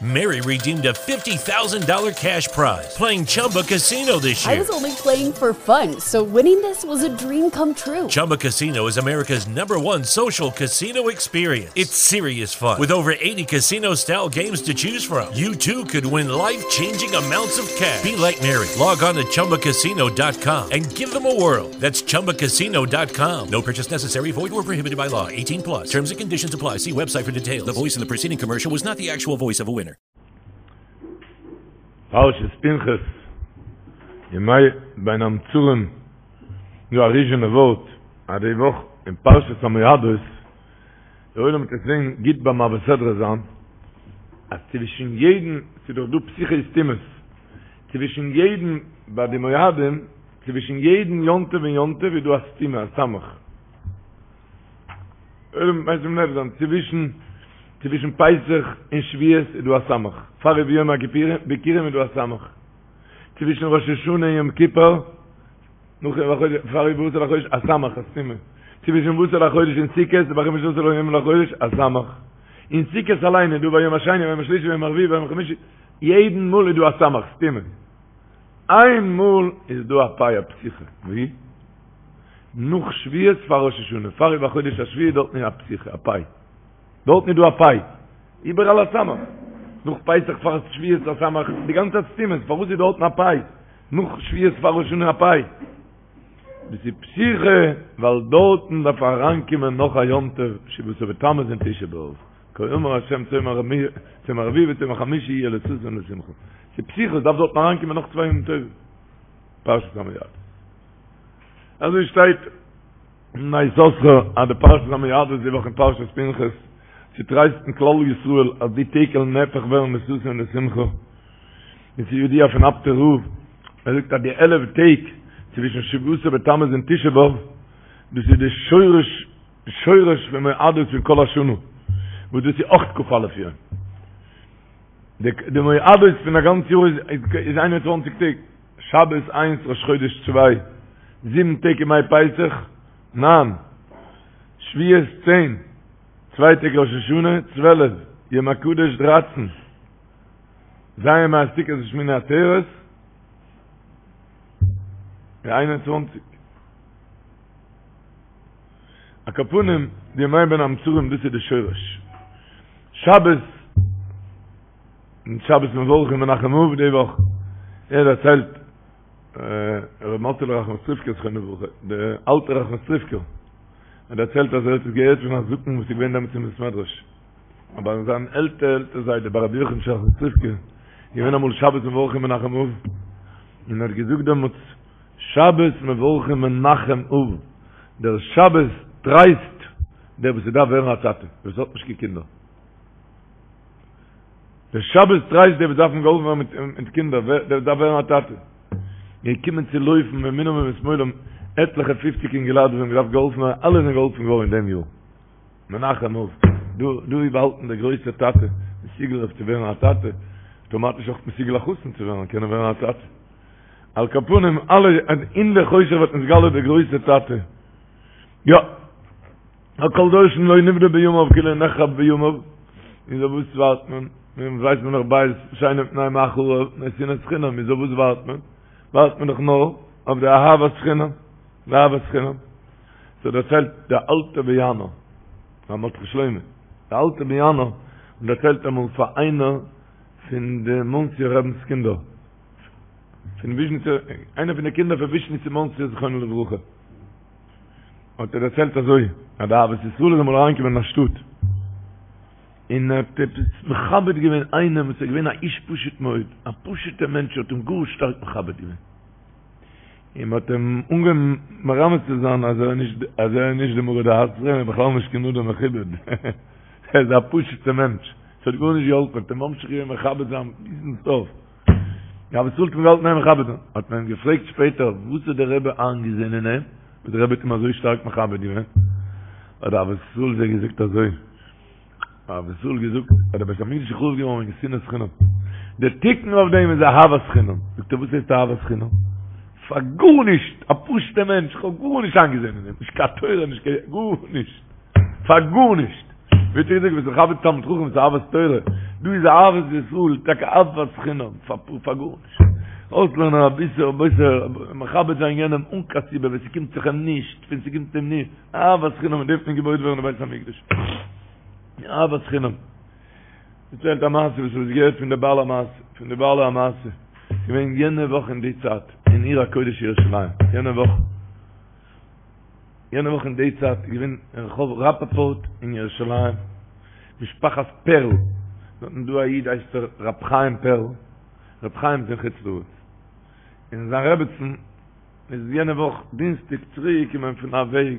Mary redeemed a $50,000 cash prize playing Chumba Casino this year. I was only playing for fun, so winning this was a dream come true. Chumba Casino is America's number one social casino experience. It's serious fun. With over 80 casino style games to choose from, you too could win life changing amounts of cash. Be like Mary. Log on to chumbacasino.com and give them a whirl. That's chumbacasino.com. No purchase necessary, void or prohibited by law. 18 plus. Terms and conditions apply. See website for details. The voice in the preceding commercial was not the actual voice of a winner. פרשת פנחס, ימי בין המצרים, דא א ריזשינער ווארט, אז די וואך אין פרשת המועדות, דער עולם וועט עס זען גוט ביים מעביר סדרה זיין, אז צווישן יעדן, ס'איז דאך דא פתיחות וסתימות, צווישן יעדן ביי די מועדים, צווישן יעדן יום טוב און יום טוב איז דא א סתימה, א סמך. עולם וועט משים לב זיין, צווישן צווישן פסח און שבועות איז דא א סמך, פאר וביום הכיפורים איז דא א סמך, צווישן ראש השנה און יום כיפור, נאך פאר ובעשור לחודש א סמך, א סתימה, צווישן ובעשור לחודש און סוכות, ובחמשה עשר יום לחודש א סמך, אין סוכות אליין איז דא ביום השני ביום השלישי ביום הרביעי ביום החמישי, יעדן מאל איז דא א סמך, סתימה. איין מאל איז דא א פיי א פתיחה, ווי? נאך שבועות פאר ראש השנה, פאר ובחודש השביעי דארטן איז א פתיחה, א פיי. דארטן איז דא א פיי. איבעראל א סמך. נאך פסח פאר שבועות א סמך, די גאנצע צייט סתימות, פארוואס איז דארטן א פיי? נאך שבועות פאר ראש השנה א פיי. דאס איז פתיחה, ווייל דארטן דארף אריינקומען נאך א יום טוב, שבעה עשר בתמוז און תשעה באב. כה אמר השם צום הרביעי וצום החמישי יהיה לששון ולשמחה. ס'איז פתיחה, דארף דארטן אריינקומען נאך צוויי ימים טובים. פרשת המועדות. אזוי שטייט אין בני יששכר אז די פרשת המועדות די וואך אין פרשת פנחס צו טרייסטן כלל ישראל אז די טעג וועלן נהפך ווערן לששון ולשמחה. און ס'איז ידוע פון אפטער רב, ער זאגט אז די עלף טעג צווישן שבעה עשר בתמוז און תשעה באב דאס איז די שורש שורש פון מועדות פון כל השנה, וואס דאס איז אויך כ"א יום. די מועדות פון א גאנץ יאר איז 21 טעג, שבת איינס ראש חודש צוויי, זיבן טעג ימי פסח, ניין, שבועות צען, צוויי טעג ראש השנה, 12, יום הקדוש דרייצן, ז' ימי הסוכות ושמיני עצרת, 21. על כל פנים, די ימי בין המצרים דאס איז די שורש. שבת, און שבת מברכים מנחם אב די וואך, ער דערציילט, ר' מאטעלע ראחמסטריווקער זכרונו לברכה, דער אלטער ראחמסטריווקער, ער דערציילט אז ער האט עס געהערט פון א זקן וואס איז געווען דעמאלטס אין בית מדרש, אבער זיין עלטער עלטער זיידע ביי רבי יוחנ'טשע ראחמסטריווקער, געווען אמאל שבת מברכים מנחם אב, און ער האט געזאגט דעמאלטס, שבת מברכים מנחם אב, דער שבת טרייסט דער וואס ס'דארף ווערן א טאטע, וואס האט נישט קיין קינדער. דער שבת טרייסט דער וואס דארפן געהאלפן ווערן מיט קינדער, דער וואס דארף ווערן א טאטע. געקומען צו לויפן מימינם ומשמאלם עטליכע פופציג אינגעלייט וואס האבן געדארפט געהאלפן ווערן, אלע זענען געהאלפן געווארן אין דעם יאר. מנחם אב, דא דא איז באהאלטן דער גרויסער טאטע, מסוגל אויף צו ווערן א טאטע, אויטאמאטיש אויך מסוגל א חתן צו ווערן, קענען ווערן א טאטע. על כל פנים אלע אין די חושך ווערט נתגלה דער גרויסער טאטע. יא. א כל דורשין לא נבנה בימיו כאילו נחרב בימיו. איז אויף וואס ווארט מען? מען ווייסט מען דאך בית שני מפני מה חרב, מפני שנאת חינם, איז אויף וואס ווארט מען? ווארט מען דאך נאר אויף די אהבת חינם, די אהבת חינם. ס'דערציילט דער אלטער באיאנער, ר' מרדכי שלמה, דער אלטער באיאנער האט דערציילט אמאל פאר איינער פון די מאנסיער רבינ'ס קינדער, פון וויזשניצער, איינער פון די קינדער פון וויזשניץ אין מאנסי זכרונו לברכה, האט ער דערציילט אזוי, אז די אהבת ישראל איז אמאל אריינגעקומען אין א שטאט, און ער האט עפעס מכבד געווען איינעם וואס איז געווען א איש פשוט מאוד, א פשוט'ער מענטש האט אים גאר שטארק מכבד געווען. און מ'האט אים אנגעהויבן מרמז צו זיין אז ער איז נישט אז ער איז נישט די מרא דאתרא, און בכלל נישט קיין אדם מכובד, ער איז א פשוט'ער מענטש, ס'האט גארנישט געהאלפן, מ'האט אים ממשיך געווען מכבד זיין ביזן סוף. די אהבת ישראל האט אים געהאלטן אין מכבד זיין, האט מען אים געפרעגט שפעטער וואס האט דער רבי איינגעזען אין אים, וואס דער רבי האט אים אזוי שטארק מכבד געווען, האט די אהבת ישראל זיי געזאגט אזוי, אהבת ישראל געזאגט אז דער בית המקדש איז חרוב געווארן וועגן שנאת חינם, דער תיקון אויף דעם איז אהבת חינם, זאגט ער וואס הייסט אהבת חינם? פאר גארנישט, א פשוט'ער מענטש, איך האב גארנישט איינגעזען אין אים, נישט קיין תורה, נישט קיין גארנישט, פאר גארנישט, ווי האט ער געזאגט, ביסט מכבד תלמיד חכם, ס'איז אהבת תורה. דא איז אהבת ישראל, טאקע אהבת חינם, פאר גארנישט. אויסלערנען אביסל, אביסל, מכבד זיין יענעם אן קיין סיבה, ווען ס'קומט זיך אים נישט, ווען ס'קומט אים נישט, אהבת חינם, מיט דעם וועט מען געבויט ווערן די בית המקדש. אהבת חינם. דערציילט א מעשה וואס כ'האב עס געהערט פון די בעל המעשה, פון די בעלי המעשה, געווען יענע וואך אין די צייט, אין עיר הקודש ירושלים, יענע וואך, יענע וואך אין די צייט איז געווען אין רחוב ראפאפורט אין ירושלים, משפחת פערל, דארטן דא א איד הייסט ער ר' חיים פערל, ר' חיים איז אין חוץ לארץ, און זיין רעבעצן איז יענע וואך דינסטאג צוריק געקומען פון א וועג,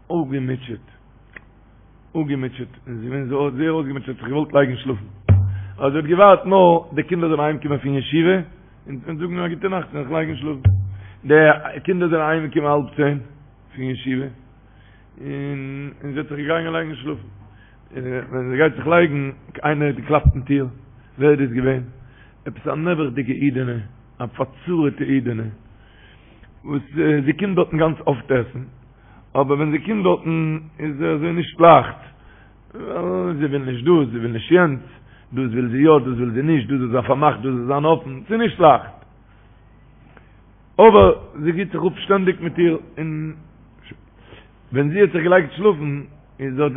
אפגעמוטשעט, אפגעמוטשעט, און זי איז געווען זייער אויסגעמוטשעט, האט זיך געוואלט לייגן שלאפן, אבער זי האט געווארט נאר די קינדער זאלן אהיים קומען פון ישיבה, און זאגן א גוטע נאכט און זיך לייגן שלאפן. די קינדער זענען אהיים געקומען האלב צען פון ישיבה, און זי האט זיך געגאנגען לייגן שלאפן. און ווען זי גייט זיך לייגן, איינער האט געקלאפט אין טיר, ווער איז דאס געווען? עפעס א נעבעכדיגע אידענע, א פארצרה'טע אידענע, וואס זי קומט דארטן גאנץ אפט עסן, אבער ווען זי קומט דארטן איז אזוי נישט לייכט, זי וויל נישט דאס, זי וויל נישט יענץ, דאס וויל זי יא, דאס וויל זי נישט, דאס זאל זיין פארמאכט, דאס זאל זיין אפן, ס'איז נישט לייכט. אבער זי גיבט זיך אפ שטענדיג מיט איר, און ווען זי האט זיך געלייגט שלאפן, איז האט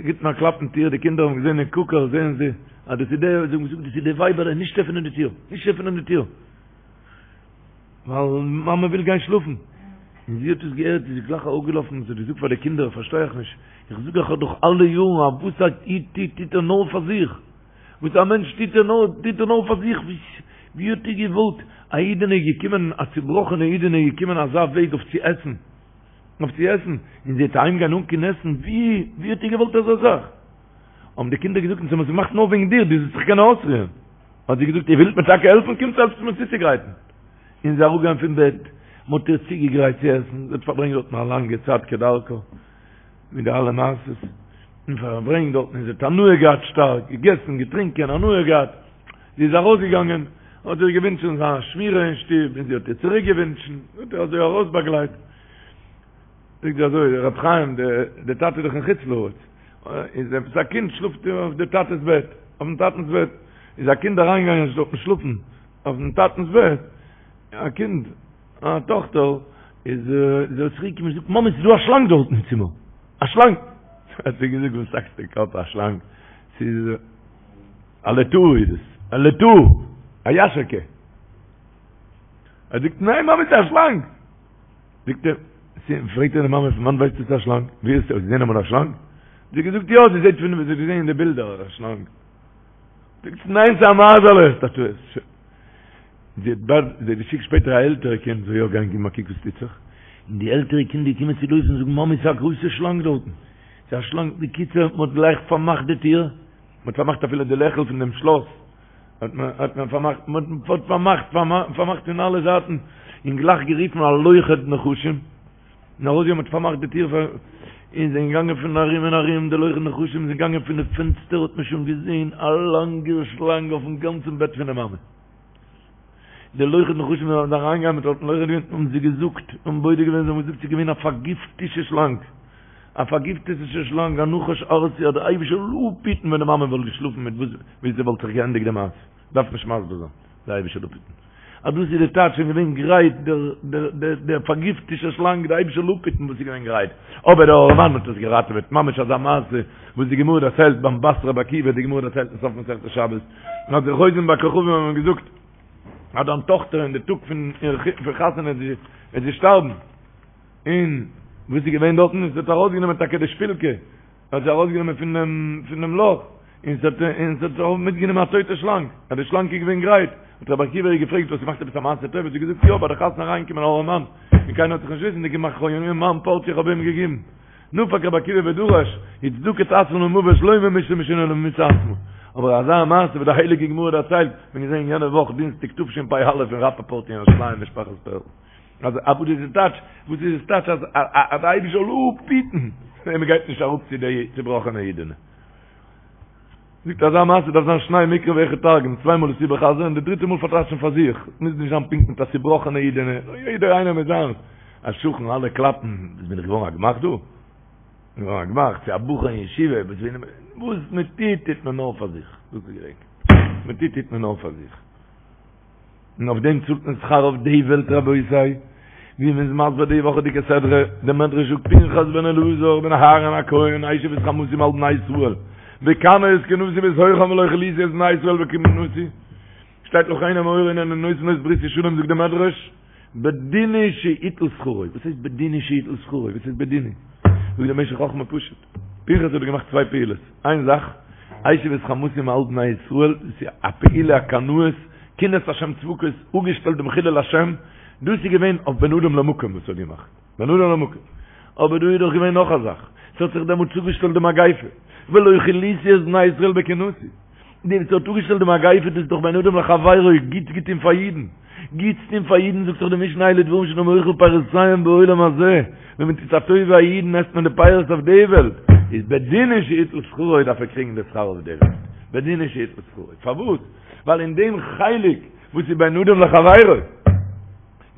גיבט מען א קלאפ אין טיר, די קינדער האבן געזען אין קוקער זעען זיי אז דאס איז די, זיי האבן געזאגט דאס איז די ווייבעלע, נישט עפענען די טיר, נישט עפענען די טיר. ווייל מאמע וויל גיין שלאפן. און זי האט עס געהערט, איז זי גלייך אראפגעלאפן און זי האט געזאגט פאר די קינדער, פארשטיי איך נישט, איך זאג אייך דאך אלע יארן אז וואס א איד טוט, טוט ער נאר פאר זיך. וואס א מענטש טוט ער נאר, טוט ער נאר פאר זיך. ווי האט איר געוואלט, א אידענע איז געקומען, א צובראכענע אידענע איז געקומען אזא וועג אויף צו עסן, אויף צו עסן, און זי וועט אהיימגיין אן קיין עסן, ווי, ווי האט איר געוואלט אזא זאך? האבן די קינדער געזאגט, אונז האבן עס געמאכט נאר וועגן דיר, דו זאלסט זיך קענען אויסרוען. האט זי געזאגט, איר ווילט מיר טאקע העלפן, קומטס העלפטס מיר צוצוגרייטן. און זי איז אראפגעגאנגען פון בעט, מען האט איר צוגעגרייט צו עסן, זי האט פארברענגט דארטן א לאנגע צייט כדרכה, מיט די אלע מעשות, און פארברענגט דארטן, און זי האט הנאה געהאט שטארק, געגעסן, געטרינקען, הנאה געהאט. זי איז ארויסגעגאנגען, האט איר געווינטשן זיין שמירה אין שטוב, און זי האט איר צוריק געווינטשן, האט איר אזוי ארויסבאגלייט. זאגט זי אזוי, ר' חיים, די טאטע איז דאך אין חוץ לארץ, איז עפעס א קינד שלאפט אויף די טאטע'ס בעט, אויפן טאטענ'ס בעט, איז א קינד אריינגעגאנגען דארטן שלאפן אויפן טאטענ'ס בעט, א קינד, א טאכטער, איז זי צוריק געקומען און זאגט, מאמי ס'איז דא א שלאנג דארטן אין צימער, א שלאנג! האט זי געזאגט, וואס האקסטו קאפ, א שלאנג, ס'איז א לטאה איז עס, א לטאה, א יאשערקע. ער זאגט, ניין מאמי ס'איז א שלאנג! זאגט ער, פרעגט ער די מאמע פון וואנט ווייסטו ס'איז א שלאנג? ווי האסטו געזען אמאל א שלאנג? האט זי געזאגט יא, זי זעט פון זי האט געזען אין די בילדער א שלאנג. זאגט זי ניין ס'איז א מייזעלע, האסט א טעות. זי האט באלד, זי האט געשיקט שפעטער א עלטערע קינד זאל יא גיין גיבן א קוק וואס טוט זיך, און די עלטערע קינד איז געקומען צו לויפן זאגן מאמי ס'איז א גרויסע שלאנג דארטן, ס'איז א שלאנג, בקיצור מ'האט גלייך פארמאכט די טיר, מ'האט פארמאכט אפילו די לעכל פון דעם שלאס, האט מען האט מען פארמאכט מען האט פארמאכט פארמאכט פון אלע זייטן און גלייך גערופן א לוכד נחשים און ארויס מ'האט פארמאכט די טיר פאר און זענען געגאנגען פון ארום און ארום די לוכד נחשים זענען געגאנגען פון די פענסטער האט מען שוין געזען א לאנגע שלאנג אויפן גאנצן בעט פון די מאמע די לוכד נחשים זענען אריינגעגאנגען מיט האט לוכד געווען האבן זיי געזאגט און בודק געווען זיי האבן געזאגט ס'איז געווען א פארגיפטישע שלאנג א פארגיפטעטע שלאנג, א נחש ארסי, אז דער אייבישטער זאל אפהיטן ווען די מאמע וואלט געשלאפן מיט וואס ווי ס'וואלט זיך געענדיגט די מעשה, דארף נישט מסביר זיין, דער אייבישטער זאל אפהיטן. אז דאס איז די טייטש שוין געווען גרייט דער דער דער דער פארגיפטישע שלאנג, דער אייבישטער זאל אפהיטן וואס איז געווען גרייט, אבער דער ארעמאן האט עס געראטעוועט, ממש אזא מעשה וואס די גמרא דערציילט ביים בת רבי עקיבא, די גמרא דערציילט אין סוף מסכת שבת, אז די חוזים בכוכבים האבן געזאגט אז דיין טאכטער אין די טאג פון איר חתונה וועט זי שטארבן, און וואס איז געווען דארטן? עס האט ארויסגענומען טאקע די שפילקע, האט זי ארויסגענומען פון דעם פון דעם לאך, און עס האט און עס האט אויך מיטגענומען א טויטע שלאנג, אז די שלאנג איז געווען גרייט, האט רבי עקיבא איר געפרעגט, האסט געמאכט עפעס א מעשה טוב? האט זי געזאגט, יא, ביי די חתונה אריינגעקומען א ארעמאן, און קיינער האט זיך נישט וויסנדיג געמאכט, איך האב אים מיין פארציע איך האב אים געגעבן. נפק רבי עקיבא ודרש, וצדקה תעשה למוות לא ממיתה משונה אלא ממיתה עצמה. אבער אזא מעשה וואס די הייליגע גמרא דערציילט, מיר געזען יענע וואך דינסטאג תשפ"א אין ראפאפארט אין ירושלים משפחת פערל. אז א וואס איז די טייטש? וואס איז עס טייטש אז אז די אייבישטער זאל אפהיטן ווען מען גייט נישט אראפ צו די צובראכענע אידענע? זאגט אזא מעשה דארף זיין שניי מקרא ואחד תרגום, צוויי מאל עס איבערחזר'ן און די דריטע מאל פארטייטשן פאר זיך, מוז נישט זיין פונקט מיט א צובראכענע אידענע, יעדער איינער מיט זיינס, א שכן אלע קלאפן, וואס בין איך געווארן א גמח דא? געווארן א גמח צו א בחור אין ישיבה, וואס מען טוט טוט מען נאר פאר זיך. דאס איז געדענק. מען טוט טוט מען נאר פאר זיך. און אויף דעם צאלט מען שכר אויף די וועלט רבותי. ווי מען איז מסביר די וואכעדיגע סדרה, דער מדרש זאגט פנחס בן אלעזר בן אהרן הכהן השיב את חמתי מעל בני ישראל, בקנאו את קנאתי בתוכם ולא כליתי את בני ישראל בקנאתי, שטייט לכן אמור הנני נותן לו את בריתי שלום זאגט דער מדרש, בדין הוא שיטול שכרו, וואס הייסט בדין הוא שיטול שכרו, וואס הייסט בדין הוא? זאגט דער משך חכמה פשוט, פנחס האט געמאכט צוויי פעולות, איין זאך, השיב את חמתי מעל בני ישראל, דאס איז א פעולה א קנאות, קנאת השם צבקות, אפגעשטעלט דעם חילול השם, דאס איז געווען אויף בין אדם למקום וואס ער האט געמאכט, בין אדם למקום, אבער דא איז דאך געווען נאך א זאך, ס'האט זיך דעמאלט צוגעשטעלט די מגיפה, ולא כליתי את בני ישראל בקנאתי. די וואס האט אפגעשטעלט די מגיפה דאס איז דאך בין אדם לחבירו, גוטס געטון פאר אידן, גוטס טון פאר אידן זאגט דאך די משנה אלו דברים שאדם אוכל פירותיהם בעולם הזה, ווען מען טוט א טובה א אידן עסט מען די פירות אויף די וועלט, איז בדין הוא שיטול שכרו דארף ער קריגן די שכר אויף די וועלט, בדין הוא שיטול שכרו, פארוואס? ווייל אין דעם חלק וואס איז בין אדם לחבירו,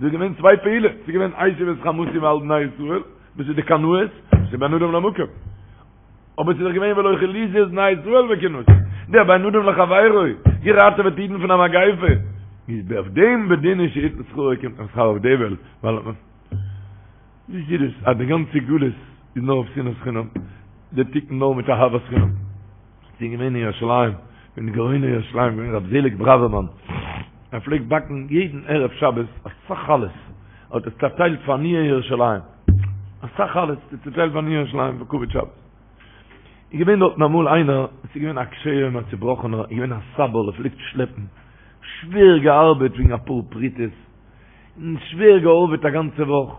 איז געווען צוויי פעולות, ס'איז געווען השיב את חמתי מעל בני ישראל, וואס איז די קנאות, וואס איז בין אדם למקום. אבער ס'איז דאך געווען ולא כליתי את בני ישראל בקנאתי, דער בין אדם לחבירו, געראטעוועט אידן פון א מגיפה, איז אויף דעם בדין הוא שיטול שכרו קומט מען שכר אויף די וועלט, ווייל ווי איז דאס אז די גאנצע גלות איז נאר אויף שנאת חינם, די תיקון נאר מיט אהבת חינם. ס'איז געווען אין ירושלים, פון גאוני ירושלים געווען רב זעליג בראווערמאן, ער פלעגט באקן יעדן ערב שבת אסאך חלות, האט עס צעטיילט פאר עניי ירושלים, אסאך חלות צעטיילט פאר עניי ירושלים פאר כבוד שבת. איז געווען דארטן אמאל איינער, עס איז געווען א קשה יום א צובראכענער, איז געווען א סבל, ער פלעגט שלעפן, שווער געארבעט וועגן אפאר פרוטות, און שווער געארבעט א גאנצע וואך,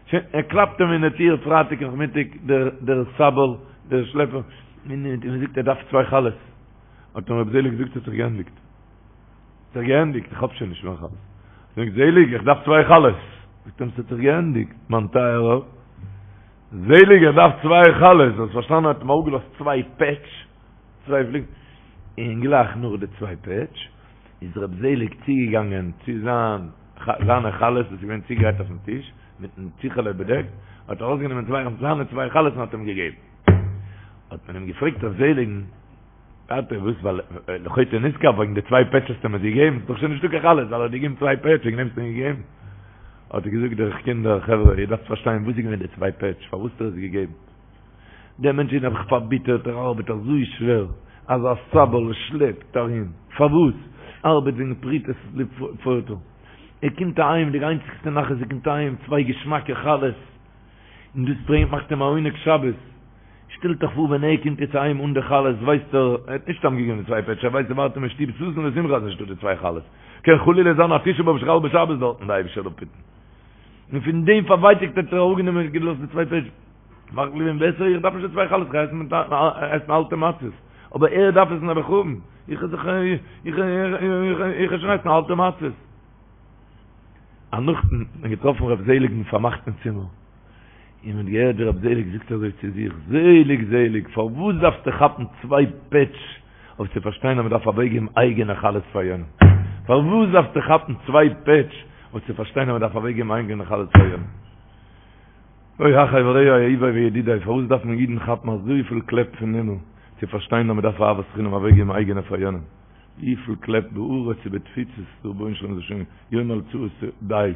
שוין, ער קלאפט אים אין די טיר פרייטאג נאכמיטאג, דער דער סבל, דער שלעפער, און ער זאגט ער דארף צוויי חלות, האט אים רבי זעליג געזאגט ס'האט זיך געענדיגט, ס'האט זיך געענדיגט, איך האב שוין נישט מער חלות, זאגט זעליג איך דארף צוויי חלות, זאגט אים ס'האט זיך געענדיגט, מיין טייערער, זעליג איך דארף צוויי חלות, האסט פארשטאנען האט אים אראפגעלאזט צוויי פעטש, צוויי פליגן, און גלייך נאך די צוויי פעטש, איז ר' זעליג צוגעגאנגען צו זיין זיינע חלות וואס איז געווען צוגעגרייט אויפן טיש, מיטן טיכעלע באדעקט, האט ער ארויסגענומען צוויי זיינע צוויי חלות און האט אים געגעבן. האט מען אים געפרעגט ר' זעליג'ן, טאטע וואס ווייל לחוטא נשכר וועגן די צוויי פעטש האסטו אים עס געגעבן, ס'איז דאך שוין נישטא קיין חלות, ווייל ער האט געגעבן צוויי פעטש וועגן דעם האסטו אים געגעבן. האט ער געזאגט דער קינדער חברה איר דארפט פארשטיין וואס איז געווען די צוויי פעטש, פארוואס האט ער עס געגעבן. דער מענטש איז נעבעך פארביטערט, ער ארבעט אזוי שווער, אזא סבל, ער שלעפט ארום, פארוואס? ארבעט וועגן פרוטות לפורטה. ער קומט אהיים, די איינציגסטע נחת ער קומט אהיים, צוויי געשמאקע חלות, און דאס ברענגט מאכט אים א עונג שבת. שטעלט אייך פאר ווען ער קומט יעצט אהיים אן די חלות, ווייסט ער, ער האט נישט סתם געגעבן די צוויי פעטש, ער ווייסט ס'ווארט אים אין שטוב ששון ושמחה אז נישטא די צוויי חלות. קען חלילה זיין א תשעה באב שחל בשבת דארטן, די אייבישטער זאל אפהיטן. און פון דעם פארווייטאגט האט ער אראפגענומען און געלאזט די צוויי פעטש. מאכט געווען בעסער איך דארף נישט די צוויי חלות איך גיי עסן אלטע מצות אבער ער דארף עס נעבעך האבן איך זיך איך איך איך שוין עסן אלטע מצות א נאכט האט מען געטראפן רב זעליגן פארמאכט אין צימער און מען האט געהערט ווי רב זעליג זאגט אזוי צו זיך זעליג זעליג פארוואס דארפסטו כאפן צוויי פעטש אויף צו פארשטיין אז מען דארף אוועקגעבן אייגענע חלות פאר יענעם פארוואס דארפסטו כאפן צוויי פעטש אויף צו פארשטיין אז מען דארף אוועקגעבן אייגענע חלות פאר יענעם אוי אחי ורעי אהובי וידידי, פארוואס דארף מען אידן כאפן אזויפיל קלעפ פון הימל צו פארשטיין אז מען דארף אהבת חינם אוועקגעבן אייגענע פאר יענעם? וויפיל קלעפ בארץ ובתפוצות, דער רבונו של עולם זאל שוין יאמר לצרות די,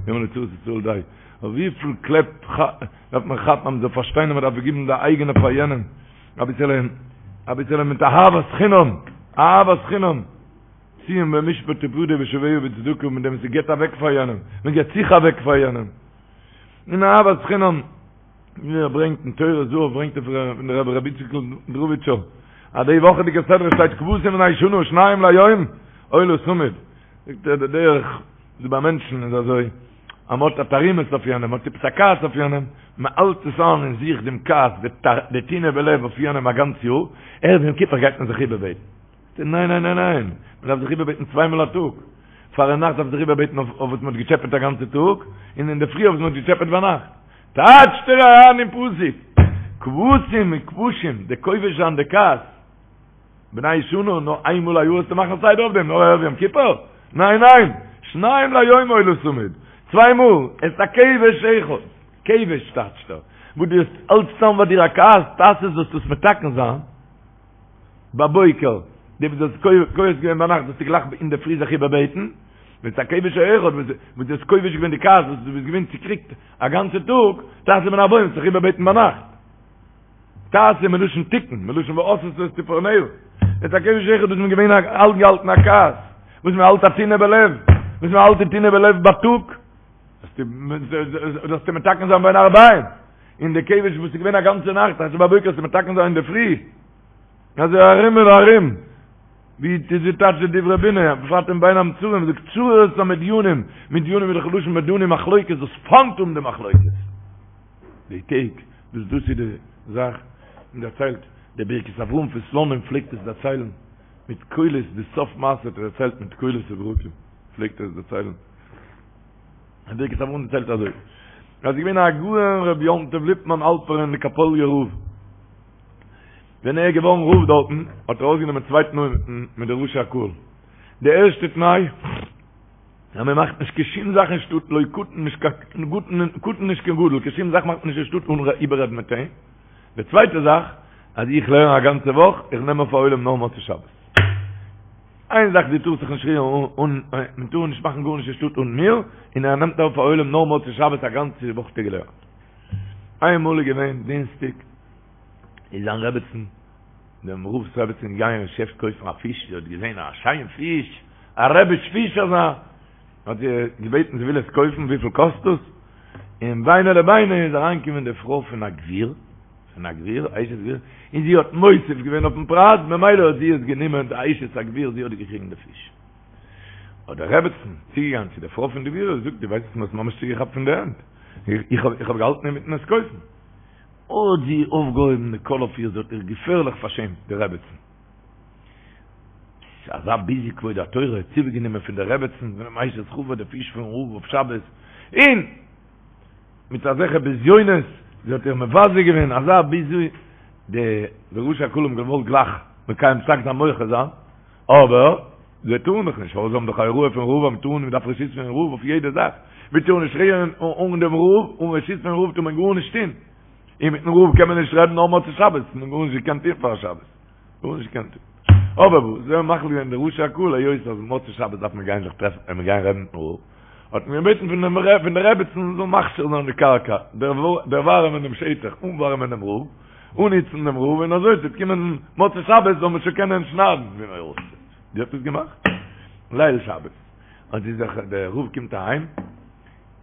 יאמר לצרות ישראל די, אבער וויפיל קלעפ דארף מען כאפן אז מען זאל פארשטיין אז מען דארף געבן די אייגענע פאר יענעם, אביסעלע, אביסעלע מיט אהבת חינם, אהבת חינם, ציון במשפט תפדה ושביה בצדקה, מיט דעם וואס מען געבט אוועק פאר יענעם, מען געבט זיך אוועק פאר יענעם. און אהבת חינם, ווי ער ברענגט אין טורי זהב ברענגט ער פון דער רבי רבי איציקל דראהביטשער, אז די וואכעדיגע סדרה שטייט כבשים בני שנה שניים ליום עולה תמיד, זאגט ער די דרך דא ביי מענטשן איז אזוי, אז מען האט א תרעומת אויף יענעם, מען האט עפעס א כעס אויף יענעם, מען האלט עס איין אין זיך דעם כעס, די טינה בלב אויף יענעם א גאנץ יאר, ערב יום כיפור גייט מען זיך איבערבעטן. ניין ניין ניין ניין, מען דארף זיך איבערבעטן צוויי מאל א טאג, פארנאכט דארף מען זיך איבערבעטן אויף וואס מען האט געטשעפעט א גאנצע טאג, און אינדערפרי אויף וואס מען האט געטשעפעט ביינאכט. טייטשט ער אריין אין פסוק, כבשים און כבושים, די כובש זיין די כעס, בני שנה, נאר איין מאל א יאר וועסטו מאכן סדר אויף דעם, נאר ערב יום כיפור? ניין ניין, שניים ליום עולה תמיד, צוויי מאל, את הכבש אחד, כבש טייטשט ער, וואס דו האסט אלץ צאם ביי דיר א כעס, תעשה זאלסטו עס מתקן זיין. בבוקר. די וואס דו האסט כועס געווען ביינאכט זאלסטו גלייך אינדערפרי זיך איבערבעטן, ואת הכבש האחד וואס דו האסט כובש געווען די כעס וואס דו ביסט געווען צוקריגט א גאנצע טאג, תעשה בין הערבים, זיך איבערבעטן ביינאכט. תעשה מלשון תיקון, מלשון ועשתה את צפרניה. ואת הכבש האחד וואס מ'איז געווען אנגעהאלטן א כעס, וואס מען האלט א טינה בלב, וואס מען האלט די טינה בלב בייטאג, זאלסטו מתקן זיין בין הערבים, און די כבש וואס איז געווען א גאנצע נאכט, תעשה בבוקר זאלסטו מתקן זיין אינדערפרי. אזוי ארום און ארום, ווי די טייטש די דברי בינה, בפרט אין בין המצרים, זאגט צרור את המדינים, מדינים איז דאך לשון מדנים מחלוקת, דאס פיינט האבן די מחלוקת. די טעג, וואס דאס איז די זאך, און דערציילט, דער ברכת אברהם פון סלאנים פלעגט עס דערציילן מיט קולות, די סוף מעשה האט ער דערציילט מיט קולות וברקים, פלעגט ער עס דערציילן. דער ברכת אברהם דערציילט אזוי, אז עס איז געווען הגאון רבי יום טוב ליפמאן האלפערן די קאפאליער רב, ווען ער איז געווארן רב דארטן, האט ער אויסגענומען צוויי תנאים מיט די ראשי הקהל. די ערשטע תנאי, אז מען מאכט נישט קיין שום זאך אין שטאט, לא קטן נישט קיין קטן נישט קיין גדול, קיין שום זאך מאכט מען נישט אין שטאט אן איבעררעדן מיט אים. די צווייטע זאך, אז איך לערן א גאנצע וואך, איך נעם אויף א עולם נאר מוצאי שבת. איין זאך, דו טארסט זיך נישט רירן אן, מען טאר נישט מאכן גארנישט אין שטאט אן מיר, און ער נעמט אויף א עולם נאר מוצאי שבת א גאנצע וואך האט ער געלערנט. איינמאל איז געווען דינסטאג, איז זיין רעבעצן, דעם רב'ס רעבעצן געגאנגען אין געשעפט קויפן א פיש, זי האט געזען א שיין פיש, א רעביש פיש אזא, האט זי געבעטן זי וויל עס קויפן, וויפיל קאסט דאס? און ביני לביני איז אריינגעקומען די פרוי פון א גביר, פון א גביר, א אשת גביר, און זי האט מוסיף געווען אויפן פרייז, ממילא האט זי עס גענומען, די אשת הגביר, זי האט געקריגן די פיש. האט די רעבעצן צוגעגאנגען צו די פרוי פון די גביר און זאגט, דו ווייסט וואס מ'האט ממש צוגעכאפט פון די הענט, איך האב געהאלטן אינמיטן עס קויפן. האט זי אויפגעהויבן די קול אויף איר, זי האט איר געפערליך פארשעמט, די רעבעצן. אזא ביזוי כבוד התורה, צוגענומען פון די רעבעצן, פונעם אשת חבר, די פיש פון רב אויף שבת, און מיט אזעלכע בזיונות, זי האט איר מבזה געווען, אזא ביזוי, די ראשי הקהל האבן געוואלט גלייך מקיים פסק זיין מוחה זיין, אבער זיי טארן דאך נישט, פארוואס זיי האבן דאך א הוראה פון רב אז מען טאר נישט, מען דארף רשות פון רב אויף יעדע זאך, מען טאר נישט רירן אן דעם רב, אן רשות פון רב טאר מען גארנישט טון, און מיטן רב קען מען נישט רעדן נאר מוצאי שבת, מען האט גארנישט געקענט טון פאר שבת, גארנישט געקענט טון. אבער וואס, זיי האבן מחליט געווען די ראשי הקהל היות אז מוצאי שבת דארף מען גיין זיך טרעפן און מען גיין רעדן מיטן רב, האט מען געבעטן פון דעם פון די רעבעצן זאל מכשיר זיין די קרקע, דערווארעמען דעם שטח, אנווארעמען דעם רב, אנהיצן דעם רב און אזוי ס'וועט קומען מוצאי שבת זאל מען שוין קענען שניידן ווי מען רוצה. זי האט עס געמאכט. ליל שבת האט זי זיך, דער רב קומט אהיים,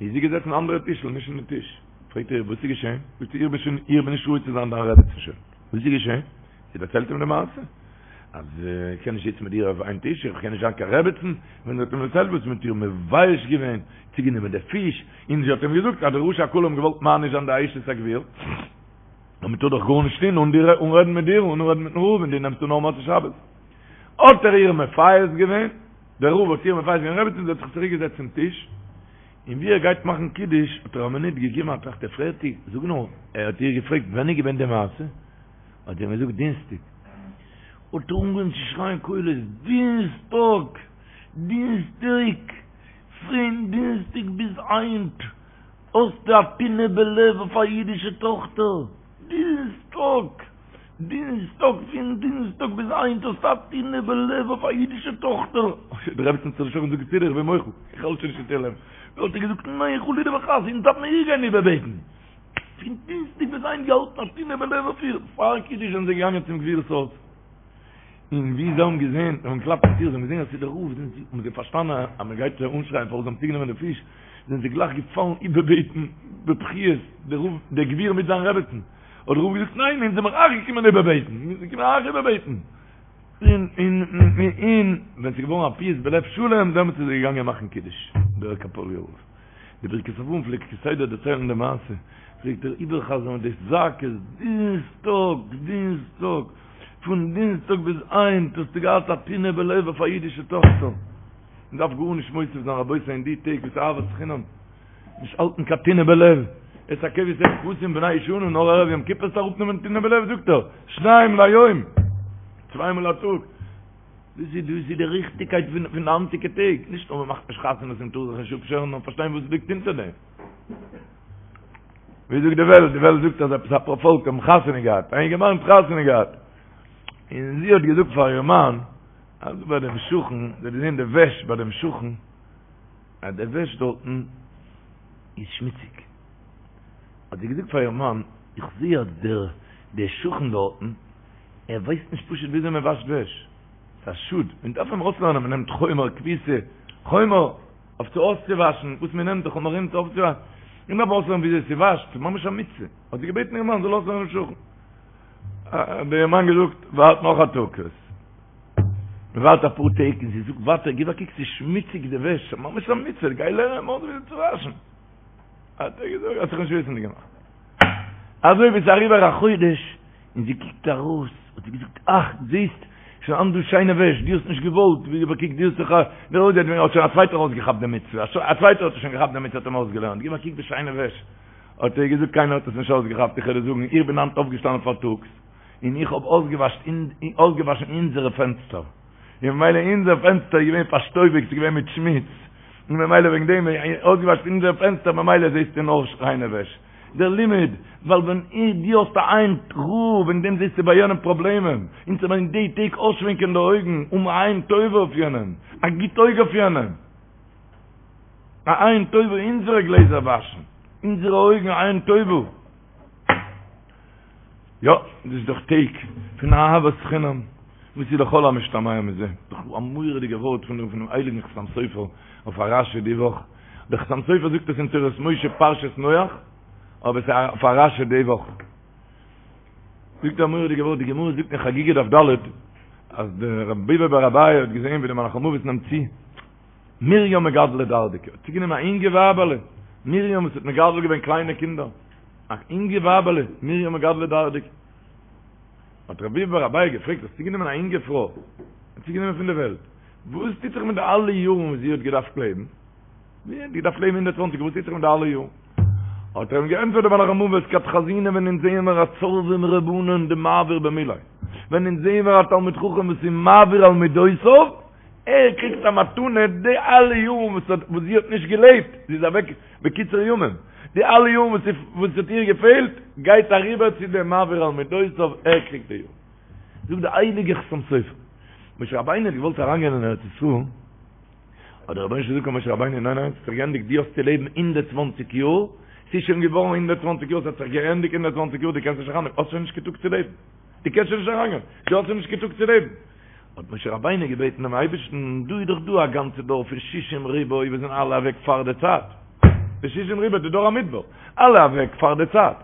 איז זי געזעצן אין אנדערע טישל, נישט אין די טיש. פרעגט ער איר וואס איז געשען? זאגט זי, איך בין שוין, איך בין נישט ראוי צו זיין דיין רעבעצן שוין. וואס איז געשען? זי דערציילט אים די מעשה, אז איך קען נישט זיצן מיט דיר אויף איין טיש, איך קען נישט זיין קיין רעבעצן, ווען זי האט אים דערציילט וואס מ'האט איר מבייש געווען, צוגענומען די פיש, און זי האט אים געזאגט אז די ראשי הקהל האבן געוואלט מעניש זיין די אשת הגביר, און מען טאר דאך גארנישט טון אן דיר, אן רעדן מיט דיר, אן רעדן מיטן רב, און דו נעמסט אן נאר מוצאי שבת. האט ער איר מפייס געווען, דער רב האט איר מפייס געווען רעבעצן, זי האט זיך צוריק געזעצט צום טיש, און ווי ער גייט מאכן קידוש, האט ער א מינוט געגעבן א טראכט, ער פרעגט איר, זאג נאר, ער האט איר געפרעגט ווען איז געווען די מעשה? האט זי אים געזאגט דינסטאג. האט ער אנגעהויבן צו שרייען קולות, דינסטאג! דינסטאג! פון דינסטאג ביז היינט! האסטו א טינא בלב אויף א אידישע טאכטער? דינסטאג! דינסטאג! פון דינסטאג ביז היינט האסטו א טינא בלב אויף א אידישע טאכטער? די רעבעצן האט זיך דערשראקן זאגט בסדר איך בין מוחל, איך האלט שוין נישט אין תהלים. האט ער געזאגט ניין חלילה וחס אונז דארף מען איר גיין איבערבעטן. פון דינסטאג ביז היינט געהאלטן א טינא בלב אויף איר. פאר קידוש זענען זיי געגאנגען צום גביר'ס הויז. און ווי זיי האבן געזען, זיי האבן געקלאפט אין טיר, זיי האבן געזען אז ס'איז דער רב, זענען זיי, האבן זיי פארשטאנען אז מען גייט זיי אנשרייען פארוואס זיי האבן צוגענומען די פיש, זענען זיי גלייך געפאלן איבערבעטן בבכיות, דער רב, דער גביר מיט זיין רעבעצן. האט דער רב געזאגט, ניין, אונז זעמיר אייך געקומען איבערבעטן, מיר זענען געקומען אייך איבערבעטן. און, און, און, ווען ס'איז געווארן א פיוס בלב שלם, דעמאלטס איז ער געגאנגען מאכן קידוש, דער קאפאליער רב. די ברכת אברהם פלעגט כסדר דערציילן די מעשה, פלעגט ער איבערחזרן די זעקות, דינסטאג, דינסטאג, פון דינסטאג ביז היינט האסטו געהאט א טינא בלב אויף א אידישע טאכטער. מען דארף גארנישט מוסיף זיין רבותי אין די טעג וואס אהבת חינם, נישט האלטן קיין טינא בלב, את הכבש הכבשים בני שנה נאר ערב יום כיפור זאלסטו אראפנעמען טינא בלב זאגט ער, שניים ליום, צוויי מאל א טאג. דאס איז דאס איז די ריכטיגקייט פון פון די היינטיגע טעג, נישט נאר מען מאכט נישט חתונות און טאר זיך נישט אפשערן, נאר פארשטיין וואס ליגט אונטער דעם. ווי זאגט די וועלט, די וועלט זאגט אז עפעס א פארפאלק האבן חתונה געהאט, א אינגערמאן האט חתונה געהאט, און זי האט געזאגט פאר איר מאן. אז ביי דעם שכן, זי האט געזען די וועש ביי דעם שכן, אז די וועש דארטן איז שמוציג. האט זי געזאגט פאר איר מאן, איך זע אז דער דער שכן דארטן, ער ווייסט נישט פשוט וויאזוי מען וואשט וועש. ס'איז א שאד, מען דארף אים אויסלערנען, מען נעמט חומר כביסה, חומר אויף צו אויסצואוואשן, וואס מען נעמט די חומרים צו אויפצואוואשן, מען דארף אויסלערנען וויאזוי ס'וואשט, ס'איז ממש א מצוה. האט זי געבעטן איר מאן זאל אויסלערנען דעם שכן. האט דער מאן געזאגט, ווארט נאך א טאג. מען ווארט אפאר טעג און זי זאגט ווייטער, גיב א קוק ס'איז שמוציג די וועש, ס'איז ממש א מצוה, גיי לערן אים אויס וויאזוי צו וואשן. האט ער געזאגט, האט זיך נישט וויסענדיג געמאכט. אזוי ווי ס'איז אריבער א חודש און זי קוקט ארויס, האט זי געזאגט, אך, זעסט, שוין היינט דא שיינע וועש, דו האסט נישט געוואלט, גיב א קוק, דו האסט זיך א, האט שוין א צווייטער אויסגעכאפט די מצוה, א צווייטער האט שוין געכאפט די מצוה, האט אים אויסגעלערנט, גיב א קוק די שיינע וועש. האט ער געזאגט קיינער האט עס נישט אויסגעכאפט, איך וועל דיר זאגן, איך בין היינט אויפגעשטאנען פארטאגס, און איך האב אויסגעוואשן אונזערע פענסטער, און ממילא אונזער פענסטער איז געווען פארשטויביגט, ס'איז געווען מיט שמוץ, און ממילא וועגן דעם אויסגעוואשן אונזערע פענסטער, ממילא זעסטו נאר ריינע וועש. דער לימוד, ווייל ווען דו האסט א עין רעה, וועגן דעם זעסטו ביי יענעם פראבלעמען, אונז זאל מען אין די טעג אויסשווענקען די אויגן, האבן א עין טובה אויף יענעם, א גוט אויג אויף יענעם. א עין טובה אונזערע גלעזער וואשן, אונזערע אויגן א עין טובה. יא, דאס איז דאך טעג פון אהבת חינם, וואס איז לכל המשתמע מזה, דאך א מורא'דיגע ווארט פון דעם הייליגן חתם סופר אויף א רשי די וואך, דער חתם סופר זאגט עס אין תורת משה פרשת נח, אבער עס איז אויף א רשי די וואך. זאגט ער א מורא'דיגע ווארט, די גמרא זאגט אין חגיגה דף ד', אז דער רב ביבי בר אביי האט געזען ווי דער מלאך המוות נעמט צו, מרים מגדלא דרדקי האט צוגענומען א אינגע ווייבעלע, מרים וואס האט מגדל געווען קליינע קינדער, א אינגע ווייבעלע, מרים מגדלא דרדקי. האט רב ביבי בר אביי געפרעגט, האסט צוגענומען א אינגע פרוי, האסט צוגענומען פון די וועלט, וואס טוט זיך מיט די אלע יארן וואס זי האט געדארפט לעבן? זי האט געדארפט לעבן 120, וואס טוט זיך מיט די אלע יארן? האט ער אים געענטפערט דער מלאך המוות, כד חזינא ווען אונז זעען מיר א צורבא מרבנן דמעביר במיליה, ווען אונז זעען מיר א תלמיד חכם וואס איז מעביר על מידותיו, ער קריגט א מתנה די אלע יארן וואס האט וואס זי האט נישט געלעבט, זי איז אוועק בקיצור ימים, די אלע יארן וואס וואס האט איר געפעלט, גייט אריבער צו דעם מעביר על מידותיו, ער קריגט די יארן. זאגט די הייליגע חתם סופר, משה רבינו האט געוואלט אריינגיין אין ארץ ישראל, האט דער רבונו של עולם געזאגט פאר משה רבינו, ניין ניין, ס'האט זיך געענדיגט, דו האסט צו לעבן 120 יאר, ס'איז שוין געווארן 120 יאר, ס'האט זיך געענדיגט 120 יאר, דו קענסט נישט אריינגיין, האסט שוין נישט קיין טאג צו לעבן, דו קענסט שוין נישט אריינגיין, דו האסט שוין נישט קיין טאג צו לעבן. האט משה רבינו געבעטן דעם אייבערשטן, דא איז דאך דא א גאנצע דור פון שישים ריבוא וואס זענען אלע אוועק פאר די צייט, די שישים ריבוא די דור המדבר, אלע אוועק פאר די צייט,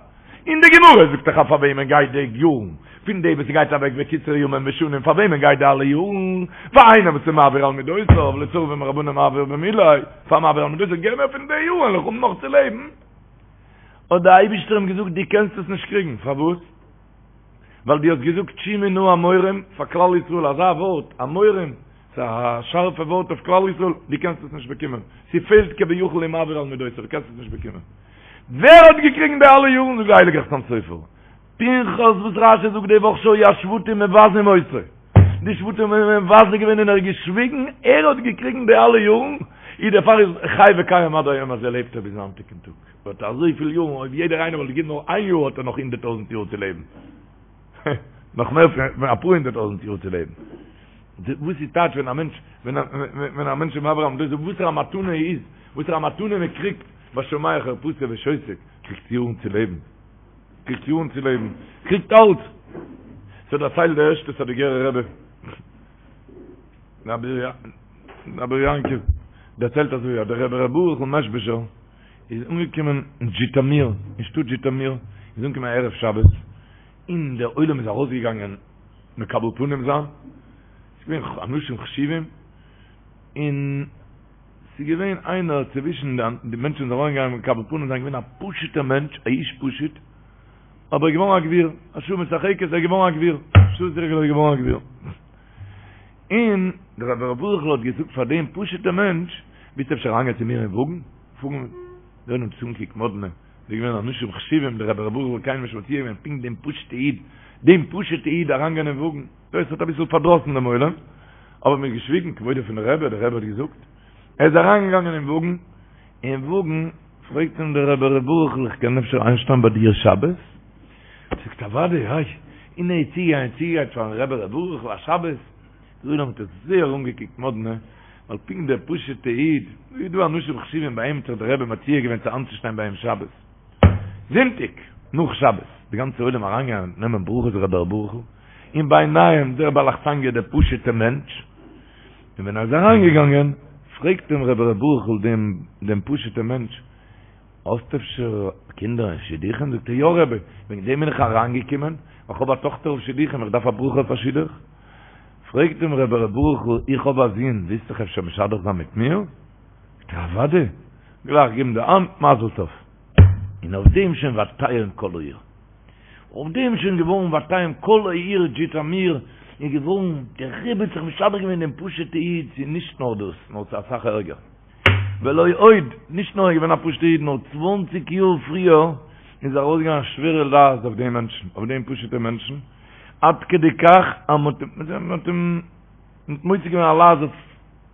און די גמרא זאגט דאך אז פאר וועמען גייט די יארן, פון די וואס גייט אוועק בקיצור ימים ושנים, פאר וועמען גייט די אלע יארן, פאר איינער וואס איז מעביר על מידותיו, לצורבא מרבנן דמעביר במיליה, פאר מעביר על מידותיו, געב מיר פון די יארן, וועל איך האבן נאך צו לעבן. האט דער אייבערשטער אים געזאגט, דו קענסט עס נישט קריגן, פארוואס? ווייל דו האסט געזאגט שמעו נא המורים פאר כלל ישראל אזא ווארט, המורים, ס'איז א שארפע ווארט אויף כלל ישראל, דו קענסט עס נישט באקומען, ס'פעלט כביכול אין מעביר על מידותיו, דו קענסט עס נישט באקומען. ווער האט געקריגן די אלע יארן זאגט די הייליגע חתם סופר, פנחס וואס רשי זאגט די וואך שהיו השבטים מבזים אותו, די שבטים האבן אים מבזה געווען און ער האט געשוויגן, ער האט געקריגן די אלע יארן, איז דערפאר איז חי וקיים עד היום הזה לעבט ער ביזן היינטיגן טאג. האט אזויפיל יארן, אויב יעדער איינער וואלט געגעבן נאר איין יאר האט ער נאך הונדערט טויזנט יאר צו לעבן. נאך מער פון אפאר הונדערט טויזנט יאר צו לעבן. וואס איז טייטש ווען א מענטש, ווען א מענטש איז מעביר על מידותיו, וואסערע א מתנה איז, וואסערע א מתנה מען קריגט, והשומע חרפתו ושותק, קריגט יארן צו לעבן. קריגט יארן צו לעבן. קריגט אלץ. ס'דערציילט דער ערשטער סאדיגערער רבי. רבי יעקב דערציילט אזוי אז דער רבי ר' ברוכ'ל מעזשביזשער איז אנגעקומען אין זשיטאמיר, אין שטאט זשיטאמיר, איז אנגעקומען ערב שבת, און דער עולם איז ארויסגעגאנגען מקבל פנים זיין, ס'איז געווען אנשים חשובים, און ס'איז געווען איינער צווישן די מענטשן וואס זענען ארויסגעגאנגען מקבל פנים זיין, געווען א פשוט'ער מענטש, א איש פשוט, אבער געווארן א גביר, א שעה משחקת, ער איז געווארן א גביר, שעה משחקת, ער איז געווארן א גביר. און דער רבי ר' ברוכ'ל האט געזאגט פאר דעם פשוט'ע מענטש, ווילסט אפשר אריינגיין צו מיר אין וואגן? פארן דער עולם האט עס אנגעקוקט מאדנע, ס'איז געווען אנשים חשובים, דער רבי ר' ברוכ'ל האט קיינעם נישט מציע געווען, פונקט דעם פשוט'ע איד, דעם פשוט'ע איד אריינגיין אין וואגן, דאס האט אביסל פארדראסן דעם עולם, אבער מ'האט געשוויגן, כבודו פון דער רבי, דער רבי האט געזאגט, ער איז אריינגעגאנגען אין וואגן, אין וואגן פרעגט אים דער רבי ר' ברוכ'ל איך קען אפשר איינשטיין ביי דיר שבת? זאגט אוודאי, היי, און ער איז צוגעגאנגען צוגעגרייט פארן רבי ר' ברוכ'ל א שבת. די עולם האט עס זייער אנגעקוקט מאדנע, ווייל פונקט דער פשוט'ע איד, דא איז דא אנשים חשובים ביי אים האט זיך דער רבי מציע געווען צו איינצושטיין ביי אים שבת. זונטאג נאך שבת, די גאנצע עולם אריינגעגאנגען נעמען ברכות רבי ר' ברוכ'ל, און ביניהם דער בעל אכסניא דער פשוט'ע מענטש, און ווען ער איז אריינגעגאנגען פרעגט אים רבי ר' ברוכ'ל דעם דעם פשוט'ע מענטש, האסט אפשר קינדער אין שידוכים? זאגט ער, יא רבי, וועגן דעם בין איך אריינגעקומען, איך האב א טאכטער אויף שידוכים, איך דארף א ברכה אויף א שידוך. פרעגט אים רבי ר' ברוכ'ל, איך האב א זון, ווילסט זיך אפשר משדך זיין מיט מיר? זאגט ער, אוודאי, גלייך געבן די האנט, מזל טוב. און אויף דעם שוין ותהום כל העיר. אויף דעם שוין געווארן ותהום כל העיר זשיטאמיר איז געווארן, דער רבי האט זיך משדך געווען דעם פשוט'ע איד, ס'איז נישט נאר דאס, נאר ס'איז אסאך ערגער. ולא עוד, נישט נאר ער איז געווען א פשוט'ע איד, נאר צוואנציג יאר פריער איז ארויסגעגאנגען א שווערע לעז אויף דעם מענטשן, אויף דעם פשוט'ע מענטשן, עד כדי כך אז מ'האט אים מוציא געווען א לעז אויף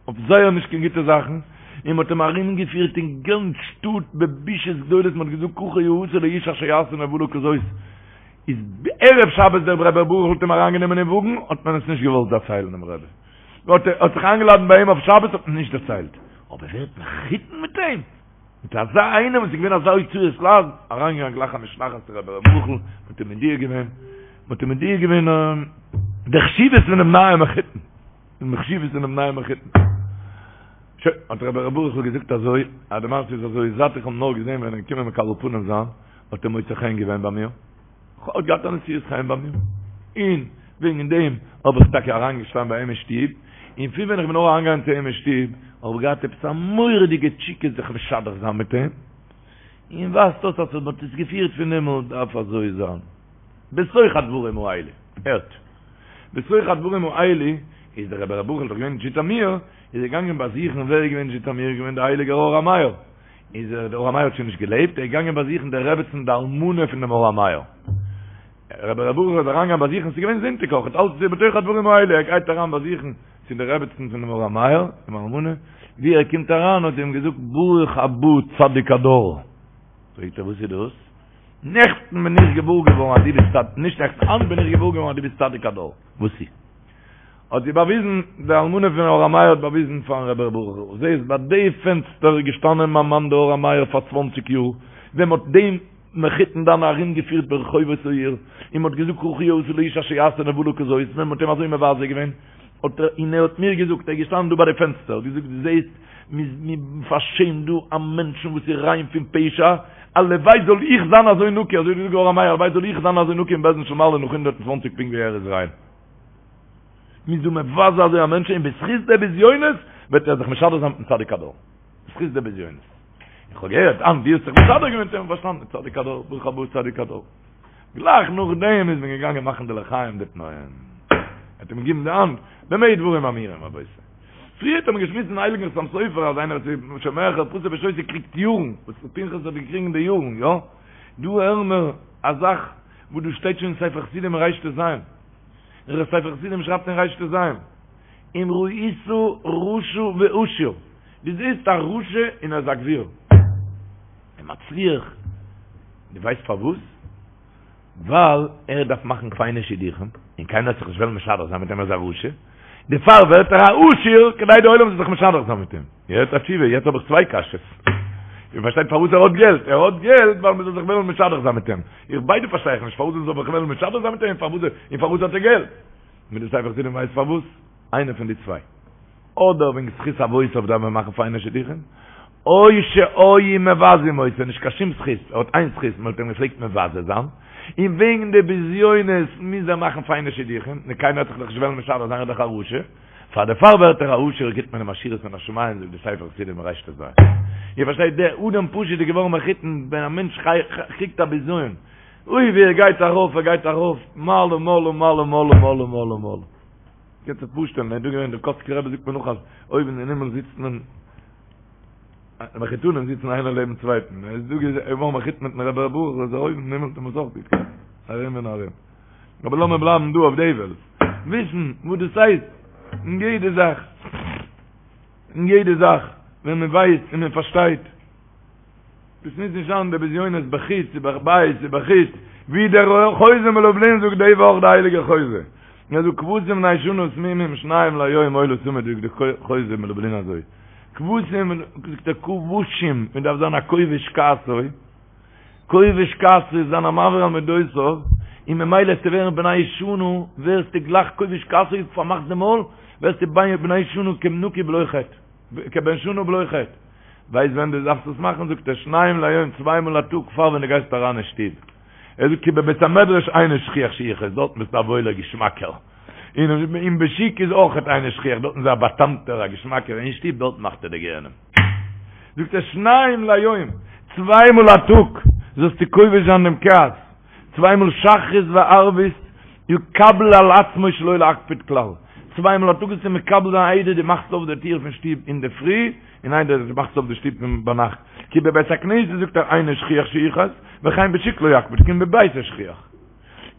אויף זייער נישט קיין גוטע זאכן, און מ'האט אים ארומגעפירט אין גאנץ שטאט בבישות גדולות, מ'האט געזאגט ככה יעשה לאיש אשר יעשה נבלה כזאת, איז ערב שבת דער רבי ר' ברוך האט אים אריינגענומען אין וואגן, האט מען עס נישט געוואלט דערציילן דעם רבי, האט ער האט זיך איינגעלאדענט ביי אים אויף שבת האט מען נישט דערציילט, אבער ווערט מחותן מיט אים? מיט אזא איינעם וואס איז געווען אזא הוצאת לעז, אריינגעגאנגען גלייך א משלחת צו רבי ר' ברוכ'ל, מ'האט אים מודיע געווען, מ'האט אים מודיע געווען די חשיבות פונעם נייעם מחותן. די חשיבות פונעם נייעם מחותן. שוין, האט רבי ר' ברוכ'ל געזאגט אזוי, אז די מעשה איז אזוי, זייט איך האב נאר געזען ווען ער איז געקומען מקבל פנים זיין, האט ער מוצא חן געווען ביי מיר, האט געהאט א נשיאות חן ביי מיר, און וועגן דעם האב איך טאקע אריינגעשטאנען ביי אים אין שטוב, און פון ווען איך בין נאר אריינגעגאנגען צו אים אין שטוב, האב איך געהאט עפעס א מורא'דיגע תשוקה זיך משדך זיין מיט אים, און ווייזט אויס אז מען האט עס געפירט פון הימל, דארף אזוי זיין. בתוך הדברים האלה, הערט, בתוך הדברים האלה, איז דער רבי ר' ברוכ'ל דאך געווען אין זשיטאמיר, איז ער געגאנגען באזוכן, ווער איז געווען אין זשיטאמיר, איז געווען דער הייליגער אור המאיר, איז ער, דער אור המאיר האט שוין נישט געלעבט, ער איז געגאנגען באזוכן די רעבעצן די אלמנה פון דעם אור המאיר, רבי ר' ברוכ'ל איז אריינגעגאנגען באזוכן, ס'איז געווען זונטאג אויך, אלץ איז בתוך הדברים האלה, ער גייט אריין באזוכן צו די רעבעצן פון דעם אור המאיר, די אלמנה, ווי ער קומט אריין האט זי אים געזאגט ברוך הבא צדיק הדור, פרעגט ער וואס איז דאס? נעכטן בין איך געוואר געווארן אז דו ביסט צדיק, נישט נעכטן, היינט בין איך געוואר געווארן אז דו ביסט צדיק הדור. וואס איז? האט זי באוויזן, די אלמנה פון אור המאיר האט באוויזן פארן רבי ר' ברוכ'ל, זעהסט ביי די פענסטער איז געשטאנען מיין מאן דער אור המאיר פאר צוואנציג יאר, ווען מ'האט דעם מחותן דיינע ארום געפירט ברחובות העיר, און מ'האט געזאגט ככה יעשה לאיש אשר יעשה נבלה כזאת, ווען מ'האט אים אזוי מבזה געווען, האט ער, און ער האט מיר געזאגט, ער איז געשטאנען דא ביי די פענסטער, האט געזאגט, דו זעהסט, מ'פארשעמט דא א מענטשן וואס איז ריין פון פשע, הלוואי זאל איך זיין אזוי נקי, אזוי האט געזאגט דער אור המאיר, הלוואי זאל איך זיין אזוי נקי אין בית דין של מעלה נאך 120 פונקט ווי ער איז ריין. מ'איז דא מבזה אזוי א מענטש און בזכות די בזיונות וועט ער זיך משדך זיין מיטן צדיק הדור. בזכות די בזיונות. איך האב געהערט אז דו האסט זיך משדך געווען מיט אים, פארשטאנען, צדיק הדור, ברוך הבא צדיק הדור. גלייך נאכדעם איז מען געגאנגען מאכן די לחיים די תנאים. ער האט אים געגעבן די האנט, במה דברים אמורים רבותי. פריער האט מען געשמועסט אין הייליגן חתם סופר אז איינער וואס איז שומע חרפתו ושותק קריגט יארן, וואס פנחס האט געקריגן די יארן, יא? דא הערן מיר א זאך וואס דא שטייט שוין אין ספר חסידים אין רט"ז. דער ספר חסידים שרייבט אין רט"ז, אם ראית רשע ועשיר, דו זעסט א רשע און ער איז א גביר, און מצליח, דו ווייסט פארוואס? ווייל ער דארף מאכן פיינע שידוכים, און קיינער וועט זיך נישט וועלן משדך זיין מיט אים ער איז א רשע, דערפאר ווערט ער א עשיר כדי די עולם זאל זיך משדך זיין מיט אים. יעצט א תשובה, יעצט האב איך צוויי קשיות. איר פארשטייט פארוואס ער האט געלט? ער האט געלט ווייל מען זאל זיך וועלן משדך זיין מיט אים. איך ביידע פארשטיי איך נישט, פארוואס מען זאל זיך וועלן משדך זיין מיט אים, און פארוואס האט ער געלט? מיט די ספר חסידים ווייסט פארוואס? איינע פון די צוויי. אדער וועגן זכות אבותיו דארף מען מאכן פיינע שידוכים, או שהיו מבזים אותו, נישט קיין שום זכות, ער האט איין זכות, מען האט אים געפלעגט מבזה זיין, און וועגן די בזיונות מוז ער מאכן פיינע שידוכים, נו קיינער וועט זיך דאך נישט וועלן משדך זיין ער איז דאך א רשע, פאר דערפאר ווערט ער א עשיר גיט מען אים עשירות מן השמים זאגט די ספר חסידים רט"ז. איר פארשטייט דער אדם פשוט איז געווארן מחותן ווען א מענטש קריגט א בזיון, אוי ווי ער גייט ארויף ער גייט ארויף מעלה מעלה מעלה מעלה מעלה מעלה מעלה. קענסט זיך פארשטעלן, ער איז דא געווען, דער קאצקער רבי זאגט מיר נאך אז אויבן אין הימל זיצט מען, די מחותנים זיצן איינער לעבן צווייטן, ער איז דא געווארן מחותן מיטן רבי ר' ברוך, איז ער אויבן אין הימל האט מען עס אויך גוט געהאט, ארום און ארום. אבער לאמיר בלייבן דא אויף די וועלט, וויסן וואס דאס הייסט, אין יעדע זאך, אין יעדע זאך, ווען מען ווייסט און מען פארשטייט. דאס מוז נישט זיין די בזיונות בחוץ ובבית ובחוץ, ווי דער חוזה מלובלין זאגט די וואך די הייליגע חוזה. און ער זאגט כבשים בני שנה תמימים שניים ליום עולה תמיד זאגט די חוזה מלובלין אזוי כבשים זאגט ער כבושים מען דארף זיין א כובש כעסו כובש כעסו זיין א מעביר על מדותיו און ממילא וועסטו ווערן בני שנה ווערסטו גלייך כובש כעסו פארמאכסט די מויל ווערסטו בני שנה כנקי בלא חטא כבן שנה בלא חטא ווייסט ווען דו דארפסט עס מאכן זאגט ער שניים ליום צוויי מאל א טאג פאר ווען דו גייסט אריין אין שטוב ער זאגט כי בבית המדרש אינו שכיח שיכעס, דארטן ביסטו א וואוילער געשמאקער, און בשוק איז אויכעט אינו שכיח, דארטן איז ער א באטאמטער א געשמאקער, אין שטוב דארטן מאכט ער די גיהנום. זאגט ער שניים ליום, צוויי מאל א טאג זאלסטו כובש זיין דעם כעס, צוויי מאל שחרית וערבית יקבל על עצמו שלא להקפיד כלל, צוויי מאל א טאג זאלסטו מקבל זיין איידער דו מאכסט אויף די טיר פון שטוב אינדערפרי, און איידער דו מאכסט אויף די שטוב פון ביינאכט, כי בבית הכנסת זאגט ער אינו שכיח שיכעס, וכן בשוק לא יקפיד כי אם בביתו שכיח.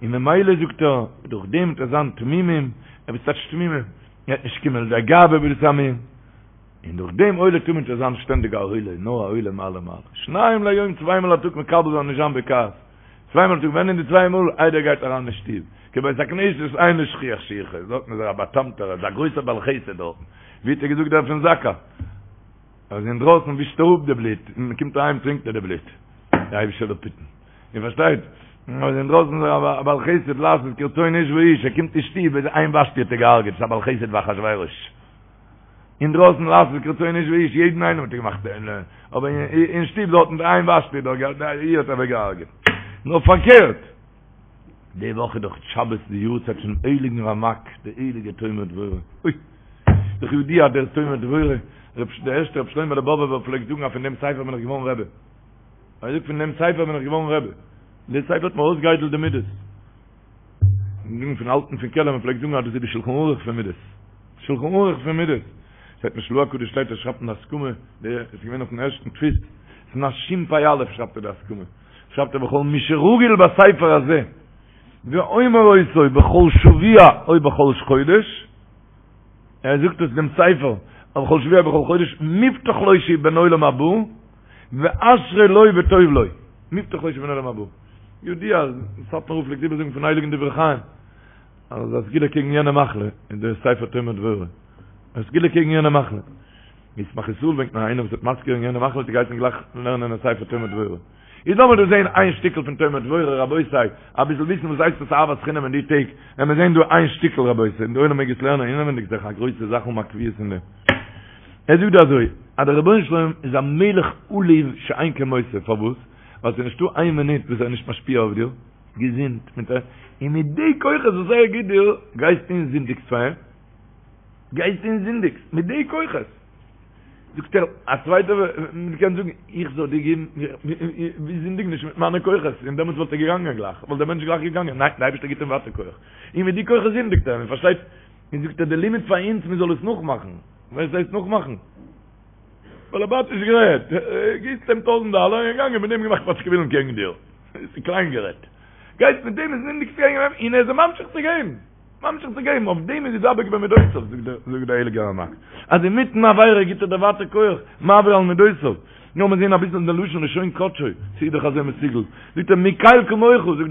און ממילא זאגט ער, דורך דעם וועט ער זיין תמימים, ער וועט טייטש תמימים, ער וועט נישט קומען לידי גאווה בדעת עמים, און דורך דעם עולה תמיד וועט ער זיין שטענדיג א עולה, נאר א עולה מעלה מעלה. שניים ליום צוויי מאל א טאג מקבל זיין נישט זיין בכעס, צוויי מאל א טאג, ווען אין די צוויי מאל איידער ער גייט אריין אין שטוב, כי בבית הכנסת אינו שכיח שיכעס, דארטן איז ער א באטאמטער, ער איז א גרויסער בעל חסד דארטן, ווי האט ער געזאגט דער פון זקא, אז אינדרויסן ווישט ער אפ די בלוט, און מען קומט אהיים טרינקט ער די בלוט, די אייבישטער זאל אפהיטן, איר פארשטייט? אז אינדרויסן איז ער א בעל חסד לעשות כרצון איש ואיש, ער קומט אין שטוב איז איין ושתי האט ער געהארגעט, ס'איז א בעל חסד ווי אחשורוש. אינדרויסן לעשות כרצון איש ואיש, יעדן איינעם האט ער געמאכט, אבער אין שטוב דארטן די איין ושתי איר האט ער אוועק געהארגעט. נאר פארקערט, די וואך איז דאך שבת די יארצייט פונעם הייליגן רמק, די הייליגע תומר דבורה, אוי! דאך ידוע דער תומר דבורה, דער ערשטער רבי שלמה'לע באבובער פלעגט זאגן אז פון דעם ספר בין איך געווארן רבי. ער זאגט פון דעם ספר בין איך געווארן רבי. דער ספר האט מיר אויסגעאיידלט די מידות. זאגן פון אלטן פון קעלם, מען פלעגט זאגן אז דאס איז די שלחן ערוך פון מידות. שלחן ערוך פון מידות. שטייט אין של"ה הקדוש שטייט ער שרייבט אין די הסכמה, די עס איז געווען אויפן ערשטן דפוס, שנת שפ"א שרייבט ער די הסכמה. שרייבט ער וכל מי שרגיל בספר הזה ואומר אותו בכל שבוע או בכל חודש, ער זאגט עס דעם ספר, בכל שבוע בכל חודש, מובטח לו שהוא בן עולם הבא, ואשרי לו וטוב לו. מובטח לו שהוא בן עולם הבא. ידוע אז סאטמאר רב פלעגט איבערזאגן פון הייליגן דברי חיים, אז א סגולה קעגן יענע מחלה איז דער ספר תומר דבורה. א סגולה קעגן יענע מחלה. ישמח ישראל ברענגט נאר איינער וואס האט מזכיר געווען יענע מחלה האט ער געהייסן גלייך לערנען א ספר תומר דבורה. איז לאמיר דא זעהן איין שטיקל פון תומר דבורה רבותי, אביסל וויסן וואס הייסט עס אהבת חינם אין די טעג, ווען מיר זעהן דא איין שטיקל רבותי, און די עולם מעג עס לערנען אינעווענדיג זיך א גרויסע זאך אן א קביעות אין דעם. ער זאגט דא אזוי, אז דער רבונו של עולם איז א מלך עלוב שאין כמותו, פארוואס? ווייל ס'איז נישטא איין מינוט וואס ער איז נישט משפיע אויף דיר, געזונט, מיט א, און מיט די כוחות וואס ער גיט דיר, גייסטו און זינדיגסט פאר אים, גייסטו און זינדיגסט, מיט די כוחות. זאגט ער, א צווייטער קען זאגן, איך זאל דיר געבן, ווי זינדיג נישט מיט מיינע כוחות, און דעמאלטס וואלט ער געגאנגען גלייך, וואלט דער מענטש גלייך געגאנגען, ניין, דער אייבערשטער גיט אים ווייטער כח, און מיט די כוחות זינדיגט ער, מען פארשטייט, און זאגט ער, די לימוד פאר אונז, מען זאל עס נאכמאכן, וואס הייסט נאכמאכן? באלעבאטיש גערעדט, גיבסט אים טויזנט דאלער, און געגאנגען מיט דעם געמאכט פאטשקעווילן קעגן דיר, ס'איז קליין גערעדט, גייסט מיט דעם און זינדיגסט קעגן אים, און ער איז ממשיך צו געבן. ממשיך צו געבן, אויף דעם איז ידבק במידותיו, זאגט דער הייליגער רמק, אז אינמיטן עבירה גיט ער דיר ווייטער כח, מעביר על מידותיו. לאמיר זען אביסל אין די לשון לשון קדשו, ס'איז דאך אזוי מסוגל, זאגט ער מי קל כמוך, זאגט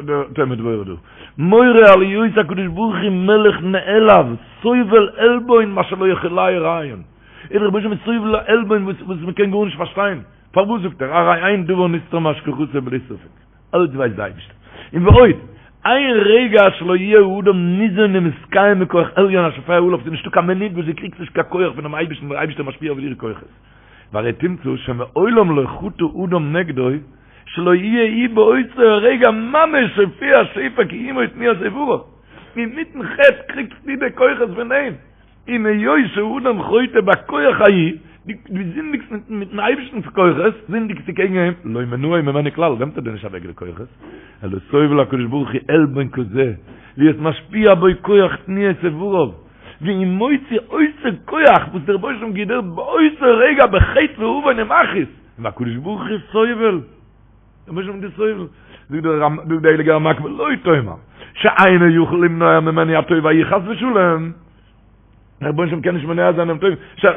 דער תומר דבורה דא, מורה על היות הקדוש ברוך הוא מלך נעלב, סובל עלבון מה שלא יכולהו רעיון, דער רבונו של עולם איז סובל עלבון וואס מ'קען גארנישט פארשטיין, פארוואס זאגט ער, הרי אין דבר נסתר מהשגחתו בלי ספק. אלץ ווייסט די אייבערשטער. און ועוד, אין רגע שלא יהיה האדם ניזון ומתקיים מכח עליון השופע עליו, ס'איז נישטא קיין מינוט וואס דו קריגסט נישט קיין כח פונעם אייבערשטן, דער אייבערשטער משפיע אויף דיר כוחות. והרי תמצא שמעולם לא חטא אדם נגדו שלא יהיה הוא באותו הרגע ממש שופע שפע קיומו ותנועת איבריו. אינמיטן חטא קריגסטו די כוחות פון אים. און היות שאדם חוטא בכח ההוא, דו זינדיגסט מיטן אייבערשטנ'ס כוחות, זינדיגסטו קעגן אים, לא מנעו ממנו כלל, נעמט ער דיר נישט אוועק די כוחות, אלא סובל הקדוש ברוך הוא עלבון כזה, להיות משפיע בו כח תנועת איבריו, והוא מוציא אותו כח וואס דער רבונו של עולם גיט דיר באותו רגע בחטא ועוון ומכעיס, והקדוש ברוך הוא סובל, דער רבונו של עולם איז סובל, זאגט דער הייליגער רמק ולא תאמר שאינו יכול למנוע ממנו הטוב ההוא חס ושלום, דער רבונו של עולם קען נישט מונע זיין דעם טוב,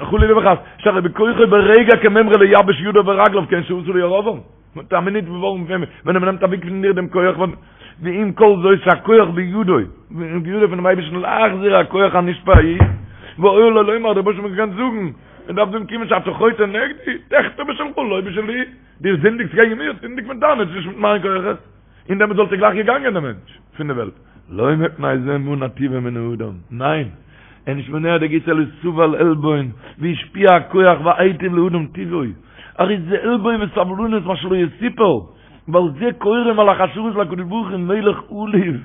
חלילה וחס, שהרי בכוחו ברגע כמימרא לייבש ידיו ורגליו כן שעשה לירבעם, מיט א מינוט ווארום ווען מען נעמט אוועק פון דיר דעם כח. ועם כל זאת שהכח בידו, בידו פונעם אייבערשטן להחזיר הכח הנשפע ההוא, והיה לו לומר, דער רבונו של עולם קען זאגן, מען דארף זאגן כיוון שאתה חוטא נגדי, תחטא בשלך לא בשלי, דו זינדיגסט קעגן מיר, זינדיג מיט דיינע, נישט מיט מיין כוחות, און דעמאלט וואלט ער גלייך געגאנגען דער מענטש פון די וועלט. לא מפני זה מנע טובו מן האדם, ניין, ער איז נישט מונע די גוטס אלא סבל עלבון, והשפיע הכח והיטיב לאדם טובו, הרי זה עלבון וסבלנות מה שלא יסופר, ועל זה קוראים מלאכי השרת להקדוש ברוך הוא מלך עלוב,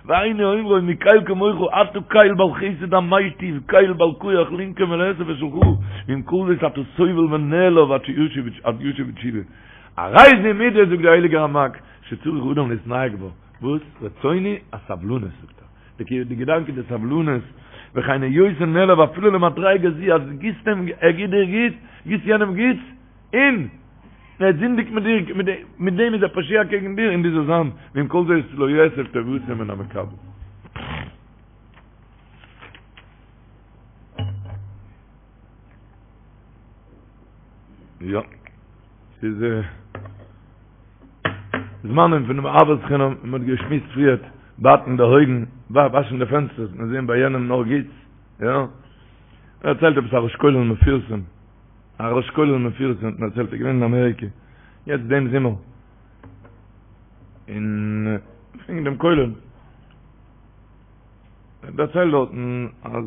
והיינו אומרו מי קל כמוך אתה קל בעל חסד המיטיב קל בעל כח לנקום ולאסף את שלך, ועם כל זאת אתה סובל ונעלב עד שישוב בתשובה. הרי זו מידה זאגט דער הייליגער רמק שצריך אדם להתנהג בה, וואס? רצוני הסבלנות זאגט ער, די געדאנק איז די סבלנות, וכן היותו נעלב אפילו למדריגה זו אז גיבסט אים ער גיבט דיר גוטס, גיבסט יענעם גוטס, און ער זינדיגט מיט דיר, מיט דעם איז ער פושע קעגן דיר, און דו זאלסט זיין, ועם כל זאת לא יאסף טובתו מן המקבל. יא, ס'איז זמנים פונעם אהבת חינם, מען האט געשמועסט פריערט, בייטן די אויגן, וואשן די פענסטערס, מען זען ביי יענעם נאר גוטס, יא. ער דערציילט עפעס א ראש כולל מפורסם, א ראש כולל מפורסם האט מיר דערציילט, ער איז געווען אין אמעריקע, יעצט דעם זומער, און וועגן דעם כולל, ער דערציילט דארטן אז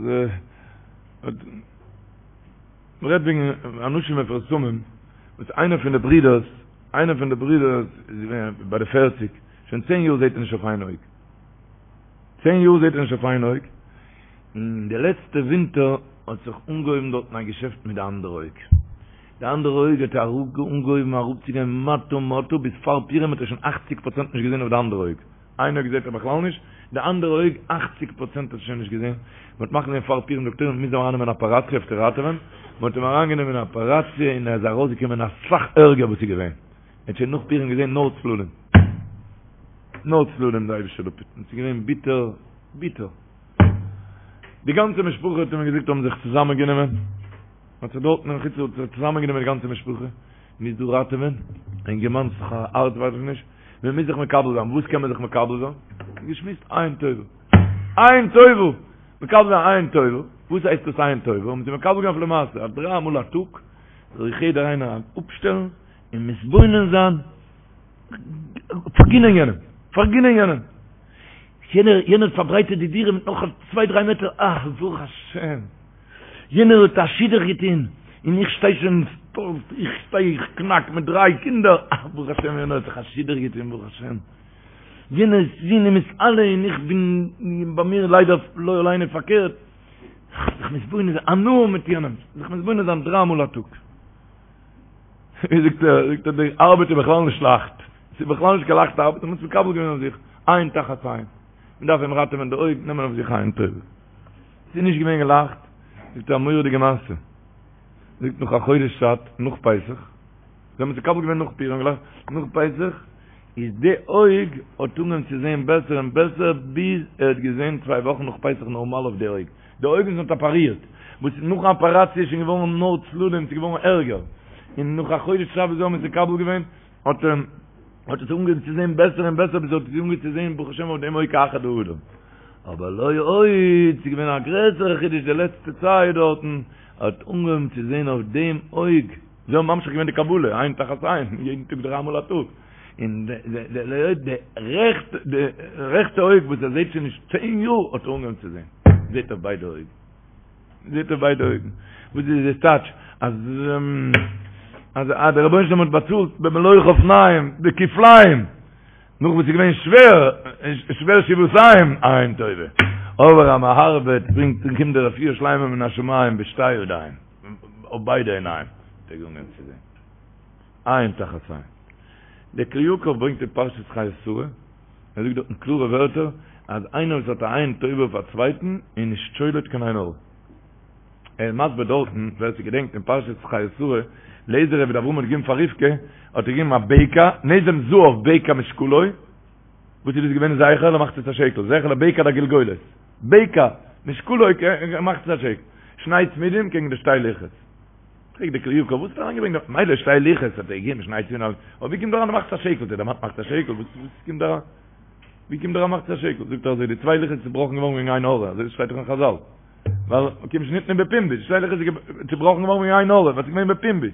מען רעדט וועגן אנשים מפורסמים, וואס איינער פון די ברידערס, איינער פון די ברידערס איז געווען ביי די פערציג, שוין צען יאר זעט ער נישט אויף איין אויג, צען יאר זעט ער נישט אויף איין אויג, און די לעצטע ווינטער האט זיך אנגעהויבן דארטן א געשעפט מיט די אנדערע אויג, די אנדערע אויג האט אנגעהויבן אראפצוגיין מטה מטה, ביז פאר פורים האט ער שוין אכציג פראצענט נישט געזען אויף די אנדערע אויג. איין אויג זעט ער בכלל נישט, די אנדערע אויג אכציג פראצענט האט ער שוין נישט געזען, מען האט מחליט געווען פאר פורים דאקטוירים מוזן אים ארייננעמען אין אפעראציע אויף צו ראטעווען, מען האט אים אריינגענומען אין אפעראציע און ער איז ארויסגעקומען אסאך ערגער וואס איז געווען, ער האט שוין נאך פורים געזען נאר צללים, נאר צללים די אייבישטער זאל אפהיטן, ס'איז געווען ביטער ביטער, די גאנצע משפחה האט ער מיר געזאגט האבן זיך צוזאמען גענומען, מען האט זיך דארטן אין חוץ לארץ צוזאמען גענומען די גאנצע משפחה, מוז דא ראטעווען, אינגערמאן ס'איז א הארץ ווייס איך נישט, מען מוז זיך מקבל זיין, וואס קען מען זיך מקבל זיין? געשמועסט עין טובה, עין טובה, מקבל זיין עין טובה, וואס הייסט דאס עין טובה? האבן זיי מקבל געווען אויף למעשה, אז דריי מאל א טאג זאל זיך יעדער איינער אפשטעלן און מתבונן זיין, פארגינען יענעם, פארגינען יענעם, יענער יענער האט פארברייטערט די דירה מיט נאך צוויי דריי מעטער, אה, ברוך השם, יענער האט א שידוך געטון, און איך שטיי שוין, איך שטיי איך קנאק מיט דריי קינדער, אה, ברוך השם יענער האט זיך א שידוך געטון, ברוך השם, יענער זון איז מתעלה און איך בין, ביי מיר ליידער לא עלינו פארקערט, זיך מתבונן זיין, הנאה מיט יענעם, זיך מתבונן זיין דריי מאל א טאג. ווי זאגט ער, זאגט ער, די ארבעט איז בכלל נישט לייכט, ס'איז בכלל נישט קיין לייכטע ארבעט, מ'האט עס מקבל געווען אויף זיך, עין תחת עין, מ'דארף אים ראטעווען די אויג, נעמען אויף זיך עין טובה. ס'איז נישט געווען גלייכט, זאגט ער א מורא'דיגע מעשה, זאגט נאך א חודש צייט, נאך פסח, זיי האבן עס מקבל געווען נאך פורים גלייך, נאך פסח, איז די אויג האט אנגעהויבן צו זען בעסער און בעסער, ביז ער האט געזען צוויי וואכן נאך פסח נארמאל אויף די אויג, די אויג וואס מ'האט אפארירט, וואס נאכן אפאראציע איז שוין געווארן נאר צללים, ס'איז געווארן ערגער, און נאך א חודש צייט וואס זיי האבן עס מקבל געווען, האט ער האט עס אנגעהויבן צו זען בעסער און בעסער, ביז ער האט עס אנגעהויבן צו זען ברוך השם אויף דעם אויג כאחד האדם. אבער לא עוד, ס'איז געווען א גרעסערע חידוש די לעצטע צייט דארטן, ער האט אנגעהויבן צו זען אויף דעם אויג, זיי האבן ממשיך געווען די קבלה, עין תחת עין, יעדן טאג דריי מאל א טאג, און די רעכטע אויג וואס ער זעט שוין נישט צען יאר האט ער אנגעהויבן צו זען, זעט אויף ביידע אויגן, זעט אויף ביידע אויגן, וואס איז דאס טייטש אז אז דער רבונו של עולם האט באצאלט במלוא חפניים בכפליים, נאך וואס איז געווען שווער, שווער שבעתיים עין טובה, אבער אז מען ארבעט ברענגט און קומט די רפואה שלימה מן השמים בשתי ידיים, אויף ביידע עיניים, האט ער אנגעהויבן צו זען. עין תחת עין. דער כלי יקר ברענגט אין פרשת חיי שרה, ער זאגט דארטן קלארע ווערטער, אז איינער וואס האט א עין טובה אויף א צווייטן איז נישט שולט קיין עין הרע. ער איז מסביר דארטן, ווער ס'געדענקט אין פרשת חיי שרה, אליעזר עבד אברהם האט געגעבן פאר רבקה, האט ער געגעבן א בקע, נזם זהב בקע משקלו, וואס איז דאס געווען זכר למחצית השקל, זכר לבקע דגלגולת, בקע משקלו מחצית השקל, שני צמידים קעגן די שתי לוחות. פרעגט דער כלי יקר, וואס האט ער אריינגעברענגט דא? מילא שתי לוחות האט ער געגעבן שני צמידים, אבער ווי קומט דא אריין די מחצית השקל? דער דערמאנט מחצית השקל, וואס קומט דא אריין? ווי קומט דער א מחצית השקל? זאגט ער אזוי, די צוויי לוחות איז צובראכן געווארן וועגן עין הרע, אזוי שטייט דאך אין חזל. ווייל כיון שניתנו בפומבי, די שתי לוחות איז צובראכן געווארן וועגן עין הרע, ווייל ס'איז געווען בפומבי.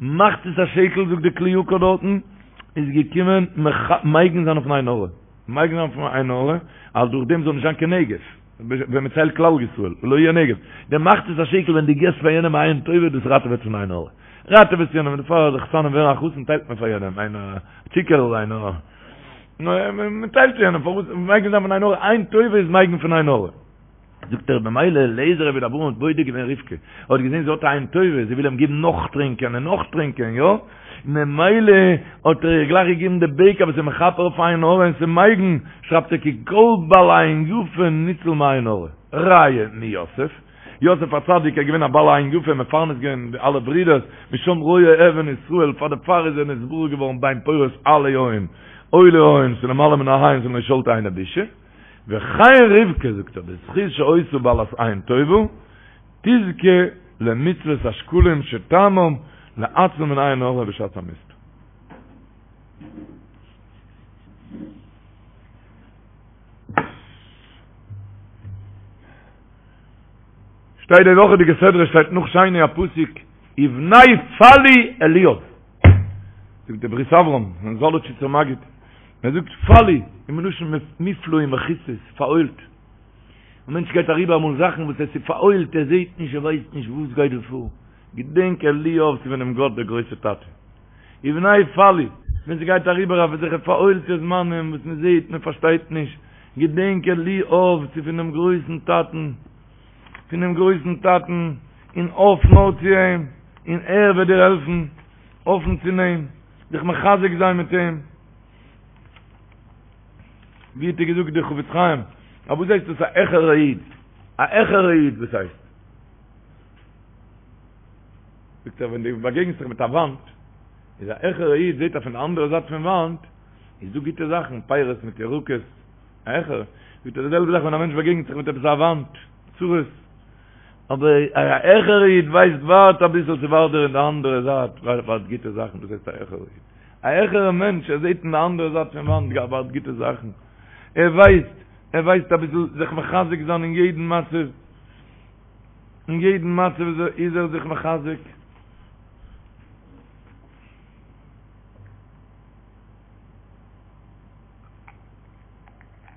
מחצית השקל זאגט די כלי יקר דארטן, איז געקומען מגין זיין אויפן עין הרע. מגין זיין אויפן עין הרע, אז דורך דעם זאל נישט זיין קיין נגף. ווען מ'ציילט כלל ישראל, ולא יהיה נגף. די מחצית השקל ווען דו געסט פאר יענעם א עין טובה, דאס ראטעוועט פון עין הרע. ראטעוועסט יענעם, דערפאר אז די חתנים ווערן א חתן טיילט מען פאר יענעם, איינער א צוקערל, איינער א. מען טיילט צו יענעם, פארוואס מגין זיין פון עין הרע, עין טובה איז מגין פון עין הרע. זאגט ער במילא אליעזר עבד אברהם האט בודק געווען רבקה, ער האט געזען זי האט א עין טובה, זי וויל אים געבן נאך טרינקען און נאך טרינקען, יא? ממילא האט ער איר גלייך געגעבן די בקע וואס איז מכפר אויף עין הרע און ס'איז מגין, שרייבט ער כי כל בעל עין יפה ניצול מעין הרע, ראיה מיוסף, יוסף הצדיק איז געווען א בעל עין יפה, מפרנס געווען די אלע ברידערס, משם רועה אבן ישראל, פאר דערפאר איז ער נתברך געווארן בן פורת עלי עין, עולי עין, ס'למעלה מן העין, ס'לא שלטה עינא בישא. וכן רבקה זאגט ער בזכות שהיתה בעלת עין טובה תזכה למצוות השקלים שטעמם להציל מן עין הרע בשעת המספר. שטייט די וואכעדיגע סדרה שטייט נאך שני א פסוק ובני פלוא אליאב זאגט די ברית אברהם פון זאלאטשיצער מגיד ער זאגט פלוא איז מלשון מופלא ומכוסה פארהוילט א מענטש גייט אריבער אמאל זאכן וואס עס איז פארהוילט ער זעט נישט ער ווייסט נישט וואס גייט דא פאר געדענק אליאב ס'איז פונעם גאט דער גרויסער טאטע ובני פלוא ווען ס'גייט אריבער אויף אזעלכע פארהוילטע זמנים וואס מען זעט מען פארשטייט נישט געדענק אליאב ס'איז פונעם גרויסן טאטן פונעם גרויסן טאטן און האף נאר צו אים און ער וועט דיר העלפן האפן צו אים זיך מחזק זיין מיט אים ווי האט ער געזאגט דער חפץ חיים א וואס הייסט דאס א העכערע איד א העכערע איד וואס הייסט זאגט ער ווען דו באגעגנסט זיך מיט א וואנט איז א העכערע איד זעט ער פון די אנדערע זייט פון וואנט איז דא גוטע זאכן פירות מיט ירקות העכער, זאגט ער די זעלבע זאך ווען א מענטש באגעגנט זיך מיט עפעס א וואנט, צרות, אבער א העכערע איד ווייסט ווארט אביסל ס'ווארט דיר אין די אנדערע זייט ווארט גוטע זאכן, דאס הייסט א העכערע איד, א העכערע מענטש ער זעט אין די אנדערע זייט פון וואנט ווארט גוטע זאכן, ער ווייסט, ער ווייסט אביסל זיך מחזק זיין אין יעדן מצב, אין יעדן מצב איז ער זיך מחזק.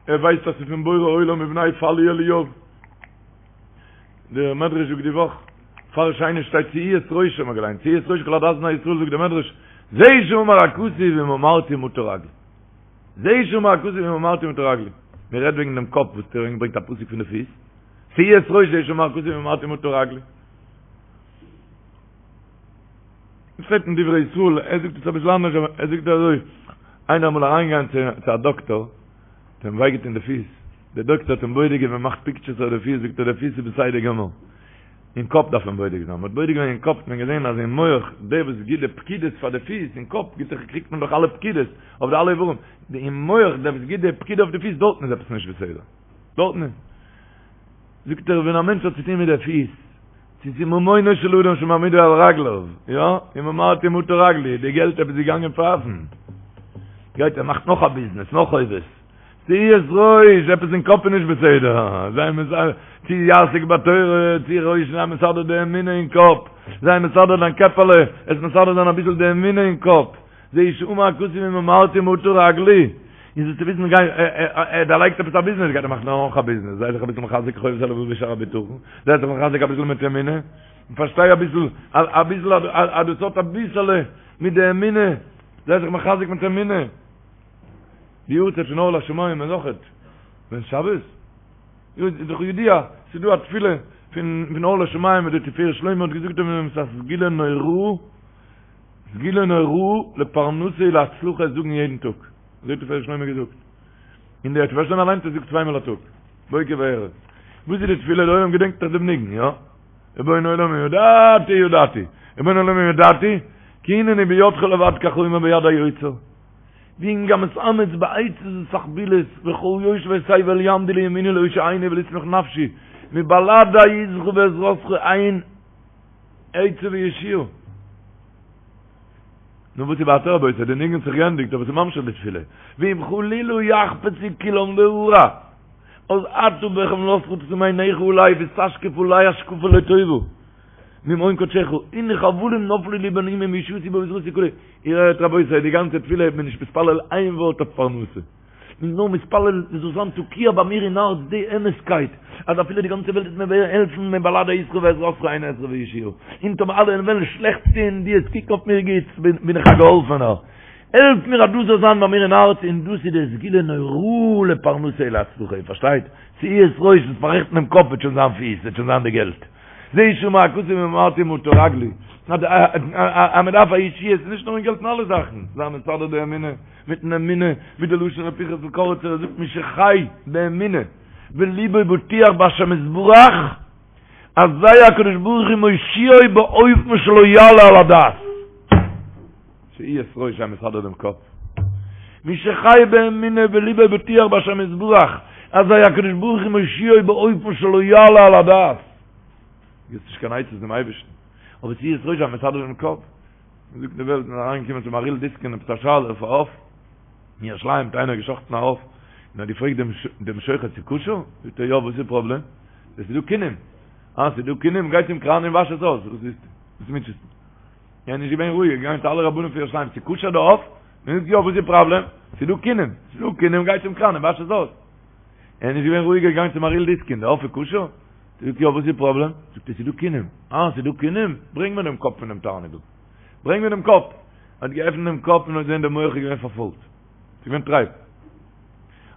ער ווייסט אז ס'איז פון בורא עולם ובני פלוא אליאב. דער מדרש זאגט די וואך, פאר שני שטייט שאו את ראשם, האט געליינט, שאו את ראש כל עדת בני ישראל זאגט דער מדרש, זה שאמר הכתוב אם אמרתי מטה רגלי. זה שאמר הכתוב אם אמרתי מטה רגלי. מען רעדט וועגן דעם קאפ וואס דער ברענגט א פסוק פון די פיס. שאו את ראש זה שאמר הכתוב אם אמרתי מטה רגלי. שטייט אין דברי ישראל, ער זאגט עס אביסל אנדערש, אבער ער זאגט אזוי, איינער אמאל אריינגעגאנגען צו א דאקטאר, האט אים וויי געטון די פיס, דער דאקטאר האט אים בודק געווען, מאכט פיקטשערס אויף די פיס, זאגט ער די פיס איז בסדר גמור, אין קאפ דארף מען בודק זיין, מען האט בודק געווען אין קאפ האט מען געזען אז אין מח, דער וואס גיט די פקידות פאר די פיס, אין קאפ גיט זיך קריגט מען דאך אלע פקידות אויף די אלע איברים, אין מח דער וואס גיט די פקידה אויף די פיס דארטן איז עפעס נישט בסדר, דארטן איז. זאגט ער ווען א מענטש האט צוטון מיט די פיס, צו ס'איז ממונו של אדם שמעמידו על רגליו, יא, אם אמרתי מטה רגלי, די געלט עפעס געגאנגען פייפן, גייט ער מאכט נאך א ביזנעס, נאך חובות, שאו את ראש, עפעס אין קאפ איז נישט בסדר, זיי מסדר, צו יעסוק בתורה, צו ראש, זיי מסדר די אמונה אין קאפ, זיי מסדר דיין קעפעלע, עס מסדר זיין אביסל די אמונה אין קאפ. זה שאמר הכתוב אם אמרתי מטה רגלי, און זאלסטו וויסן גיי ער דערלייגט עפעס א ביזנעס גייט ער מאכן נאך א ביזנעס, זיי זיך אביסל מחזק חובת הלבבות ושער הבטחון, זיי זיך מחזק אביסל מיט אמונה, און פארשטיי אביסל אביסל אז דאס האט אביסעלע מיט די אמונה, זיי זיך מחזק מיט אמונה. די יארצייט פון אור לשמים איז אויכעט ווען שבת? איז דאך ידוע, ס'איז דא א תפילה פון אור לשמים וואס די תפארת שלמה האט געזאגט אויף דעם ס'איז א סגולה נוראה, סגולה נוראה לפרנסה ולהצלחה עס זאגן יעדן טאג, אזוי האט תפארת שלמה געזאגט, און דער תפארת שלמה אליינס האט עס געזאגט צוויי מאל א טאג, בוקר וערב. וואס איז די תפילה? דער עולם געדענקט דאך דעם ניגון, יא? רבון העולם אם ידעתי ידעתי, רבון העולם אם ידעתי, כי הנני בידך לבד כחומר ביד היוצר, ואם גם אתאמץ בעצות ותחבולות, וכל יושבי תבל יעמדו לימיני להושיעני ולשמח נפשי, מבלעדי עזרך ועזרתך אין עצה וישועה. נו וואס איז ווייטער רבותי, די ניגון האט זיך געענדיגט אבער ס'איז ממשיך די תפילה, ואם חלילה יחפצו כולם להרע, אז אתה בחמלתך תשים עיניך עלי ותשקיף עלי השקפה לטובה ממעון קדשך, הנה חבלים נפלו לי בין אומים וישועתי בעזרתי כו', איר הערט רבותי, די גאנצע תפילה איז מען נישט מתפלל איין ווארט אויף פרנסה. מ'איז נאר מתפלל ס'זאל זיין תקיע ביי מיר אין הארץ די אמת'קייט אז אפילו די גאנצע וועלט וועט מיר העלפן מבלעדי אתך ועזרתך אין עזרה וישועה, און טאמער אלע וועלן שלעכטס טון דו וועסט קוקן אויף מיר גוטס בין איך א געהאלפענער, העלף מיר אז דאס זאל זיין ביי מיר אין הארץ און דאס איז די סגולה נוראה לפרנסה ולהצלחה, איר פארשטייט? שאו את ראש, וועסט פאררעכטן דעם קאפ וועט שוין זיין פיס, וועט שוין זיין די געלט. זה שמע הכתוב ואמרתי מטה רגלי, אז מען דארף א ישועה, ס'איז נישט נאר אין געלט אין אלע זאכן, זיי מסדר די אמונה, מיטן אמונה, ווי די לשון ר' פנחס'ל קאריצער ער זאגט מי שחי באמונה וליבו בוטח בהשם יתברך, אזי הקדוש ברוך הוא מושיעו באופן שלא יעלה על הדעת. שאו את ראש זיי מסדר דעם קאפ. מי שחי באמונה וליבו בוטח בהשם יתברך, אזי הקדוש ברוך הוא מושיעו באופן שלא יעלה על הדעת. גיבסט נישט קיין עצות דעם אייבערשטן, אבער שאו את ראש זיי מסדר דעם קאפ. מ'זאגט די וועלט איז אריינגעקומען צום מהרי"ל דיסקין עפעס א שאלה אויף א עוף אין ירושלים האט איינער געשחט'ן א עוף און האט געפרעגט דעם דעם שוחט ס'איז כשר? זאגט ער יא וואס איז די פראבלעם? עס איז דא כינים אה ס'איז דא כינים גיי צום קראן און וואש עס אויס וואס איז וואס מוטשעסטו? ער איז נישט געווען רואיג ער איז געגאנגען צו אלע רבנים פון ירושלים ס'איז כשר די עוף? מען זאגט יא וואס איז די פראבלעם? ס'איז דא כינים ס'איז דא כינים גיי צום קראן און וואש עס אויס ער איז נישט געווען רואיג ער איז געגאנגען צום מהרי"ל דיסקין די עוף איז כשר? זאגט יא וואס איז די פראבלעם? זאגט ער ס'איז דא כינים. אה ס'איז דא כינים? ברענג מיר דעם קאפ פון דעם תרנגול. ברענג מיר דעם קאפ. האט געעפנט דעם קאפ און האט געזען דער מח איז געווען פארפוילט. ס'איז געווען טרייף.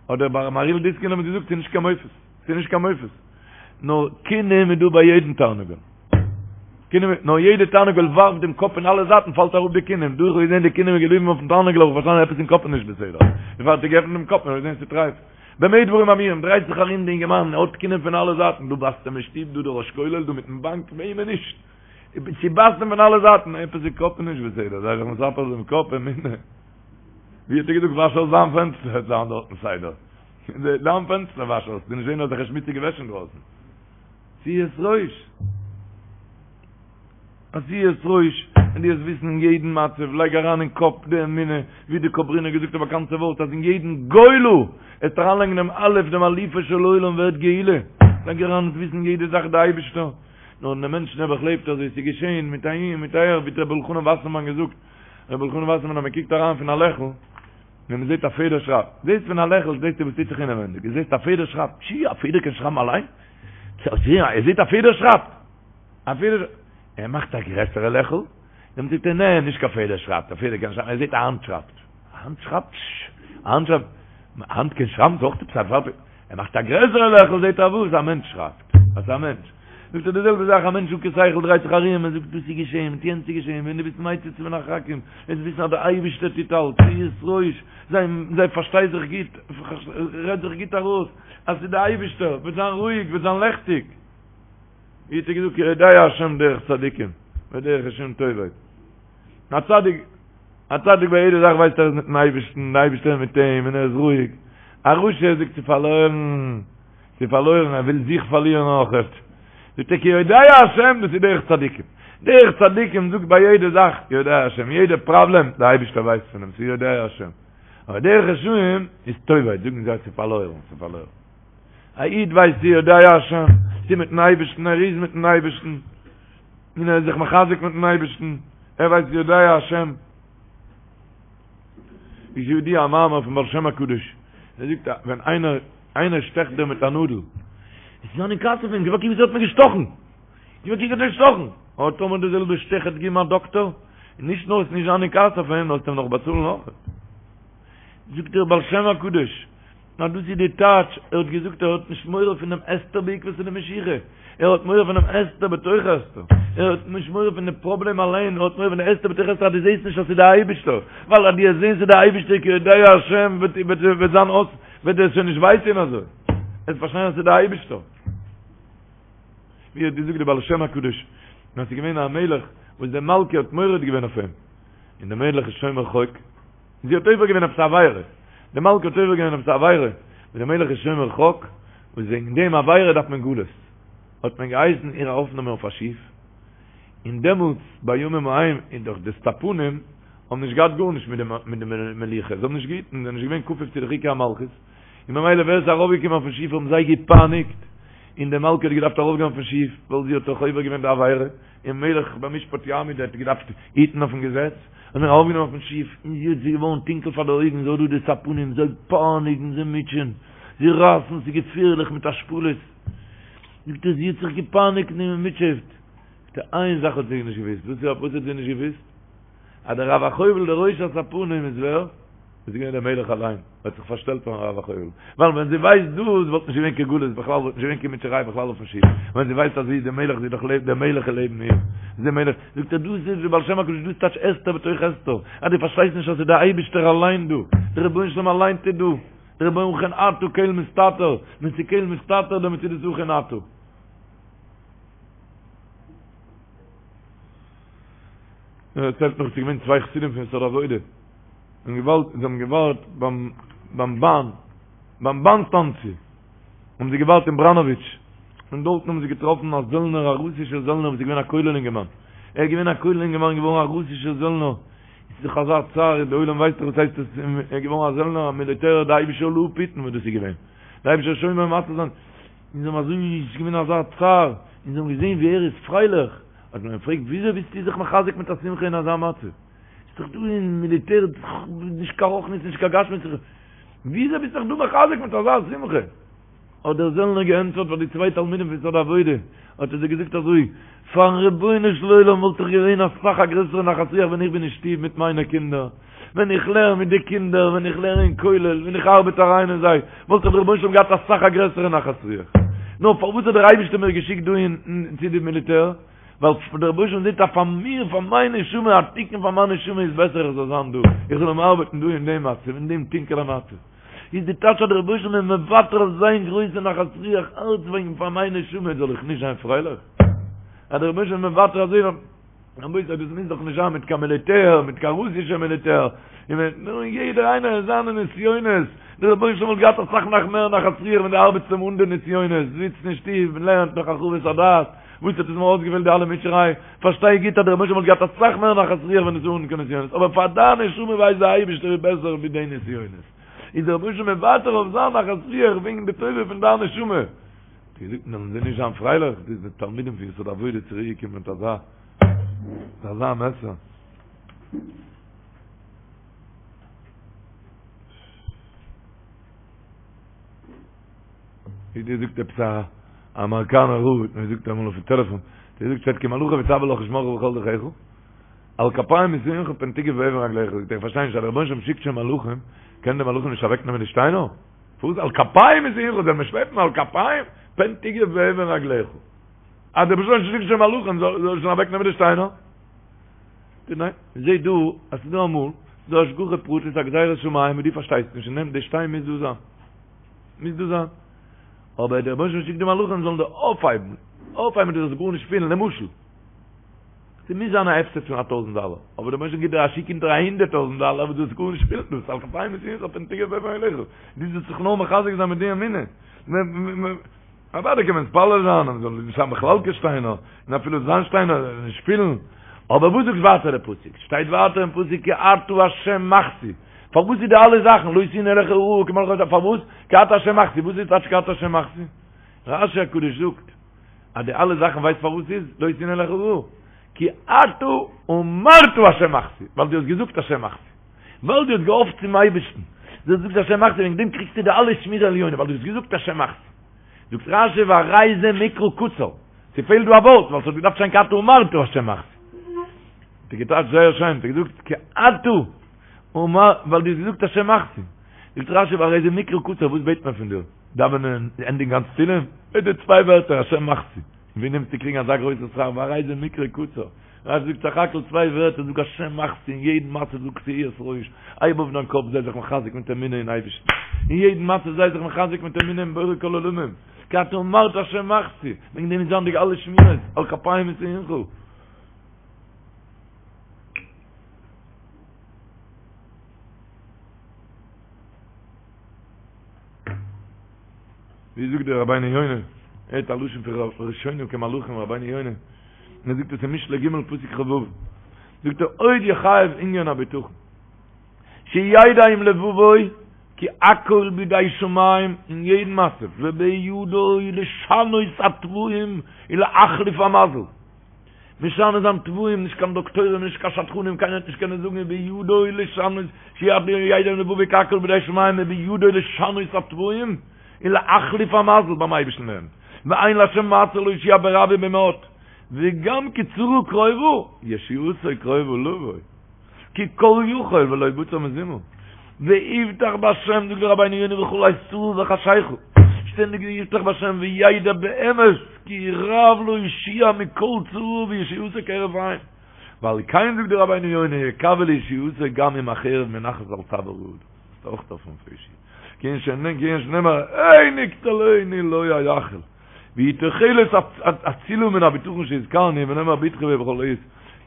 האט דער מהרי"ל דיסקין אים געזאגט ס'איז נישט קיין מופת. ס'איז נישט קיין מופת. נאר כינים איז דא ביי יעדן תרנגול. כינים, נאר יעדע תרנגול ווארפט דעם קאפ אין אלע זייטן פאלט אראפ די כינים. דא איך האב געזען די כינים איז געבליבן אויפן תרנגול האב איך פארשטאנען עפעס אין קאפ איז נישט בסדר. דערפאר האט ער געעפנט דעם קאפ און האט געזען ס'איז טרייף. במה דברים אמורים, דרייט זיך ארום די אינגערמאן, ער האט כינים פון אלע זייטן, דא בייסט אים אין שטוב, דא דער ראש כולל, דא מיטן באנק, וועמען נישט? ס'בייסט אים פון אלע זייטן, עפעס איז קאפ נישט בסדר, זיי זיך מספר דעם קאפ, אמונה. ווי האט ער געזאגט, וואש אויס דיין פענסטער, וועט זיין דארטן סדר. דיין פענסטער וואש אויס, דו נישט זען אזעלכע שמוציגע וועש אינדרויסן. שאו את ראש. שאו את ראש, און דו וועסט וויסן אין יעדן מצב, לייג אריין אין קאפ די אמונה, ווי די קאברינער געזאגט א באקאנטע ווארט אז אין יעדן גולה, וועסט אריינלייגן דעם א' דעם אלופו של עולם ווערט גאולה, לייג אריין וועסט וויסן יעדע זאך די אייבישטער, נאר דער מענטש נעבעך לעבט אזוי, ס'איז געשען מיט אהין מיט אהער, ווי האט רבי אלחנן וואסערמאן געזאגט, רבי אלחנן וואסערמאן אז מען קוקט אריין פון א לעכל, ווען מען זעט א פעדער שרייבט, זעסט פון א לעכל זעסטו וואס טוט זיך אינעווענדיג, דו זעסט א פעדער שרייבט, פשי א פעדער קען שרייבן אליין? ער זעט א פעדער שרייבט! א פעדער, ער מאכט א גרעסערע לעכל, דעמאלט זאגט ער נע, נישט קיין פעדער שרייבט, א פעדער קען שרייבן, ער זעט א האנט שרייבט, א האנט שרייבט, א האנט שרייבט, א האנט קען שרייבן, ס'איז אויך עפעס א פארב, ער מאכט א גרעסערע לעכל זעט ער וואס, א מענטש שרייבט, אז א מענטש, זאגט ער די זעלבע זאך, א מענטש אן קיין שכל דרייט זיך ארום, ער זאגט דאס איז געשען, מיט יענץ איז געשען, ווען דו ביסט מציץ מן החרכים, וועסט וויסן אז דער אייבערשטער טוט אלץ, שאו את ראש, זיי, זיי פארשטיי זיך גוט, רעד זיך גוט ארויס, אז ס'איז דער אייבערשטער, וועט זיין רואיג, וועט זיין לעכטיג. ווי האט ער געזאגט כי יודע השם דרך צדיקים ודרך רשעים תאבד. א צדיק, א צדיק ביי יעדע זאך ווייסט ער איז מיטן אייבערשטן, די אייבערשטער איז מיט אים און ער איז רואיג. א רשע זאגט ס'איז פארלוירן, ס'איז פארלוירן, ער וויל זיך פארלירן אויכעט. זאגט ער כי יודע השם דאס איז דרך צדיקים. דרך צדיקים זאגט ביי יעדע זאך יודע השם, יעדע פראבלעם די אייבערשטער ווייסט פון דעם, ס'איז יודע השם. אבער דרך רשעים איז תאבד, זאגן זיי ס'איז פארלוירן, ס'איז פארלוירן. א איד ווייסט ס'איז יודע השם, ס'איז מיטן אייבערשטן, ער איז מיטן אייבערשטן, און ער איז זיך מחזק מיטן אייבערשטן, ער ווייסט יודע השם. איז ידוע א מאמר פון בעל שם הקדוש, ער זאגט אז ווען איינער איינער שטעכט דיר מיט א נאדל, איז זיין אין כעס אויף אים, גיב א קוק וויאזוי האט מיר געשטאכן, גיב א קוק האט ער געשטאכן, אבער טאמער די זעלבע שטעך האט געגעבן א דאקטאר, און נישט נאר וועסט נישט זיין אין כעס אויף אים, נאר וועסט אים נאך באצאלן אויך. זאגט דער בעל שם הקדוש, נאר דאס איז די טייטש, ער האט געזאגט ער האט נישט מורא פונעם הסתר בעקבתא דמשיחא, ער האט מורא פונעם הסתר בתוך הסתר, ער האט נישט מורא פון די פראבלעם אליין, ער האט מורא פון די הסתר בתוך הסתר אז דו זעסט נישט אז ס'איז די אייבישטער, ווייל אז דו וועסט זען ס'איז די אייבישטער כי יודע השם וועט וועט זיין אויס, וועט דיר שוין נישט וויי טון אזוי, וועסט פארשטיין אז ס'איז די אייבישטער. ווי האט געזאגט די בעל שם הקדוש, אז ס'איז געווען א מלך וואס די מלכה האט מורד געווען אויף אים, און די מלך איז שומר חוק, זי האט עובר געווען עפעס א עבירה, די מלכה האט עובר געווען עפעס א עבירה, און דער מלך איז שומר חוק, וואס וועגן דעם עבירה דארף מען גלות, האט מען געהייסן איר ארויפנעמען אויף א שיף, און דעמאלטס בימים ההם איז דאך די ספנים. האבן נישט געהאט גארנישט מיט די מיט די מלוכה, זיי האבן נישט געהיטן, זיי זענען נישט געווען כפוף צו די חוקי המלכות, און ממילא ווער עס איז ארויפגעקומען אויפן שיף האבן זיי געפייניגט, און די מלכה האט געדארפט ארויפגיין אויפן שיף, ווייל זי האט דאך עובר געווען די עבירה, און מלך במשפט יעמיד האט געדארפט היטן אויפן געזעץ, האט מען ארויפגענומען אויפן שיף, און זי האט ס'איז געווארן טונקל פאר די אויגן, זי האט דא די ספנים, זיי פייניגן, זיי מוטשען, זיי רייסן, ס'איז געפערליך מיט השפלות, זאגט ער, זי האט זיך געפייניגט און געמוטשעט, זאגט ער, איין זאך האט זי נישט געוואוסט, וואס האט זי נישט געוואוסט? אז דער רב החובל דער ראש הספנים איז ווער? איז געווען דער מלך אליין, ער האט זיך פארשטעלט פארן רב החובל, ווייל ווען זי ווייסט דאס וואלט נישט געווען קיין גלות בכלל, וואלט נישט געווען קיין מוטשעריי בכלל אויפן שיף, ווען זי ווייסט אז זי איז דער מלך, זי איז דאך דער מלך איז לעבן איר, איז דער מלך, זאגט ער דאס איז די בעל שם הקדוש דאס טייטש הסתר בתוך הסתר, אז דו פארשטייסט נישט אז ס'איז דער אייבישטער אליין דא, דער רבונו של עולם אליין טוט דא, דער רבונו אכן אתה קל מסתתר, ווען ס'איז קל מסתתר דעמאלט איז דאס אכן אתה. ער דערציילט נאך ס'איז געווען צוויי חסידים פון יסוד העבודה און געוואלט זיי האבן געווארט ביים ביים באן ביים באן סטאנציע האבן זיי געווארט אין בראנאוויטש און דארטן האבן זיי געטראפן א זעלנער א רוסישער זעלנער וואס איז געווען א כולל אינגערמאן ער איז געווען א כולל אינגערמאן געווארן א רוסישער זעלנער איז דאך אזא צער די עולם ווייסט דאך וואס הייסט עס ער איז געווארן א זעלנער א מיליטער די אייבישטער זאל אפהיטן וואס דאס איז געווען די אייבישטער שומר ומציל זיין און זיי האבן אזוי איז געווען אזא צער און זיי האבן געזען ווי ער איז פרייליך האט מען אים געפרעגט וויאזוי ביסטו זיך מחזק מיט א שמחה אין אזא מצב? איז דאך דא אין מיליטער נישט קיין רוחניות נישט קיין גשמיות, וויאזוי ביסטו זיך דא מחזק מיט אזא שמחה? האט דער זעלנער געענטפערט פאר די צוויי תלמידים פון יסוד העבודה, האט ער זיי געזאגט אזוי, פארן רבונו של עולם וואלט איך געווען אסאך א גרעסערע נחת רוח ווען איך בין אין שטוב מיט מיינע קינדער, ווען איך לערן מיט די קינדער, ווען איך לערן אין כולל, ווען איך ארבעט אריין אין זיי, וואלט איך דער רבונו של עולם געהאט אסאך א גרעסערע נחת רוח. נאר פארוואס האט דער אייבערשטער מיר געשיקט דא אין צו די מיליטער? ווייל דער רבונו של עולם זעט אז פאר מיר, פאר מיין נשמה, א תיקון פאר מיין נשמה איז בעסער איך זאל זיין דא, איך זאל אים ארבעטן דא אין דעם מצב, אין דעם טונקעלע מצב. איז די טייטש אז דער רבונו של עולם איז מוותר אויף זיין גרויסע נחת רוח אלץ וועגן פאר מיין נשמה זאל איך נישט זיין פרייליך? אז דער רבונו של עולם איז מוותר אזוי רבותי, דאס מוז דאך נישט זיין מיט קיין מיליטער, מיט קיין רוסישע מיליטער, נאר יעדער איינער אין זיינע נסיונות, דער רבונו של עולם וואלט געהאט אסאך נאך מער נחת רוח ווען דו ארבעטסט אים אן די נסיונות, זיצט אין שטוב און לערנט נאך הרחבת הדעת, וואס האט עס מיר אויסגעפעלט די אלע מוטשעריי, פארשטיי גוט אז דער רבונו של עולם וואלט געהאט אסאך מער נחת רוח ווען עס איז אן קיין נסיונות, אבער פאר דיין נשמה ווייסט דער אייבערשטער איז בעסער ווי די נסיונות, איז דער רבונו של עולם מוותר אויף זיין נחת רוח וועגן די טובה פון דיין נשמה. געזאגט וועלן זיי נישט זיין פרייליך, די תלמידים פון יסוד העבודה צוריק געקומען מיט אזא מיט אזא מסר. ווי דיר זאגט עפעס א אמעריקאנער רב האט מיר געזאגט אמאל אויפן טעלעפאן, דער זאגט שטייט כי מלאכיו יצוה לך לשמרך בכל דרכיך, על כפיים ישאונך פן תגע באבן רגלך, זאגט ער איך פארשטיי נישט אז דער רבונו של עולם שיקט שוין מלאכים, קענען די מלאכים נישט אוועקנעמען די שטיינער? פארוואס על כפיים ישאונך זאל מען שלעפן על כפיים פן תגע באבן רגלך? אז דער רבונו של עולם שיקט שוין מלאכים זאל זאל שוין אוועק נעמען די שטיינער? ניין, מ'זעט דא אז ס'איז דא אמאל ס'איז דא השגחה פרטית א גזירת שמים וואס דו פארשטייסט נישט און נעם די שטיין מוז דא זיין מוז דא זיין אבער דער רבונו של עולם שיקט די מלאכים זאלן דיר אויפהייבן אויפהייבן דו זאלסט גארנישט פילן למשל ס'מוז זיין א הפסד פון א טויזנט דאלער, אבער דער רבונו של עולם גיט דיר א שיק אונטער א הונדערט טויזנט דאלער וואס דו זאלסט גארנישט פילן דאס על כפיים ישאונך פן תגע באבן רגלך דו זאלסט זיך נאר מחזק זיין מיט די אמונה. אוודאי קען מען מתפלל זיין אז מ'זאל נישט האבן בכלל קיין שטיינער, און אפילו זיין שטיינער זאל מען נישט פילן, אבער וואס זאגט ווייטער דער פסוק? שטייט ווייטער אין פסוק כי אתה ה' מחסי, פארוואס איז די אלע זאכן לא תאונה אליך רעה כי מלאכיו יצוה, פארוואס? כי אתה ה' מחסי, וואס איז טייטש כי אתה ה' מחסי? רשי הקדוש זאגט אז די אלע זאכן ווייסט פארוואס ס'איז לא תאונה אליך רעה? כי אתה אמרת ה' מחסי, ווייל דו האסט געזאגט ה' מחסי. ווייל דו האסט געהאפט צום אייבערשטן, דו האסט געזאגט השם מחסי, וועגן דעם קריגסטו די אלע שמירה עליונה, ווייל דו האסט געזאגט השם מחסי. זאגט רשי והרי זה מקרא קצר, ס'פעלט דא א ווארט, ווייל ס'האט געדארפט שטיין כי אתה אמרת השם מחסי. האט ער געטייטשט זייער שיין, האט ער געזאגט כי אתה אמרת, ווייל דו האסט געזאגט השם מחסי. זאגט רשי והרי זה מקרא קצר, וואס בעט מען פון דיר? דאווענען, ענדיגן גאנץ תהילים? בעט דיר צוויי ווערטער השם מחסי. ווי נעמסטו קריגן אזא גרויסע שכר, והרי זה מקרא קצר. רשי זאגט סך הכל צוויי ווערטער, זאג השם מחסי אין יעדן מצב זאג שאו את ראש, הייב אויף דיין קאפ זיי זיך מחזק מיט אמונה אין אייבערשטן, אין יעדן מצב זיי זיך מחזק מיט אמונה אין בורא כל עולמים, כי אתה אמרת השם מחסי, וועגן דעם איז זיין די אלע שמירות, על כפיים ישאונך. ווי זאגט דער רבינו יונה, ער האט א לשון פון ראשונים כמלאכים רבינו יונה, און ער זאגט עס אין משלי ג' פסוק כ"ו. זאגט ער עוד יחייב ענין הבטחון שידע עם לבבו כי הכל בידי שמים אין יעדן מצב ובידו לשנות הטבעים ולהחליף המזל משנה זיין טבעים נישט קיין דאקטוירים נישט קיין שדכנים קיינער וועט נישט קענען זאגן ובידו לשנות שידע עם לבבו כי הכל בידי שמים ובידו לשנות הטבעים ולהחליף המזל ביים אייבערשטן אין די הענט ואין להשם מעצור להושיע ברב ובמעט וגם כי צרה קרובה ישועתו קרובה לבוא כי כל יכול ולא בצר מזימה. ויבטח בהשם זאגט דער רבינו יונה בכל עת צרה וחשיכה, שטענדיג ויבטח בהשם וידע באמת כי רב להושיע מכל צרה וישועתו כהרף עין. ועל כן זאגט דער רבינו יונה יקווה לישועתו גם אם החרב מונחת על צוואר האדם. דאס איז אויך אויפן פרישי. כענין שנאמר הן יקטלני לא אייחל. והיא תוחלת אצילה מן הבטחון שהזכרנו ונאמר בטחו בו בכל עת,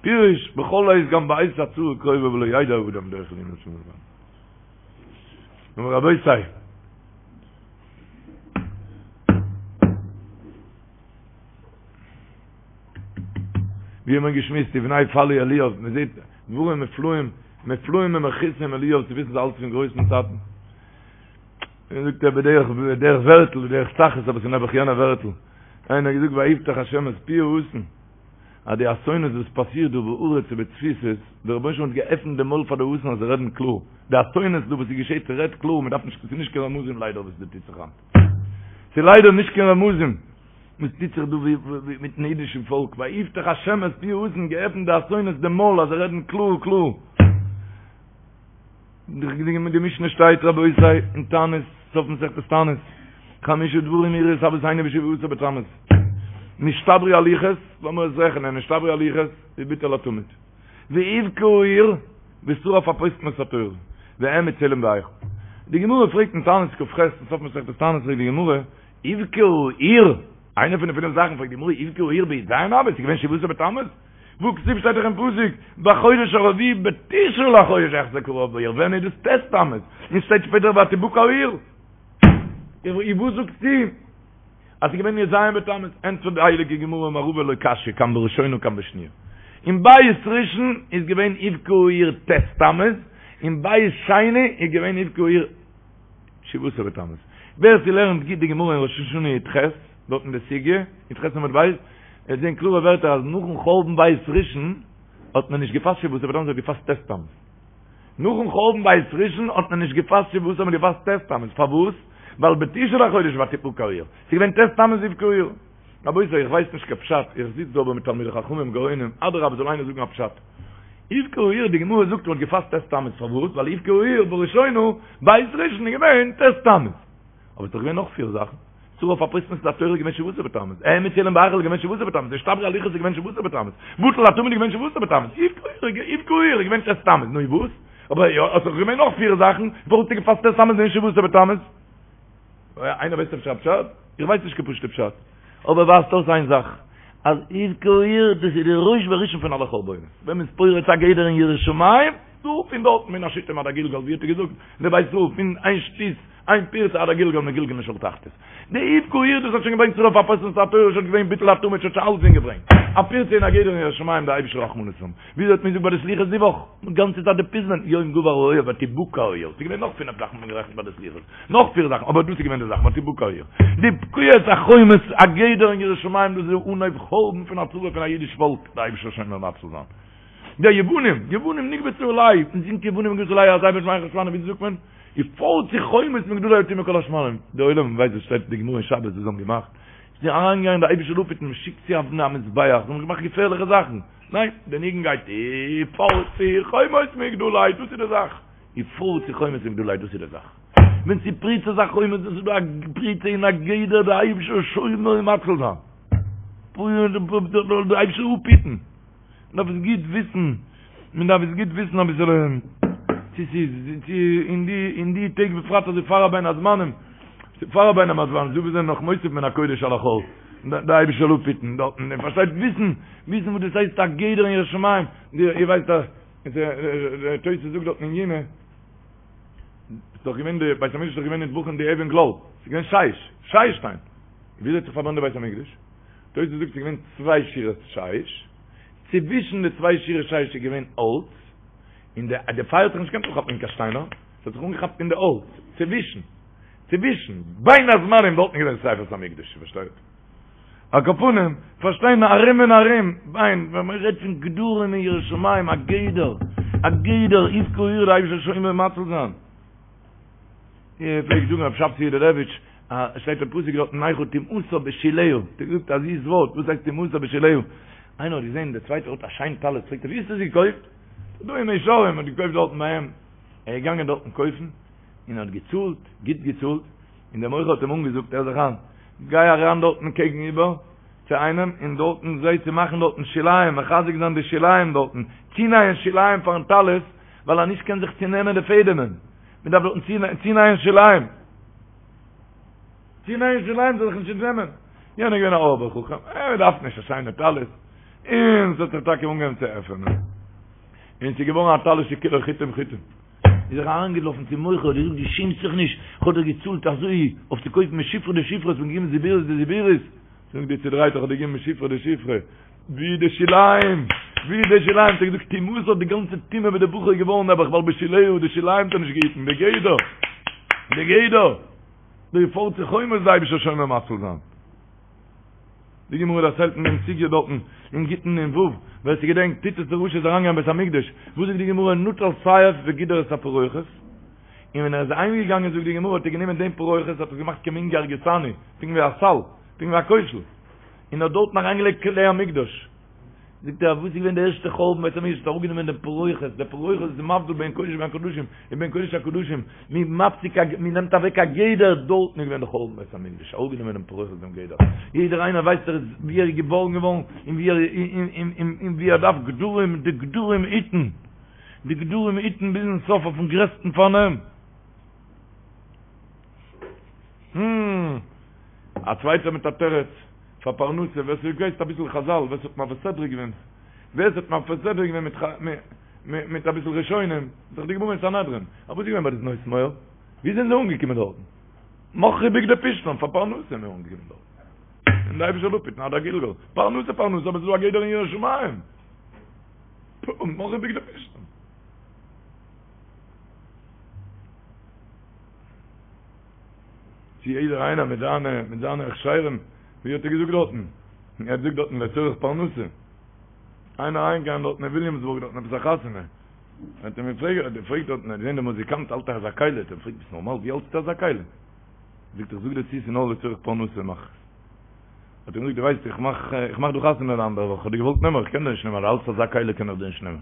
פירוש, בכל עת גם בעת הצרה קרובה ולא ידע האדם דרך להינצל ממנה. נו רבותי, ווי האט מען געשמועסט ובני פלוא אליאב, מען זעט דברים מופלאים, מופלאים ומכעיסים אליאב צו וויסן אלץ פון גרויסן טאטן. און זאגט ער בדרך בדרך ווערטל בדרך צחות אבער ס'איז נעבעך יענע ווערטל איינער האט געזאגט ויפתח השם את פי האתון אז די אסונות וואס פאסירט דא בארץ ובתפוצות דער רבונו של עולם האט געעפנט די מויל פאר די אתון אז זיי רעדן קלאר די אסונות דא וואס איז געשעט ס'רעדט קלאר מ'דארף נישט ס'איז נישט קיין רמזים ליידער וואס דא טוט זיך היינט ס'איז ליידער נישט קיין רמזים וואס טוט זיך דא מיטן אידישן פאלק ויפתח השם את פי האתון געעפנט די אסונות די מויל אז זיי רעדן קלאר קלאר די משנה שטייט רבותי אין תענית, סוף מסכת תענית, חמשה דברים אירעו את אבותינו בשבעה עשר בתמוז, נשתברו הלוחות, לאמיר עס רעכענען, נשתברו הלוחות, וביטל התמיד, והובקעה העיר, ושרף הפוסטמוס את התורה, והעמיד צלם בהיכל. די גמרא פרעגט אין תענית כ"ח, אין סוף מסכת תענית פרעגט די גמרא, הובקעה העיר, איינע פון די פינף זאכן פרעגט די גמרא, הובקעה העיר בי"ז אב, עס איז געווען שבעה עשר בתמוז? והכתיב שטייט דאך אין פסוק, בחודש הרביעי בתשעה לחודש יחזק הרעב בעיר, ווען איז דאס ט' תמוז? און שטייט שפעטער ותבקע העיר. און וואס זאגסטו אז ס'איז געווען י"ז בתמוז? ענטפערט די הייליגע גמרא אמר רבא לא קשיא כאן בראשונה כאן בשניה. אין בית ראשון איז געווען הובקעה העיר ט' תמוז, אין בית שני איז געווען הובקעה העיר שבעה עשר בתמוז. ווער ס'לערנט גוט די גמרא אין ראש השנה י"ח, דארט אין די סוגיא, י"ח עמוד ב', וועט זען קלארע ווערטער אז נאכן חורבן בית ראשון האט מען נישט געפאסט שבעה עשר בתמוז, מ'האט געפאסט ט' תמוז. נאכן חורבן בית ראשון האט מען נישט געפאסט שבעה עשר, מ'האט געפאסט ט' תמוז. פארוואס? ווייל בתשעה לחודש ותבקע העיר. ס'איז געווען ט' תמוז הובקעה העיר. רבותי, איך ווייס נישט קיין פשט, איך זיץ דא אבער מיט תלמידי חכמים גאונים, אדרבה זאל איינער זאגן א פשט. הובקעה העיר, די גמרא זאגט מ'האט געפאסט ט' תמוז, פארוואס? ווייל הובקעה העיר בראשונה, בית ראשון איז געווען ט' תמוז. אבער ס'איז דאך געווען נאך פיר זאכן. שרף הפוסטמוס את התורה איז געווען שבעה עשר בתמוז. העמיד צלם בהיכל איז געווען שבעה עשר בתמוז. נשתברו הלוחות איז געווען שבעה עשר בתמוז. בטל התמיד איז געווען שבעה עשר בתמוז. הובקעה העיר איז געווען ט' תמוז. נו איז וואס? אבער יא, עס איז דאך געווען נאך פיר זאכן, פארוואס האסטו געפאסט ט' תמוז און נישט שבעה עשר בתמוז? איינער ווייסט אפשר א פשט? איך ווייס נישט קיין פשוט'ע פשט. אבער ווייזט אויס איין זאך, אז הובקעה העיר, דאס איז די ראש וראשון פון אלע חורבנות. ווען מ'איז פורץ א גדר אין יראת שמים, דא פון דארטן מן השיטים עד הגלגל, ווי האט ער געזאגט, דער בית ישראל, פון איין שטות, איין פירצה עד הגלגל מגלגלין לשאול תחתית. די הובקעה העיר דאס האט שוין געברענגט שרף הפוסטמוס את התורה שוין געווען ביטול התמיד שוין שוין אלסדינג געברענגט. א פירצה אין א גדר אין יראת שמים די אייבישטער רחמנות האבן. וויאזוי האט מען געזאגט ביי די סליחות די וואך? גאנצע צייט די פזמון יום גבר האויב ותבקע העיר. ס'איז געווען נאך פינף זאכן האט מען גערעכנט ביי די סליחות. נאך פיר זאכן אבער דאס איז געווען די זאך ותבקע העיר. די פקיעת החומות א גדר אין יראת שמים דאס איז די אנהויב חורבן פון א צרה פון א אידיש פאלק די אייבישטער זאל שומר ומציל זיין. די יוונים, יוונים נקבצו עלי, מען זינגט יוונים נקבצו עלי אזי בשמי חשבנו, ווי זאגט מען? ופרצו חומות מגדלי וטמאו כל השמנים, די עולם ווייסט וואס שטייט אין די גמרא אין שבת וואס זיי האבן געמאכט, זיי זענען אריינגעגאנגען די אייבישטער זאל אפהיטן, מען שיקט צו אבני המזבח, זיי האבן געמאכט געפערליכע זאכן, ניין, די ניגון גייט ופרצו חומות מגדלי, דאס איז די זאך, ופרצו חומות מגדלי, דאס איז די זאך, ווען ס'איז פריצת החומות, דאס איז דא א פריצה אין א גדר, די אייבישטער שומר ומציל זיין, די אייבישטער אפהיטן. מען דארף עס גוט וויסן, מען דארף עס גוט וויסן אביסעלע, צו ס'איז, צו אין די, אין די טעג בפרט אזוי פאר א בין הזמנים, פאר א בין הזמנים, דא וואס זענען נאך מוסיף מן הקודש על החול, די אייבישטער זאל אפהיטן דארטן, איר פארשטייט, וויסן, וויסן וואס דאס הייסט א גדר אין יראת שמים, איר ווייסט אז, דער תוס' זאגט דארטן אין יומא, ס'איז דאך געווען די בית המקדש איז דאך געווען נטבחים די אבן גלל, ס'איז געווען שיש, שיש שטיין, וויאזוי האט זיך פארברענט די בית המקדש? תוס' זאגט ס'איז געווען צוויי שורות שיש. צווישן די צוויי שורות שיש איז געווען האלץ, און די די פייער האט זיך נישט געקענט אנכאפן אין קיין שטיינער, עס האט זיך אנגעכאפט אין די האלץ, צווישן, צווישן, בין הזמנים דארטן איז געווען שריפת המקדש, פארשטייט? על כל פנים, פארשטיין ארום און ארום, בין, ווען מען רעדט פון גדרים אין יראת שמים, א גדר, א גדר, יבקע עיר, די אייבערשטער זאל שומר ומציל זיין. ער פלעגט זאגן רב שבתי יודלעוויטש, עס שטייט אין פסוק דארטן נחה טומאתה בשוליה, האט ער געזאגט א זיס ווארט, וואס הייסט טומאתה בשוליה? איינער האט געזען דער צווייטער האט א שיין טלית, פרעגט ער ווי האסטו עס געקויפט? דא אין מאה שערים, האט געקויפט דארטן ביי אים, ער איז געגאנגען דארטן קויפן, און האט געצאלט, גוט געצאלט, און דער מוכר האט אים אנגעזאגט, הער זיך איין, גיי אריין דארטן קעגן איבער צו איינעם, און דארטן זע צו מאכן דארטן שוליים, מחזק זיין די שוליים דארטן, צונייען שוליים פארן טלית, ווייל אז נישט קען זיך צונעמען די פעדעמען, מען דארף דארטן צונייען שוליים, צונייען שוליים זאל זיך נישט צונעמען, יענער איז געווען א אויבער חכם, ער דארף נישט א שיינע טלית, און ס'האט זיך טאקע אנגעהויבן צו עפענען, און ס'איז געווארן א טלית שכולו חוטים חוטים. איז ער אריינגעלאפן צום מוכר האט געזאגט דו שעמסט זיך נישט, איך האב דיר געצאלט אזוי אויף צו קויפן משופרא דשופרא, האסט מיר געגעבן זיבורית דזיבורית, זאגט דו צודרייטער איך האב דיר געגעבן משופרא דשופרא, ווי די שוליים, ווי די שוליים, האט ער געזאגט טומאתה די גאנצע טומאה ווי די בחור איז געווארן נעבעך ווייל בשוליה די שוליים האט ער נישט געהיטן, די גדר, די גדר, די פורצי חומות די אייבישטער שומר ומציל זיין. די גמרא דערציילט אין דעם סוגיא דארטן אין גיטין נ"ו, ווער ס'געדענקט, טיטוס דער רשע איז אריינגעגאנגען אין בית המקדש, וואס זאגט די גמרא, נטל סייף וגידר את הפרוכת, און ווען ער איז אהיימגעגאנגען זאגט די גמרא האט ער גענומען דעם פרוכת האט עס געמאכט כמין גרגותני, פונקט ווי א סל, פונקט ווי א קוישל, און האט דארטן אריינגעלייגט כלי המקדש. זאגט ער, וואס איז געווען די ערשטע חורבן בית המקדש, האט אראפגענומען דעם פרוכת, דער פרוכת איז מבדיל בין קודש בין קדשים, און בין קודש הקדשים, מען מפסיק א, מען נעמט אוועק א גדר, דארטן איז געווען די חורבן בית המקדש, אראפגענומען דעם פרוכת דעם גדר, יעדער איינער ווייסט ער איז ווי ער איז געבארן געווארן, און ווי ער און ווי ער דארף גדרים, די גדרים היטן, די גדרים היטן ביזן סוף אויפן גרעסטן פארנעם. א צווייטער מיט א תירוץ פאר פרנסה, ווער ס'ווייסט אביסל חזל, ווער ס'האט מעביר סדרה געווען, ווער ס'האט מעביר סדרה געווען מיט מיט אביסל ראשונים, איז דאך די גמרא אין סנהדרין, אבער וואס איז געווען ביי די בנות מואב? ווי זענען זיי אנגעקומען דארטן? מכרו בגדי פשתן פאר פרנסה זענען אנגעקומען דארטן. און די אייבישטער זאל אפהיטן עד הגלגול. פרנסה פרנסה, אבער ס'איז דא א גדר אין יראת שמים. מכרו בגדי פשתן. צו יעדער איינער מיט זיינע מיט זיינע הכשרים, ווי האט ער געזאגט דארטן? ער האט געזאגט דארטן לצורך פרנסה. איינער אריינגעגאנגען דארטן אין וויליאמסבורג דארטן עפעס א חתונה. האט ער אים געפרעגט, האט ער געפרעגט דארטן, ער האט געזען דער מוזיקאנט האלט אזא כלי, האט ער געפרעגט ביסט נארמאל ווי האלטסטו אזא כלי? זאגט ער איך זאג דיר צו ס'איז נאר לצורך פרנסה מאך איך עס. האט ער אים געזאגט דו ווייסט איך מאך איך מאך דא חתונה די אנדערע וואך, איך האב דיר געוואלט נעמען אבער איך קען דיר נישט נעמען, אז דו האלטסט אזא כלי קען איך דיר נישט נעמען.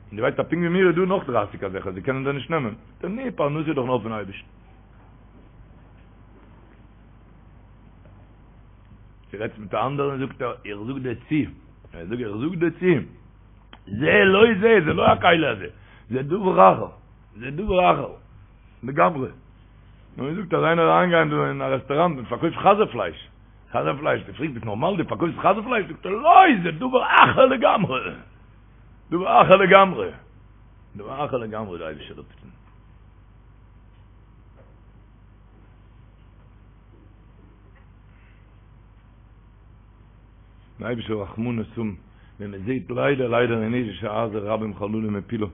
און דו ווייסט אז פונקט ווי מיר איז דא נאך דרייסיג אזעלכע, זיי קענען דיר נישט נעמען. זאגט ער, נו, פרנסה איז דאך נאר פון אייבערשטן. דו רעדסט מיט א אנדערן, זאגט ער, איך זאג דיר צו, ער זאגט, איך זאג דיר צו, זה לא זה, זה לא הכלי הזה, זה דבר אחר, זה דבר אחר, לגמרי. נו, ער זאגט אז איינער איז אריינגעגאנגען דא אין א רעסטוראנט און פארקויפט חזיר פלייש, חזיר פלייש, דו פרעגסט ביסט נארמאל דו פארקויפסט חזיר פלייש? זאגט ער, לא, זה דבר אחר לגמרי. דבר אחר לגמרי. דבר אחר לגמרי די אייבישטער זאל אפהיטן. די אייבישטער רחמנות האבן ווען מען זעט ליידער ליידער אין אידישע הייזער רבים חללים הפילה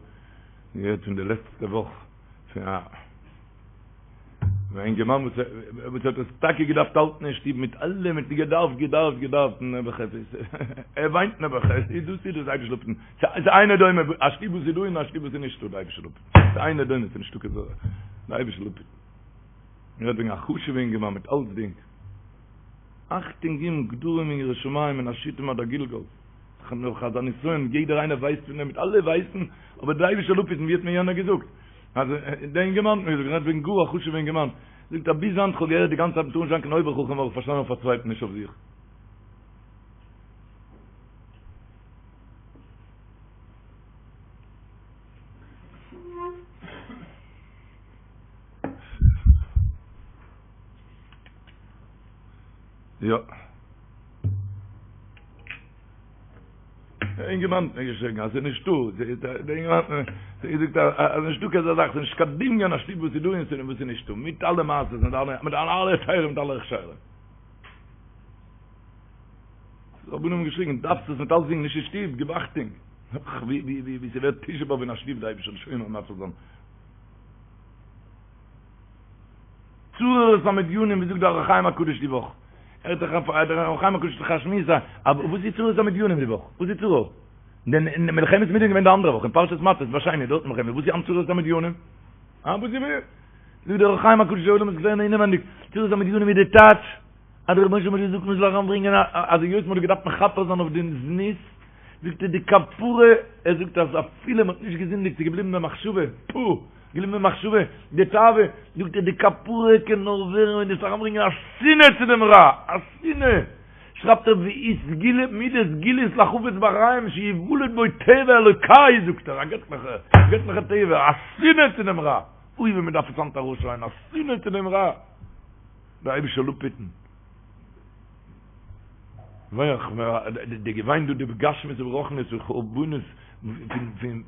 געהערט פון די לעצטע וואך פון א א אינגערמאן וואס וואס האט עס טאקע געדארפט האלטן אין שטוב מיט אלע מיט געדארפט געדארפט געדארפט נעבעך עס איז ער וויינט נעבעך עס איז דאס איז דאס אייבישטער זאל אפהיטן ס'איז אינו דומה א שטוב וואס איז דא און א שטוב וואס איז נישטא די אייבישטער זאל אפהיטן ס'איז אינו דומה ס'איז נישטא קיין זאך די אייבישטער זאל אפהיטן מ'רעדט וועגן א חשוב'ע אינגערמאן מיט אלצדינג אכטונג געבן גדרים אין יראת שמים מן השיטים עד הגלגל נאך אזא נסיון יעדער איינער ווייסט פון דעם מיט אלע ווייסן אבער די אייבישטער זאל אפהיטן ווי האט מיר יענער געזאגט אז דער אינגערמאן האט מיר געזאגט, רעדט וועגן גאר א חשוב'ע אינגערמאן, זאגט אז ביז היינט כ'האב געהערט די גאנצע צייט מ'טאר נישט זיין קיין אויבער חכם האב איך פארשטאנען אויף א צווייטן נישט אויף זיך. יא. דער אינגערמאן האט מיר געשריגן אז ס'איז נישטא, דער אינגערמאן האט מיר געזאגט אז נישטא קיין אזא זאך, ס'איז נישט קיין דמיון א שטוב וואס איז דא און וואס איז נישטא, מיט אלע מעשות, מיט אלע מיט אלע היתרים מיט אלע הכשרים. די רבנים האבן געשריגן, דארפסט עס מיט אלסדינג נישט אין שטוב, גיב אכטונג. ווי ווי ווי ס'ווערט תשעה באב אין א שטוב, די אייבישטער זאל שומר ומציל זיין. צרור את המדינים, ווי זאגט דער אור החיים הקדוש די וואך? ער האט דאך דער אור החיים הקדוש דאך א שמועס א וואס איז צרור את המדינים די וואך? וואס איז צרור? דען מלחמת מדין געווען די אנדערע וואך אין פרשת מטות ביי שני דארט מלחמת וואס איז היינט צרור את המדינים? אה וואס איז זאגט דער אור החיים הקדוש די עולם איז געווען אינעווענדיג צרור את המדינים איז די טייטש אז דער רבונו של עולם האט געזאגט מען זאל אריינברענגען א אז היות מען האט געדארפט מכפר זיין אויף דעם זנות זאגט ער די כפרה ער זאגט אז אפילו מען האט נישט געזינדיגט ס'איז געבליבן במחשבה פו געבליבן במחשבה די תאווה זאגט ער די כפרה קען נאר ווערן ווען דו וועסט אריינברענגען א שנאה צו דעם רע א שנאה שרייבט ער והיא סגולה מידה סגולית לחפץ בחיים שיוולד בו טבע אלוקי זאגט ער א געטליכע געטליכע טבע א שנאה צו דעם רע אוי ווי מען דארף עס היינט ארויסשרייען א שנאה צו דעם רע דער אייבישטער זאל אפהיטן. די געוויין דא די בגשמיות וברוחניות פון חורבנות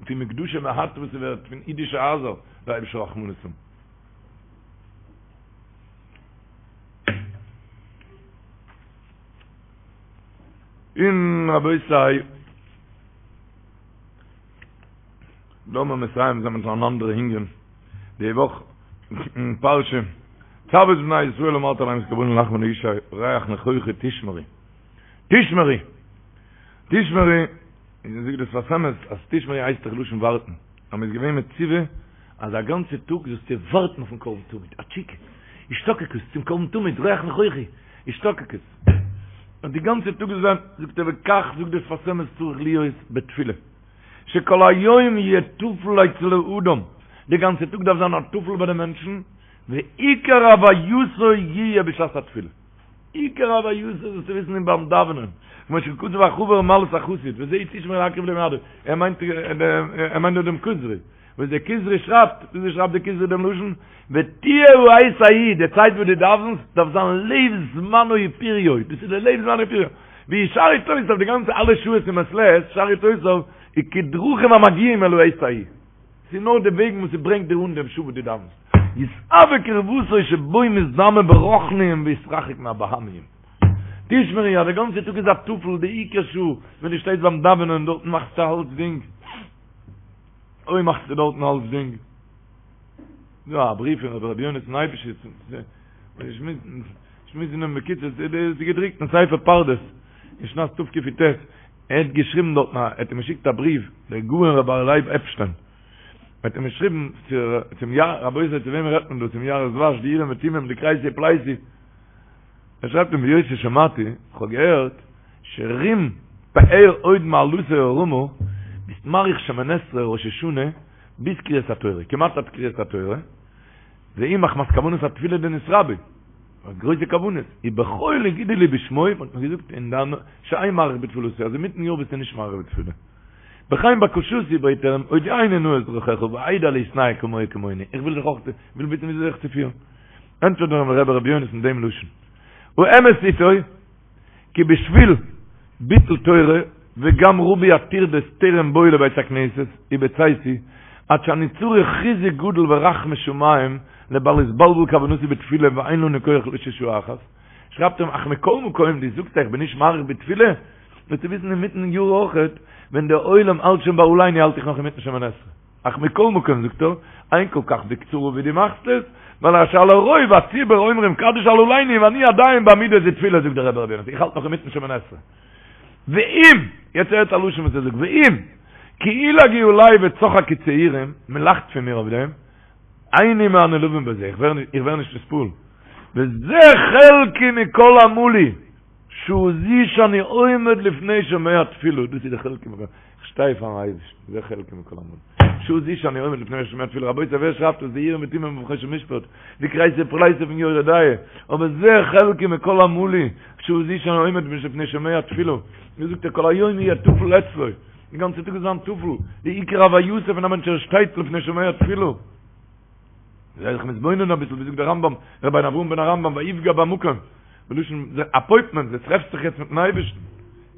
פון מקדשי מעט וואס ס'ווערט פון אידישע הייזער דער אייבישטער רחמנות האבן. און רבותי, לאמיר מסיים זיין מיט אן אנדערע ענין, די וואך אין פרשה, צו את בני ישראל ואמרת אליהם את קרבני לחמי לאשי ריח ניחוחי תשמרו, תשמרו, תשמרו, און זאגט דער שפת אמת אז תשמרו הייסט דאך לשון ווארטן, אז מען איז געווען מצווה אז א גאנצע טאג זאלסטו ווארטן אויפן קרבן תמיד, א תשוקה, השתוקקות צום קרבן תמיד, ריח ניחוחי, השתוקקות, און די גאנצע טאג זאל זיין, זאגט ער וכך זאגט דער שפת אמת צריך להיות בתפילה. שכל היום יהיה טפל אצל האדם, די גאנצע טאג דארף זיין א טפל ביי די מענטשן, ועיקר הווייתו יהיה בשעת התפילה. עיקר הווייתו זאלסטו וויסן איז ביים דאווענען, כמו שכתב החבר מעלת החסיד, וזה תשמרו להקריב למועדו, ער מיינט ער מיינט דא דעם כוזרי, וואס דער כוזרי שרייבט, וויאזוי שרייבט דער כוזרי דעם לשון? ותהיה העת ההיא, די צייט וואס דו דאווענסט דארף זיין לב זמנו ופריו, דאס איז די לב זמנו ופריו. והוא שאר עתותיו די גאנצע אלע שעות אין מעת לעת, שאר עתותיו איז כדרכים המגיעים אל העת ההיא. ס'איז נאר די וועגן וואס ס'ברענגט דיר אן דעם שעה וואס דו דאווענסט. יתאוה קרבתו שבו מתדמה ברוחניים ויתרחק מהבהמיים. תשמרו אז די גאנצע טאג איז א טפל, די עיקר שעה ווען דו שטייסט ביים דאווענען דארטן מאכסטו אלצדינג. אוי מאכסטו דארטן אלצדינג. דא א בריוו פון רבי יונתן אייבשיץ, שמועסן אים בקיצור, ס'איז געדרוקט אין ספר פרדס, אין שנת תקי"ט, ער האט געשריבן דארטן, ער האט אים געשיקט א בריוו, דער גאון רבי אריה לייב עפשטיין, ער האט אים געשריבן צום יא, רבותי צו וועמען רעדט מען דא, צום יערות דבש, די אורים ותומים, די כרתי פלתי, ער שרייבט אים והיות ששמעתי, איך האב געהערט, שרום פאר הוד מעלתו הרמה, ביסט מאריך שמונה עשרה ראש השנה ביז קריאת התורה, כמעט עד קריאת התורה, והוא מחמת כוונת התפילה דנתרבה, האט גרויסע כוונות, ובחול הגידו לי בשמו, מען האט מיר געזאגט אין דיין שאין מאריך בתפילתו, אז אינמיטן יאר ביסטו נישט מאריך בתפילה. בכן בקשתי בעט ער אים, הודיעני נא את דרכיך ואדע להתנהג כמוהו כמוני, איך וויל זיך אויך, וויל וויסן וויאזוי זיך צו פירן. ענטפערט אים רבי ר' יונתן דעם לשון, האמת איתו, כי בשביל ביטול תורה וגם ריבוי הטרדות טרם בואי לבית הכנסת ובצאתי עד שאני צריך חיזוק גדול ורחמי שמים לבל יתבלבל כוונתי בתפילה ואין לנו כח לשעה אחת שרייבט אים אך מכל מקום דו זאגסט איך בין נישט מאריך בתפילה זאלסטו וויסן אינמיטן יאר אויכעט ווען דער עולם האלט שוין ביי עלינו האלט איך נאך אינמיטן שמונה עשרה אך מכל מקום זאגט ער, אין כל כך בקצרה ווי דו מאכסט עס, ווייל שעל הרוב הציבור אומרים קדיש על עלינו ואני עדיין בעמידה דתפילה זאגט דער רבי רבי יונתן איך האלט נאך אינמיטן שמונה עשרה. ואם, יעצט הערט א לשון וואס ער זאגט, ואם, כי ילעגו עלי וצחקו צעירים, מען לאכט פון מיר אויף דעם, איני מהנעלבים בזה, איך ווער נישט נתפעל, וזה חלקי מכל עמלי. שעה זו שאני עומד לפני שומע תפילה, דאס איז די חלקי מכל, איך שטיי פארן אייבערשטן, זה חלקי מכל עמלי, שעה זו שאני עומד לפני שומע תפילה, רבותי ווער שרייבט דאס, די אורים ותומים אויף חושן משפט, די כרתי פלתי פון יורה דעה, אבער זה חלקי מכל עמלי, שעה זו שאני עומד לפני שומע תפילה, ווי זאגט ער כל היום יהיה טפל אצלו, די גאנצע טאג איז זיין טפל, די עיקר הווייתו פון א מענטש ער שטייט לפני שומע תפילה. זיי זיך מתבונן אביסל, ווי זאגט דער רמב"ם, רבינו אברהם בן הרמב"ם, ויפגע במקום, בלשון אפוינטמענט, דו טרעפסט זיך יעצט מיטן אייבערשטן.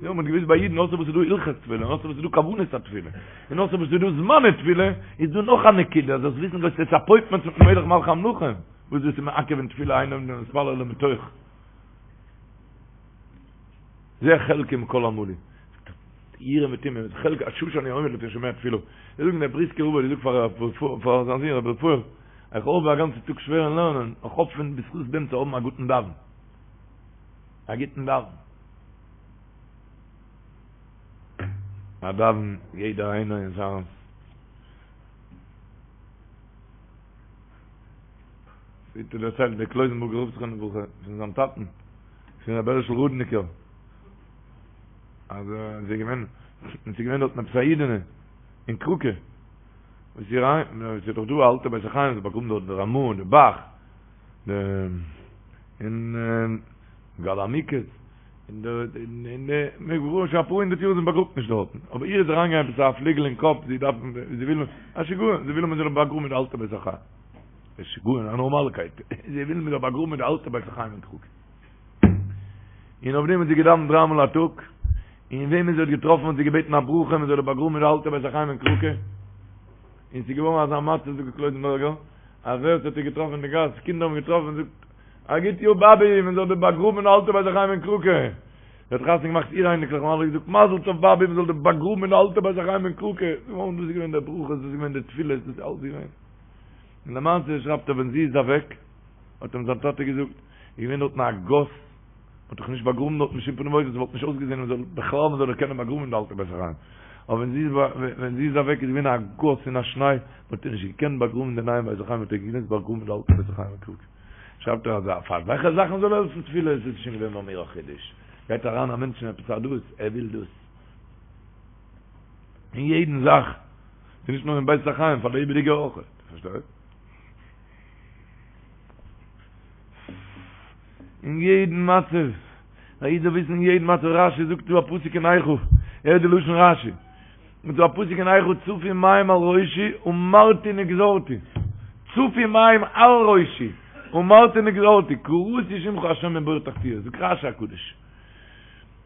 יא, מ'האט געוואוסט ביי אידן, אויסער וואס איז דא הלכות תפילה, און אויסער וואס איז דא כוונת התפילה, און אויסער וואס איז דא זמני תפילה, איז דא נאך א נקודה, זאלסט וויסן דו האסט יעצט אפוינטמענט מיטן מלך מלכי המלכים, וואס דאס איז מעכב אין תפילה אין עומדין להתפלל אלא מתוך. זה חלקי מכל עמלי. יראה מיט אים, חלק השעה שאני עומד לפני שומע תפילה. זיי זאגן דער בריסקער רב האט געזאגט פאר פאר זיין זון רבי רפאל, איך האב א גאנצע טאג שווער אין לערנען, איך האף פון בזכות דעם צו האבן א גוטן דאווען. א גוטן דאווען. א דאווען יעדער איינער אין זיין ווי האט ער דערציילט דער קלויזענבורגער רב זכרונו לברכה פון זיין טאטן פון רבי הערשל רודניקער אז עס איז געווען עס איז געווען דארטן עפעס א אידענע אין קראקע וואס איר איין עס איז דאך דא א אלטע בית החיים זיי באגראבן דארט די רמ"א און די ב"ח די און מגלה עמוקות און די און די מיר געווארן שוין אפאר הונדערט יאר זי באגראבט נישט דארטן אבער איר איז אריינגעגאנגען עפעס א פליגל אין קאפ זי דארף זי וויל א שיגעון זי וויל מען זאל באגראבן אין די אלטע בית החיים א שיגעון א נארמאלקייט זי וויל מען זאל באגראבן אין די אלטע בית החיים אין קראקע און אויף דעם האט זי געדאווענט דריי מאל א טאג, און וועמען זי האט געטראפן האט זי געבעטן א ברכה מען זאל איר באגראבן אין די אלטע בית החיים אין קראקע, און ס'איז געווארן אזא מצב זאגט דער קלויזענבורגער, אז ווער ס'האט איר געטראפן אין די גאס, קינדער האבן געטראפן, זאגט, א גוט יאר באבי, מען זאל דיר באגראבן אין די אלטע בית החיים אין קראקע. זי האט חתונה געמאכט איר אייניקלעך און אלע געזאגט מזל טוב באבי מען זאל דיר באגראבן אין די אלטע בית החיים אין קראקע, דאס איז געווען די ברכות, דאס איז געווען די תפילות, דאס איז אלץ געווען. און למעשה שרייבט ער ווען זי איז אוועק, האט אים זיין טאטע געזאגט, איז געווען דארטן א גאס, מ'האט דאך נישט באגראבן דארטן בשום פנים ואופן, ס'וואלט נישט אויסגעזען מ'זאל בכלל מ'זאל איר קענען באגראבן אין די אלטע בית החיים. אבער ווען זי איז ווען זי איז אוועק איז געווען א גאס און א שניי, מ'האט איר נישט געקענט באגראבן אין די נייעם בית החיים, מ'האט איר געמוזט באגראבן אין די אלטע בית החיים אין קראקע. שרייבט ער אז אויף אזעלכע זאכן זאל העלפן תפילה, עס איז שוין געווען ביי מיר א חידוש. גייט אריין א מענטש אין עפעס א דאס, ער וויל דאס. אין יעדן זאך, ס'איז נישט נאר אין בית החיים, פאר לעבעדיגע אויך. פארשטייסט? אין יעדן מצב, א איד זאל וויסן אין יעדן מצב, רשי זאגט דא א פסוק אין איכה, הערט די לשון רשי, זאגט דא א פסוק אין איכה צפו מים על ראשי אמרתי נגזרתי, צפו מים על ראשי אמרתי נגזרתי, קראתי שמך השם מבור תחתיות, זאגט רשי הקדוש,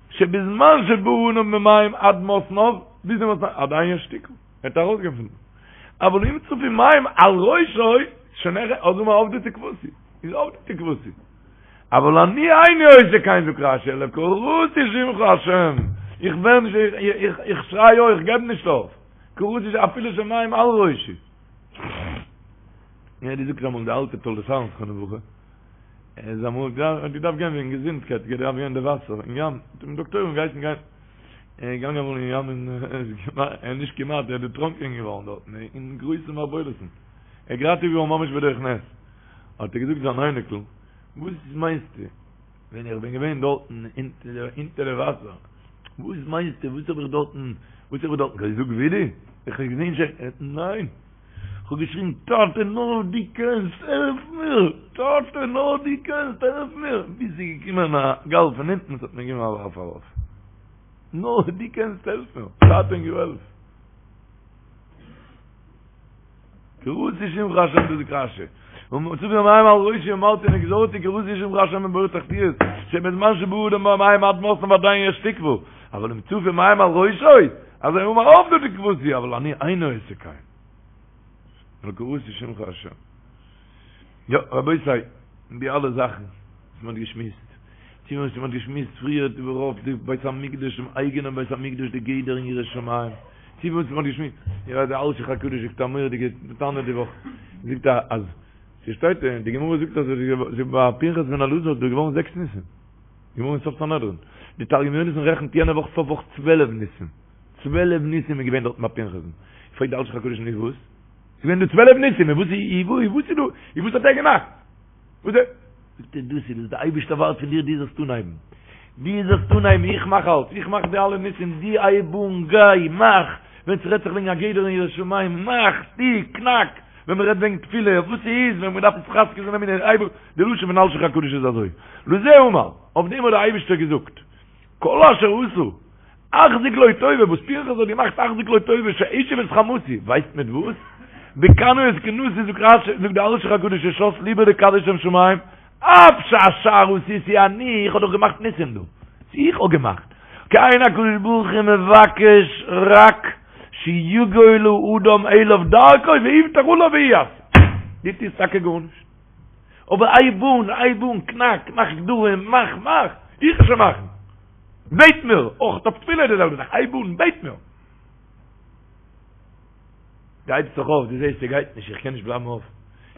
שבזמן שבא אדם במים עד מתניו, ביז די מתניו, עדיין יש תקוה. ער האט ארויסגעפונען. אבל אם צפו מים על ראשו, שוין העכער, אז אמר אבדה תקוותי, איז אבדה תקוותי. אבל אני איני עושה כן זאגט רשי, אלא קראתי שמך השם, איך ווער נישט, איך שריי אויך, איך געב נישט אויף, קראתי שמך אפילו שמים על ראשי. יא, די זאגט אמאל די אלטע תולדות אהרן זכרונו לברכה, ער איז אמאל געדארפט גיין וועגן געזונטקייט, געדארפט גיין אין די וואסער, אין ים, האט אים דאקטוירים געהייסן גיין. ער איז געגאנגען אמאל אין ים און ער איז נישט כמעט, ער איז דערטראנקען געווארן דארטן אין גרויסע מערבולות'ן. ער איז געראטעוועט געווארן ממש בדרך נס. האט ער געזאגט זיין אייניקל, וואס מיינסטו, ווען איך בין געווען דארטן אונטער די וואסער, וואס מיינסטו, וואס האב איך דארטן, וואס האב איך דארטן געזאגט וידוי? איך האב געזען שוין, ניין, איך האב געשריגן, טאטע נאר דו קענסט, העלף מיר, טאטע נאר דו קענסט, העלף מיר, ביז ס'איז געקומען א גל פון אונטן, עס האט מיר געגעבן א ווארף ארויף. נאר דו קענסט העלף מיר, טאטע און געוועלף. קראתי שמך השם דאס זאגט רשי. צפו מים על ראשי אמרתי נגזרתי קראתי שמך השם מבור תחתיות שבזמן שבא אדם במים עד מתניו עדיין יש תקווה אבל אם צפו מים על ראשו אזי אמר אבדה תקוותי אבל אני איני עושה כן אלא קראתי שמך השם יא רבותי די אלע זאכן וואס מען האט געשמועסט, צו וואס מען האט געשמועסט פריער איבערהויפט די בית המקדש, דעם אייגענעם בית המקדש, די גדר אין יראת שמים, צו וואס מען האט געשמועסט, איך ווייס די אלשיך הקדוש זאגט א מורא'דיגע טענה די וואך, זאגט ער אז ס'שטייט אין די גמרא זאגט אז ביי פנחס בן אלעזר איז דא געווארן זעקס ניסים, גמרא אין סוף סנהדרין, די תרגום יונתן רעכנט יענע וואך סוף וואך צוועלף ניסים, צוועלף ניסים איז געווען דארטן ביי פנחס'ן, פרעגט די אלשיך הקדוש נו וואס? ס'איז געווען דא צוועלף ניסים, און וואס איז וואס איז דא, און וואס האט ער געמאכט? וואס איז? זאגט ער דאס איז וואס דער אייבערשטער ווארט פון דיר דו זאלסט אנהייבן, דו זאלסט אנהייבן, איך מאך אלץ, איך מאך די אלע ניסים, דו הייב אן, גיי, מאך, ווען ס'רעדט זיך וועגן א גדר אין יראת שמים, מאך, טו, קנאק, ווען מ'רעדט וועגן תפילה, וואס ס'איז, ווען מ'דארף התחזקות אין אמונה, הייב אן, די לשון פון אלשיך הקדוש איז אזוי, לזה אמר, אויף דעם האט דער אייבערשטער געזאגט, כל אשר עשה, אחזיק לו טובה, וואס פנחס האט געמאכט אחזיק לו טובה שהשיב את חמתי, ווייסט מיט וואס? בקנאו את קנאתי זאגט רש"י, זאגט די אלשיך הקדוש ששת ליבו לקדש שם שמים, אף שהשאר עשיתי אני, איך האב דאך געמאכט ניסים דא, איך האב געמאכט, כי אין הקדוש ברוך הוא מבקש רק שיגול האדם אליו דרכו ויבטח עליו והוא יעשה, דו טוסט טאקע גארנישט, אבער הייב אן, הייב אן, קנאק, מאך גדרים, מאך, מאך, איך וועל שוין מאכן. בעט מיר! אויך אויף תפילה איז די זעלבע זאך, הייב אן, בעט מיר! דו הייבסט זיך אויף, דו זעסט ס'גייט נישט, איך קען נישט בלייבן אויף,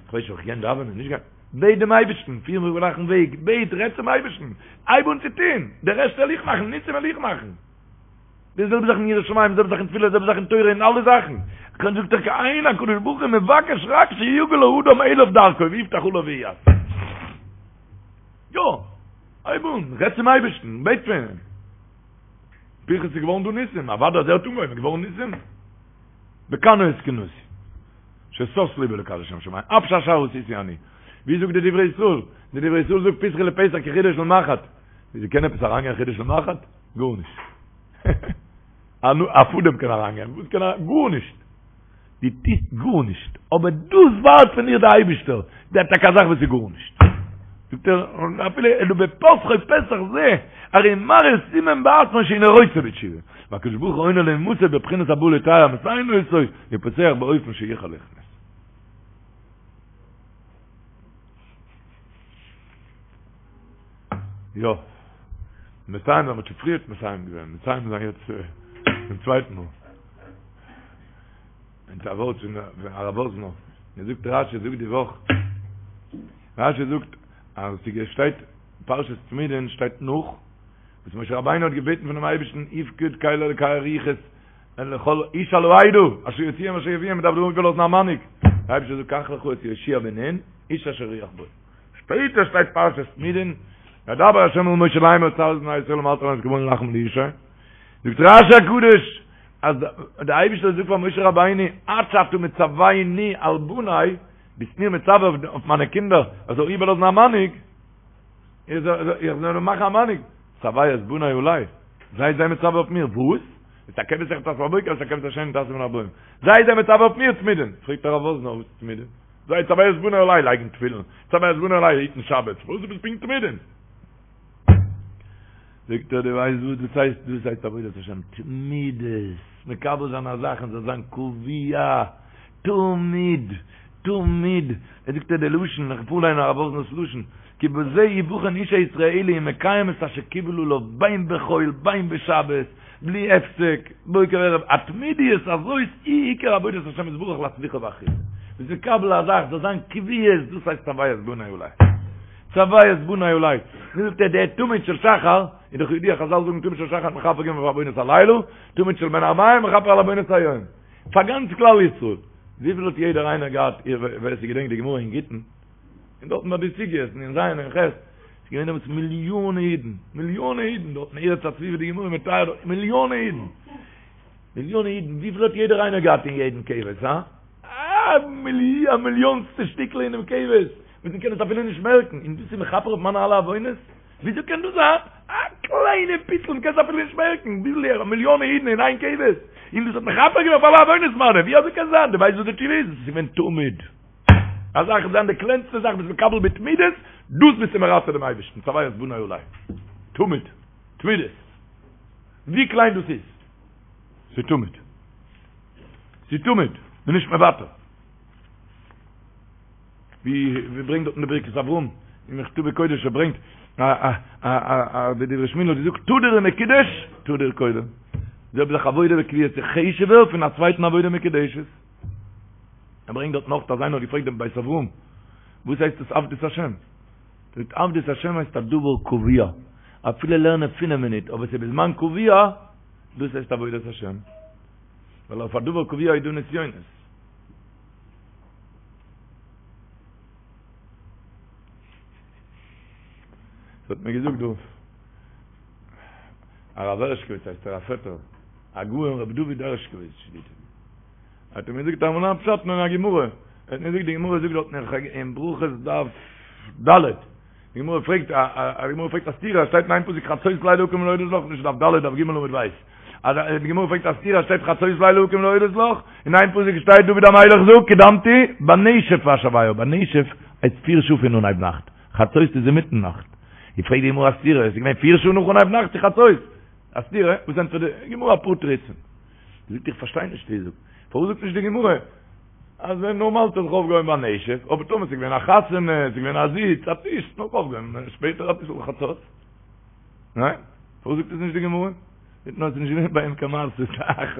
איך ווייס נישט אויב איך קען דאווענען, נישט גיין, בעט דעם אייבערשטן, פיר מיך גלייכן וועג, בעט, רעד צום אייבערשטן, הייב אן צו טון, די רעשט וועל איך מאכן, ניסים וועל איך מאכן. די זעלבע זאך אין יראת שמים, די זעלבע זאך אין תפילה, די זעלבע זאך אין תורה, אין אלע זאכן. קודם זאגט ער כי אין הקדוש ברוך הוא מבקש רק שיגל האדם אליו דרכו ויבטח עליו ויעשה. יא, הייב אן, רעד צום אייבערשטן, בעט פון אים. פנחס איז געווארן דא ניסים, אוודאי אז ער האט אנגעהויבן איז געווארן ניסים. בקנאו את קנאתי, ששש ליבי לקדש שם שמים, אף שאשר עשיתי אני. ווי זאגט די דברי ישראל? די דברי ישראל זאגט פתחו לפתח כחודו של מחט. וויאזוי קען עפעס אריינגיין חודו של מחט? גארנישט. א פאדעם קען אריינגיין, וואס קען אריין? גארנישט. דו טוסט גארנישט, אבער דאס ווארט פון דיר די אייבישטער, דער טאקע א זאך וואס איז גארנישט. זאגט ער, אפילו אלא בפתחו פתח זה, הרי מראה סימן בעצמו שאינו רוצה בתשובה. והקדוש ברוך הוא עונה לאומתו בבחינת הבא לטהר מסייעין אותו, ופותח באופן שיוכל להכנס. יא. מסיים זיין, מ'האט שוין פריערט מסיים געווען, מסיים זיין יעצט צום צווייטן מאל. און א ווארט פון הרב וואזנער, ער זאגט רשי זאגט די וואך, רשי זאגט אז ס'שטייט פרשת תמידין שטייט נאך וואס משה רבינו האט געבעטן פונעם אייבערשטן יפקוד קל אלקי הרוחות לכל איש על העדה אשר יוציאם אשר יביאם מ'דארף דא איבערלאזן א מנהיג, דער אייבערשטער זאגט קח לך את יהושע בן נון איש אשר רוח בו. שפעטער שטייט פרשת תמידין, וידבר ה' אל משה לאמר צו את בני ישראל ואמרת אליהם את קרבן הלחם לישי, זאגט רשי הקדוש אז דער אייבערשטער זאגט פאר משה רבינו עד שאתה מצווני על בניי, ביסט מיר מצווה אויף מיינע קינדער איך זאל איבערלאזן א מנהיג, איך זאל מאכן א מנהיג, צוה את בני עלי, זיי זיי מצווה אויף מיר, וואס? את הכבש אחד תעשה בבוקר ואת הכבש השני תעשה בין הערבים, זיי זיי מצווה אויף מיר תמידין, פרעגט הרב וואזנער וואס תמידין? זיי צוה את בני עלי לייגן תפילין, צוה את בני עלי היטן שבת, וואס איז פונקט תמידין? זאגט ער דו ווייסט וואס דאס הייסט? דאס הייסט עבודת השם תמידות, מקבל זיין א זאך און זאל זיין קבוע, תמיד, תמיד, ער זאגט ער די לשון, איך פארליין הרב וואזנער'ס לשון, כי בזה יבחן איש הישראלי אם מקיים את אשר קיבל עליו בין בחול בין בשבת, בלי הפסק, בוקר וערב, התמידיות הזאת היא עיקר עבודת השם יתברך להצליחה ואחריתה. ביסט מקבל א זאך זאל זיין קביעות, דאס הייסט צוה את בני עלי. צוה את בני עלי. ווי זאגט ער דער תמיד של שחר, איז דאך ידוע חזל זאגן תמיד של שחר מכפר געווען אויף עוונות הלילה, תמיד של בין הערביים מכפר על עוונות היום. פאר גאנץ כלל ישראל. וויפיל האט יעדער איינער געהאט, ווער ס'געדענקט די גמרא אין גיטין, און דארטן ביי די סוגיות אין ז' און ח', ס'איז געווען דעמאלטס מיליאנע אידן, מיליאנע אידן דארט אין ארץ הצבי ווי די גמרא מתאר דארט, מיליאנע אידן, מיליאנע אידן, וויפיל האט יעדער איינער געהאט אין יעדן כבש, הא? א מיליאנסטע שטיקל אינעם כבש, וואס מ'קען עס אפילו נישט מערקן, און דאס איז מכפר אויף מיינע אלע עוונות? וויאזוי קען דאס זיין? א קליינע פיצל, מ'קען עס אפילו נישט מערקן, וויפיל מיליאנע אידן אין איין כבש, און דאס האט מכפר געווען אויף אלע עוונות מיינע, ווי אזוי קען זיין? דו ווייסט וואס די תשובה איז? עס איז געווען תמיד. א זאך זיין די קלענסטע זאך ביסט מקבל בתמידות, דאס ביסטו מרצה דעם אייבערשטן, צוה את בני עלי. תמיד. תמידות. ווי קליין דאס איז. ס'איז תמיד. ס'איז תמיד. מ'איז נישט מוותר. ווי ווי ברענגט דארט אין די ברכת אברהם, אין מכתבי קודש ער ברענגט א א א א די דברי שמואל האט געזאגט תדיר ומקודש, תדיר קודם. זעלבע זאך עבודה בקביעות איז חשוב'ער פון א צווייטן עבודה מקודשת. ער ברענגט דארט נאך אז איינער האט געפרעגט דעם בית אברהם וואס הייסט עס עבדות השם? זאגט עבדות השם הייסט א דבר קבוע, אפילו לערנען פינף מינוט אבער ס'איז בזמן קבוע, דאס הייסט עבודת השם, ווייל אויף א דבר קבוע איז דא נסיונות. ס'האט מיר געזאגט דא הרב הערשקאוויץ הייסט ער א פעטער, הגאון רבי דוד הערשקאוויץ שליט"א. האט ער מיר געזאגט אמאל א פשט אין א גמרא, ער האט מיר געזאגט די גמרא זאגט דארט אין ברכות דף ד', די גמרא פרעגט א די גמרא פרעגט א סתירה, שטייט אין איין פסוק חצות לילה אקום להודות לך, נישט דף ד' דף ג' עמוד ב', אז די גמרא פרעגט א סתירה שטייט חצות לילה אקום להודות לך, אין איין פסוק שטייט דוד המלך זאגט קדמתי בנשף אשוועה, בנשף הייסט פיר שעה פון אנהייב נאכט, חצות איז אינמיטן נאכט, איז פרעגט די גמרא א סתירה, עס איז געווען פיר שעה נאך אנהייב נאכט צו חצות, א סתירה, וואס ענטפערט די גמרא אפאר תירוצים. זאגט איך פארשטיי נישט ווי זאגט פארוואס זאגט נישט די גמרא אז ווען נארמאל האט ער זיך אויפגעהויבן ביי נשף אבער טאמער ס'איז געווען א חתונה ס'איז געווען א זיץ א טיש נאך אויפגעהויבן שפעטער אביסל חצות ניין? פארוואס זאגט עס נישט די גמרא? נישט נאר עס איז נישט געווען ביי אים קיין מעשה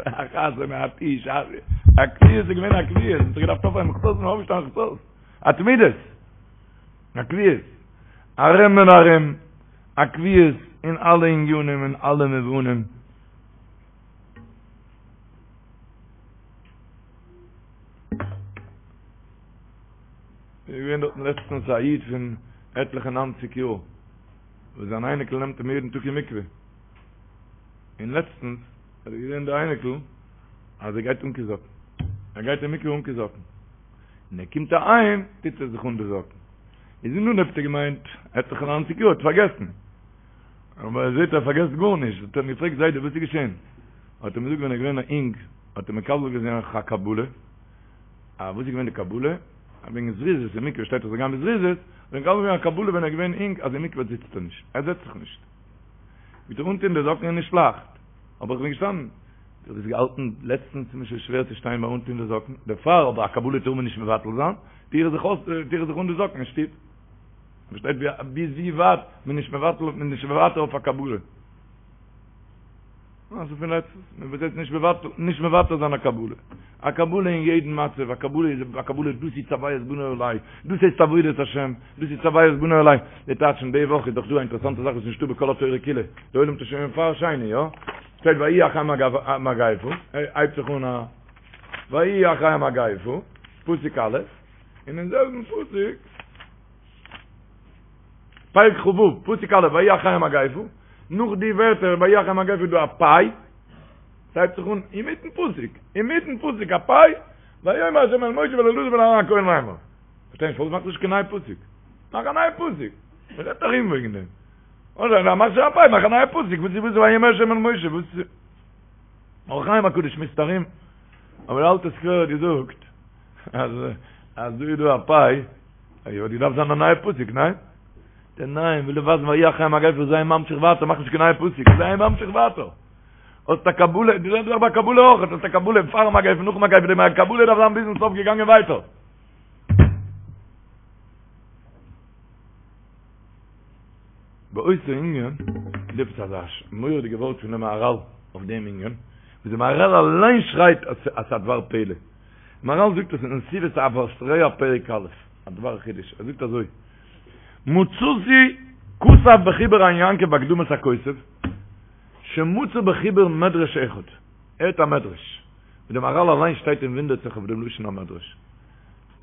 אחת ומעט איש, א קביעות איז געווען א קביעות, מ'האט זיך געדארפט אויפהייבן חצות און אויפשטיין חצות, א תמידות, א קביעות, ארום און ארום, א קביעות אין אלע עניינים אין אלע מובנים. איז געווען דארטן לעצטנס א איד פון עטליכע ניינציג יאר, וואס זיין אייניקל נעמט אים יעדן טאג אין מקווה, און לעצטנס האט ער געזען די אייניקל אז ער גייט אן קיין זאקן, ער גייט אין מקווה אן קיין זאקן, און ער קומט אהיים טוט ער זיך אן די זאקן, איז אין אנהויב האט ער געמיינט עטליכע ניינציג יאר האט פארגעסן, אבער ער זעט ער פארגעסט גארנישט, האט ער אים געפרעגט זיידע וואס איז געשען? האט ער אים געזאגט ווען ער איז געווען א אינג האט ער מקבל געווען א קבלה, א וואס איז געווען די קבלה? אז וועגן זריזות אין מקווה שטייט אז זאל גיין בזריזות, האט ער מקבל געווען א קבלה ווען ער איז געווען אינג אז אין מקווה זיצט ער נישט, ער זעצט זיך נישט. מיט אנטון די זאקן איז נישט לייכט, אבער איך בין געשטאנען. דו האסט געהאלטן לעצטנס איז מיר שוין שווער צו שטיין ביי אנטון די זאקן, דערפאר אבער א קבלה טאר מען נישט מבטל זיין, טו איך זיך אויס, טו איך זיך אן די זאקן אין שטוב. פארשטייט ווי ביז ווי ווייט מען איז נישט מבטל, מען איז נישט מוותר אויף א קבלה. מעשה פון לעצטנס, מען וועט יעצט נישט מבטל, נישט מוותר זיין א קבלה. א קבלה אין יעדן מצב, א קבלה איז א קבלה, דאס איז צוה את בני עלי, דאס הייסט עבודת השם, דאס איז צוה את בני עלי. די טייטש פון די וואך איז דאך דא א אינטערעסאנטע זאך וואס איז נישטא בכל התורה כולה, די עולם האט עס שוין פאר שני, יא? שטייט ויהי אחרי המגפה, הייבט זיך אן א ויהי אחרי המגפה, פסוק א', און אין זעלבן פסוק, פרק כ"ו, פסוק א', ויהי אחרי המגפה, נאך די ווערטער ויהי אחרי המגפה איז דא א פיי, ס'הייבט זיך אן אינמיטן פסוק, אינמיטן פסוק א פיי, ויאמר ה' אל משה ואל אלעזר בן אהרן הכהן לאמר. פארשטיי נישט פארוואס מאכסטו נישט קיין נייע פסוק? מאך א נייע פסוק! מ'רעדט ארום וועגן דעם. אדער מאך שוין א פיי, מאך א נייע פסוק, וואס איז וואס ויאמר ה' אל משה, וואס איז אור החיים הקדוש שמועסט ארום, אבער די אלטע סקווער האט געזאגט אז אז דא איז דא א פיי, האט געדארפט זיין א נייע פסוק, ניין? דער ניין וויל ווייזן ויהי אחרי המגפה זיי ממשיך ווייטער מאך נישט קיין נייע פסוק זיי ממשיך ווייטער האסט א קבלה די זעלבע זאך ביי קבלה אויך האסט א קבלה פאר מגפה נאך מגפה די קבלה דארף זיין ביזן סוף געגאנגען ווייטער באותו ענין איז עפעס אזא מורא'דיגע ווארט פון די מהרל אויף דעם ענין, וואס די מהרל אליין שרייט אז ס'איז א דבר פלא. מהרל זאגט עס אין נתיבות אהבת רע פרק א', א דבר חידוש, ער זאגט אזוי, מצאתי כתב בחיבור עין יעקב בהקדמת הכותב, שמצא בחיבור מדרש אחד, ער האט א מדרש, ווי די מהרל אליין שטייט און וואונדערט זיך אויף דעם לשון המדרש.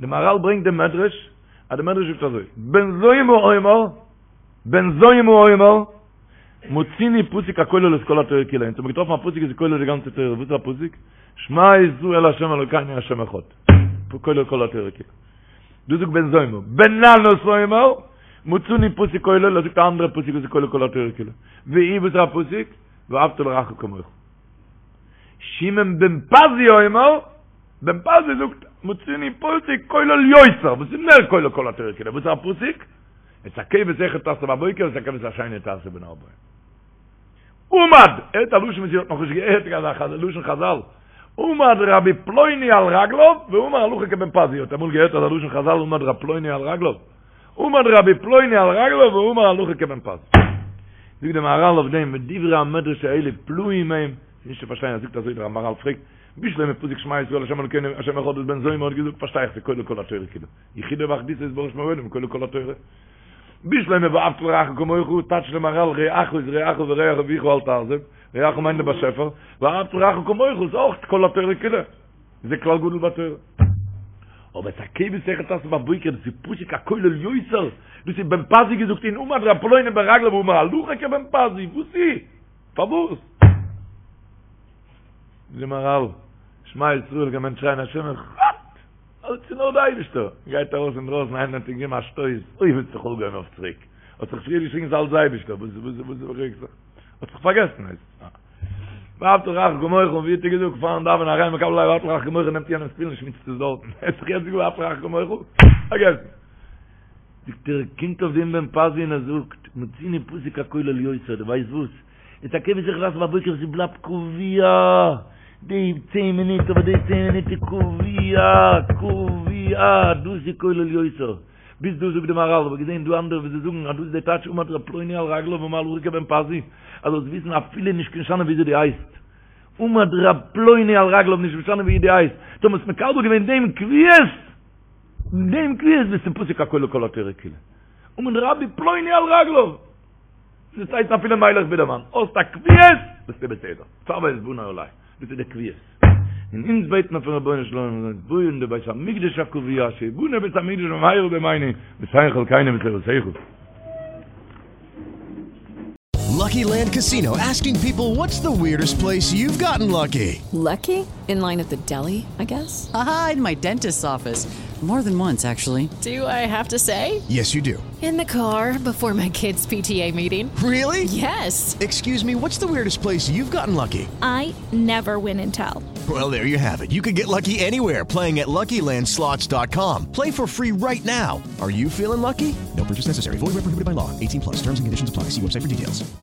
די מהרל ברענגט דעם מדרש, אז די מדרש זאגט אזוי, בן זומא אומר, בן זומא אומר, מצינו פסוק הכולל את כל התורה כולה, אונז האבן געטראפן א פסוק וואס איז כולל די גאנצע תורה, וואס איז א פסוק? שמע ישראל ה' אלוקינו ה' אחד, כולל כל התורה כולה. דאס זאגט בן זומא. בן ננס אומר, מצינו פסוק כולל, ער זאגט א אנדערע פסוק וואס איז כולל כל התורה כולה. והוא וואס איז א פסוק? ואהבת לרעך כמוך. שמעון בן פזי אומר, בן פזי זאגט, מצינו פסוק כולל יותר, וואס איז מער כולל כל התורה כולה, וואס איז א פסוק? את הכבש אחד תעשה בבוקר ואת הכבש השני תעשה בין הערבים. עמד, הערט א לשון וואס איר האט נאכנישט געהערט, אזא לשון חזל, עמד רבי פלוני על רגליו ואמר הלכה כבן פזי, האט אמאל געהערט אזא לשון חזל עמד רבי פלוני על רגליו? עמד רבי פלוני על רגליו ואמר הלכה כבן פזי. זאגט דער מהרל אויף דעם, ודברי המדרש האלה פלאים הם, ס'איז נישט צו פארשטיין, ער זאגט אזוי דער מהרל פרעגט, בשלמא פסוק שמע ישראל ה' אלוקינו ה' אחד וואס בן זומא האט געזאגט פארשטיי איך ס'כולל כל התורה כולה. יחודו ואחדותו יתברך שמו לעולם כולל כל התורה. בשלמא ואהבת לרעך כמוך, טייטשט דער מהרל רעך איז רעך ורע אביך אל תעזוב, רעך מיינט דער באשעפער, ואהבת לרעך כמוך איז אויך כל התורה כולה, זה כלל גדול בתורה. אבער את הכבש אחד תעשה בבוקר, דאס איז פסוק הכולל יותר, דאס איז בן פזי געזאגט און עמד ר' פלוני ברגליו ואמר הלכה כבן פזי, וואס איז? פארוואס? זאגט דער מהרל, שמע ישראל קען מען שרייען השם אחד! אלץ איז נאר די אייבישטער! גייט ארויס אינדרויסן איינער האט אים געגעבן א שטויס, אוי האט זיך אויפגעהויבן אויף צוריק, האט זיך פריער געשריגן ס'איז אלץ די אייבישטער, וואס וואס וואס רעגסט זיך? האט זיך פארגעסן הייסט עס. ואהבת לרעך כמוך, ווי האט ער געזאגט פארן דאווענען הריני מקבל עלי ואהבת לרעך כמוך נעמט יענעמ'ס תפילין שמיצט עס דארטן, ער האט זיך יעצט געזאגט ואהבת לרעך כמוך? פארגעסן. זאגט ער, קומט אויף דעם בן פזי און ער זאגט, מצינו פסוק הכולל יותר, דו ווייסט וואס? את הכבש אחד תעשה בבוקר ס'בלייבט קבוע די צען מינוט אבער די צען מינוט איז קבוע קבוע דאס איז כולל יותר. ביז דא זאגט די מהרל, האב איך געזען דא אנדערע וואס זיי זאגן אז דאס איז די טייטש עמד ר' פלוני על רגליו אמר הלכה כבן פזי, אז זאלסט וויסן אפילו נישט משנה וויאזוי דו הייסט, עמד ר' פלוני על רגליו נישט משנה ווי דו הייסט, טאמער האסט מקבל געווען דעם קביעות, דעם קביעות ביסטו פוסק הכל לכל התורה כולה. עמד רבי פלוני על רגליו! דאס הייסט אפילו מיילעך בידערמאן, האסט א קביעות, ביסטו בסדר. צוה את בני עלי, דאס איז די קביעות. און אונז בעט מען פון רבונו של עולם זאל אונז בויען די בית המקדש הקבוע, שיבנה בית המקדש במהרה בימינו, ותן חלקינו בתורתך. Lucky Land Casino asking people what's the weirdest place you've gotten lucky? Lucky? In line at the deli, I guess? Aha, in my dentist's office. More than once, actually. Do I have to say? Yes, you do. In the car before my kids' PTA meeting. Really? Yes. Excuse me, what's the weirdest place you've gotten lucky? I never win and tell. Well, there you have it. You can get lucky anywhere playing at LuckyLandSlots.com. Play for free right now. Are you feeling lucky? No purchase necessary. Void where prohibited by law. 18 plus. Terms and conditions apply. See website for details.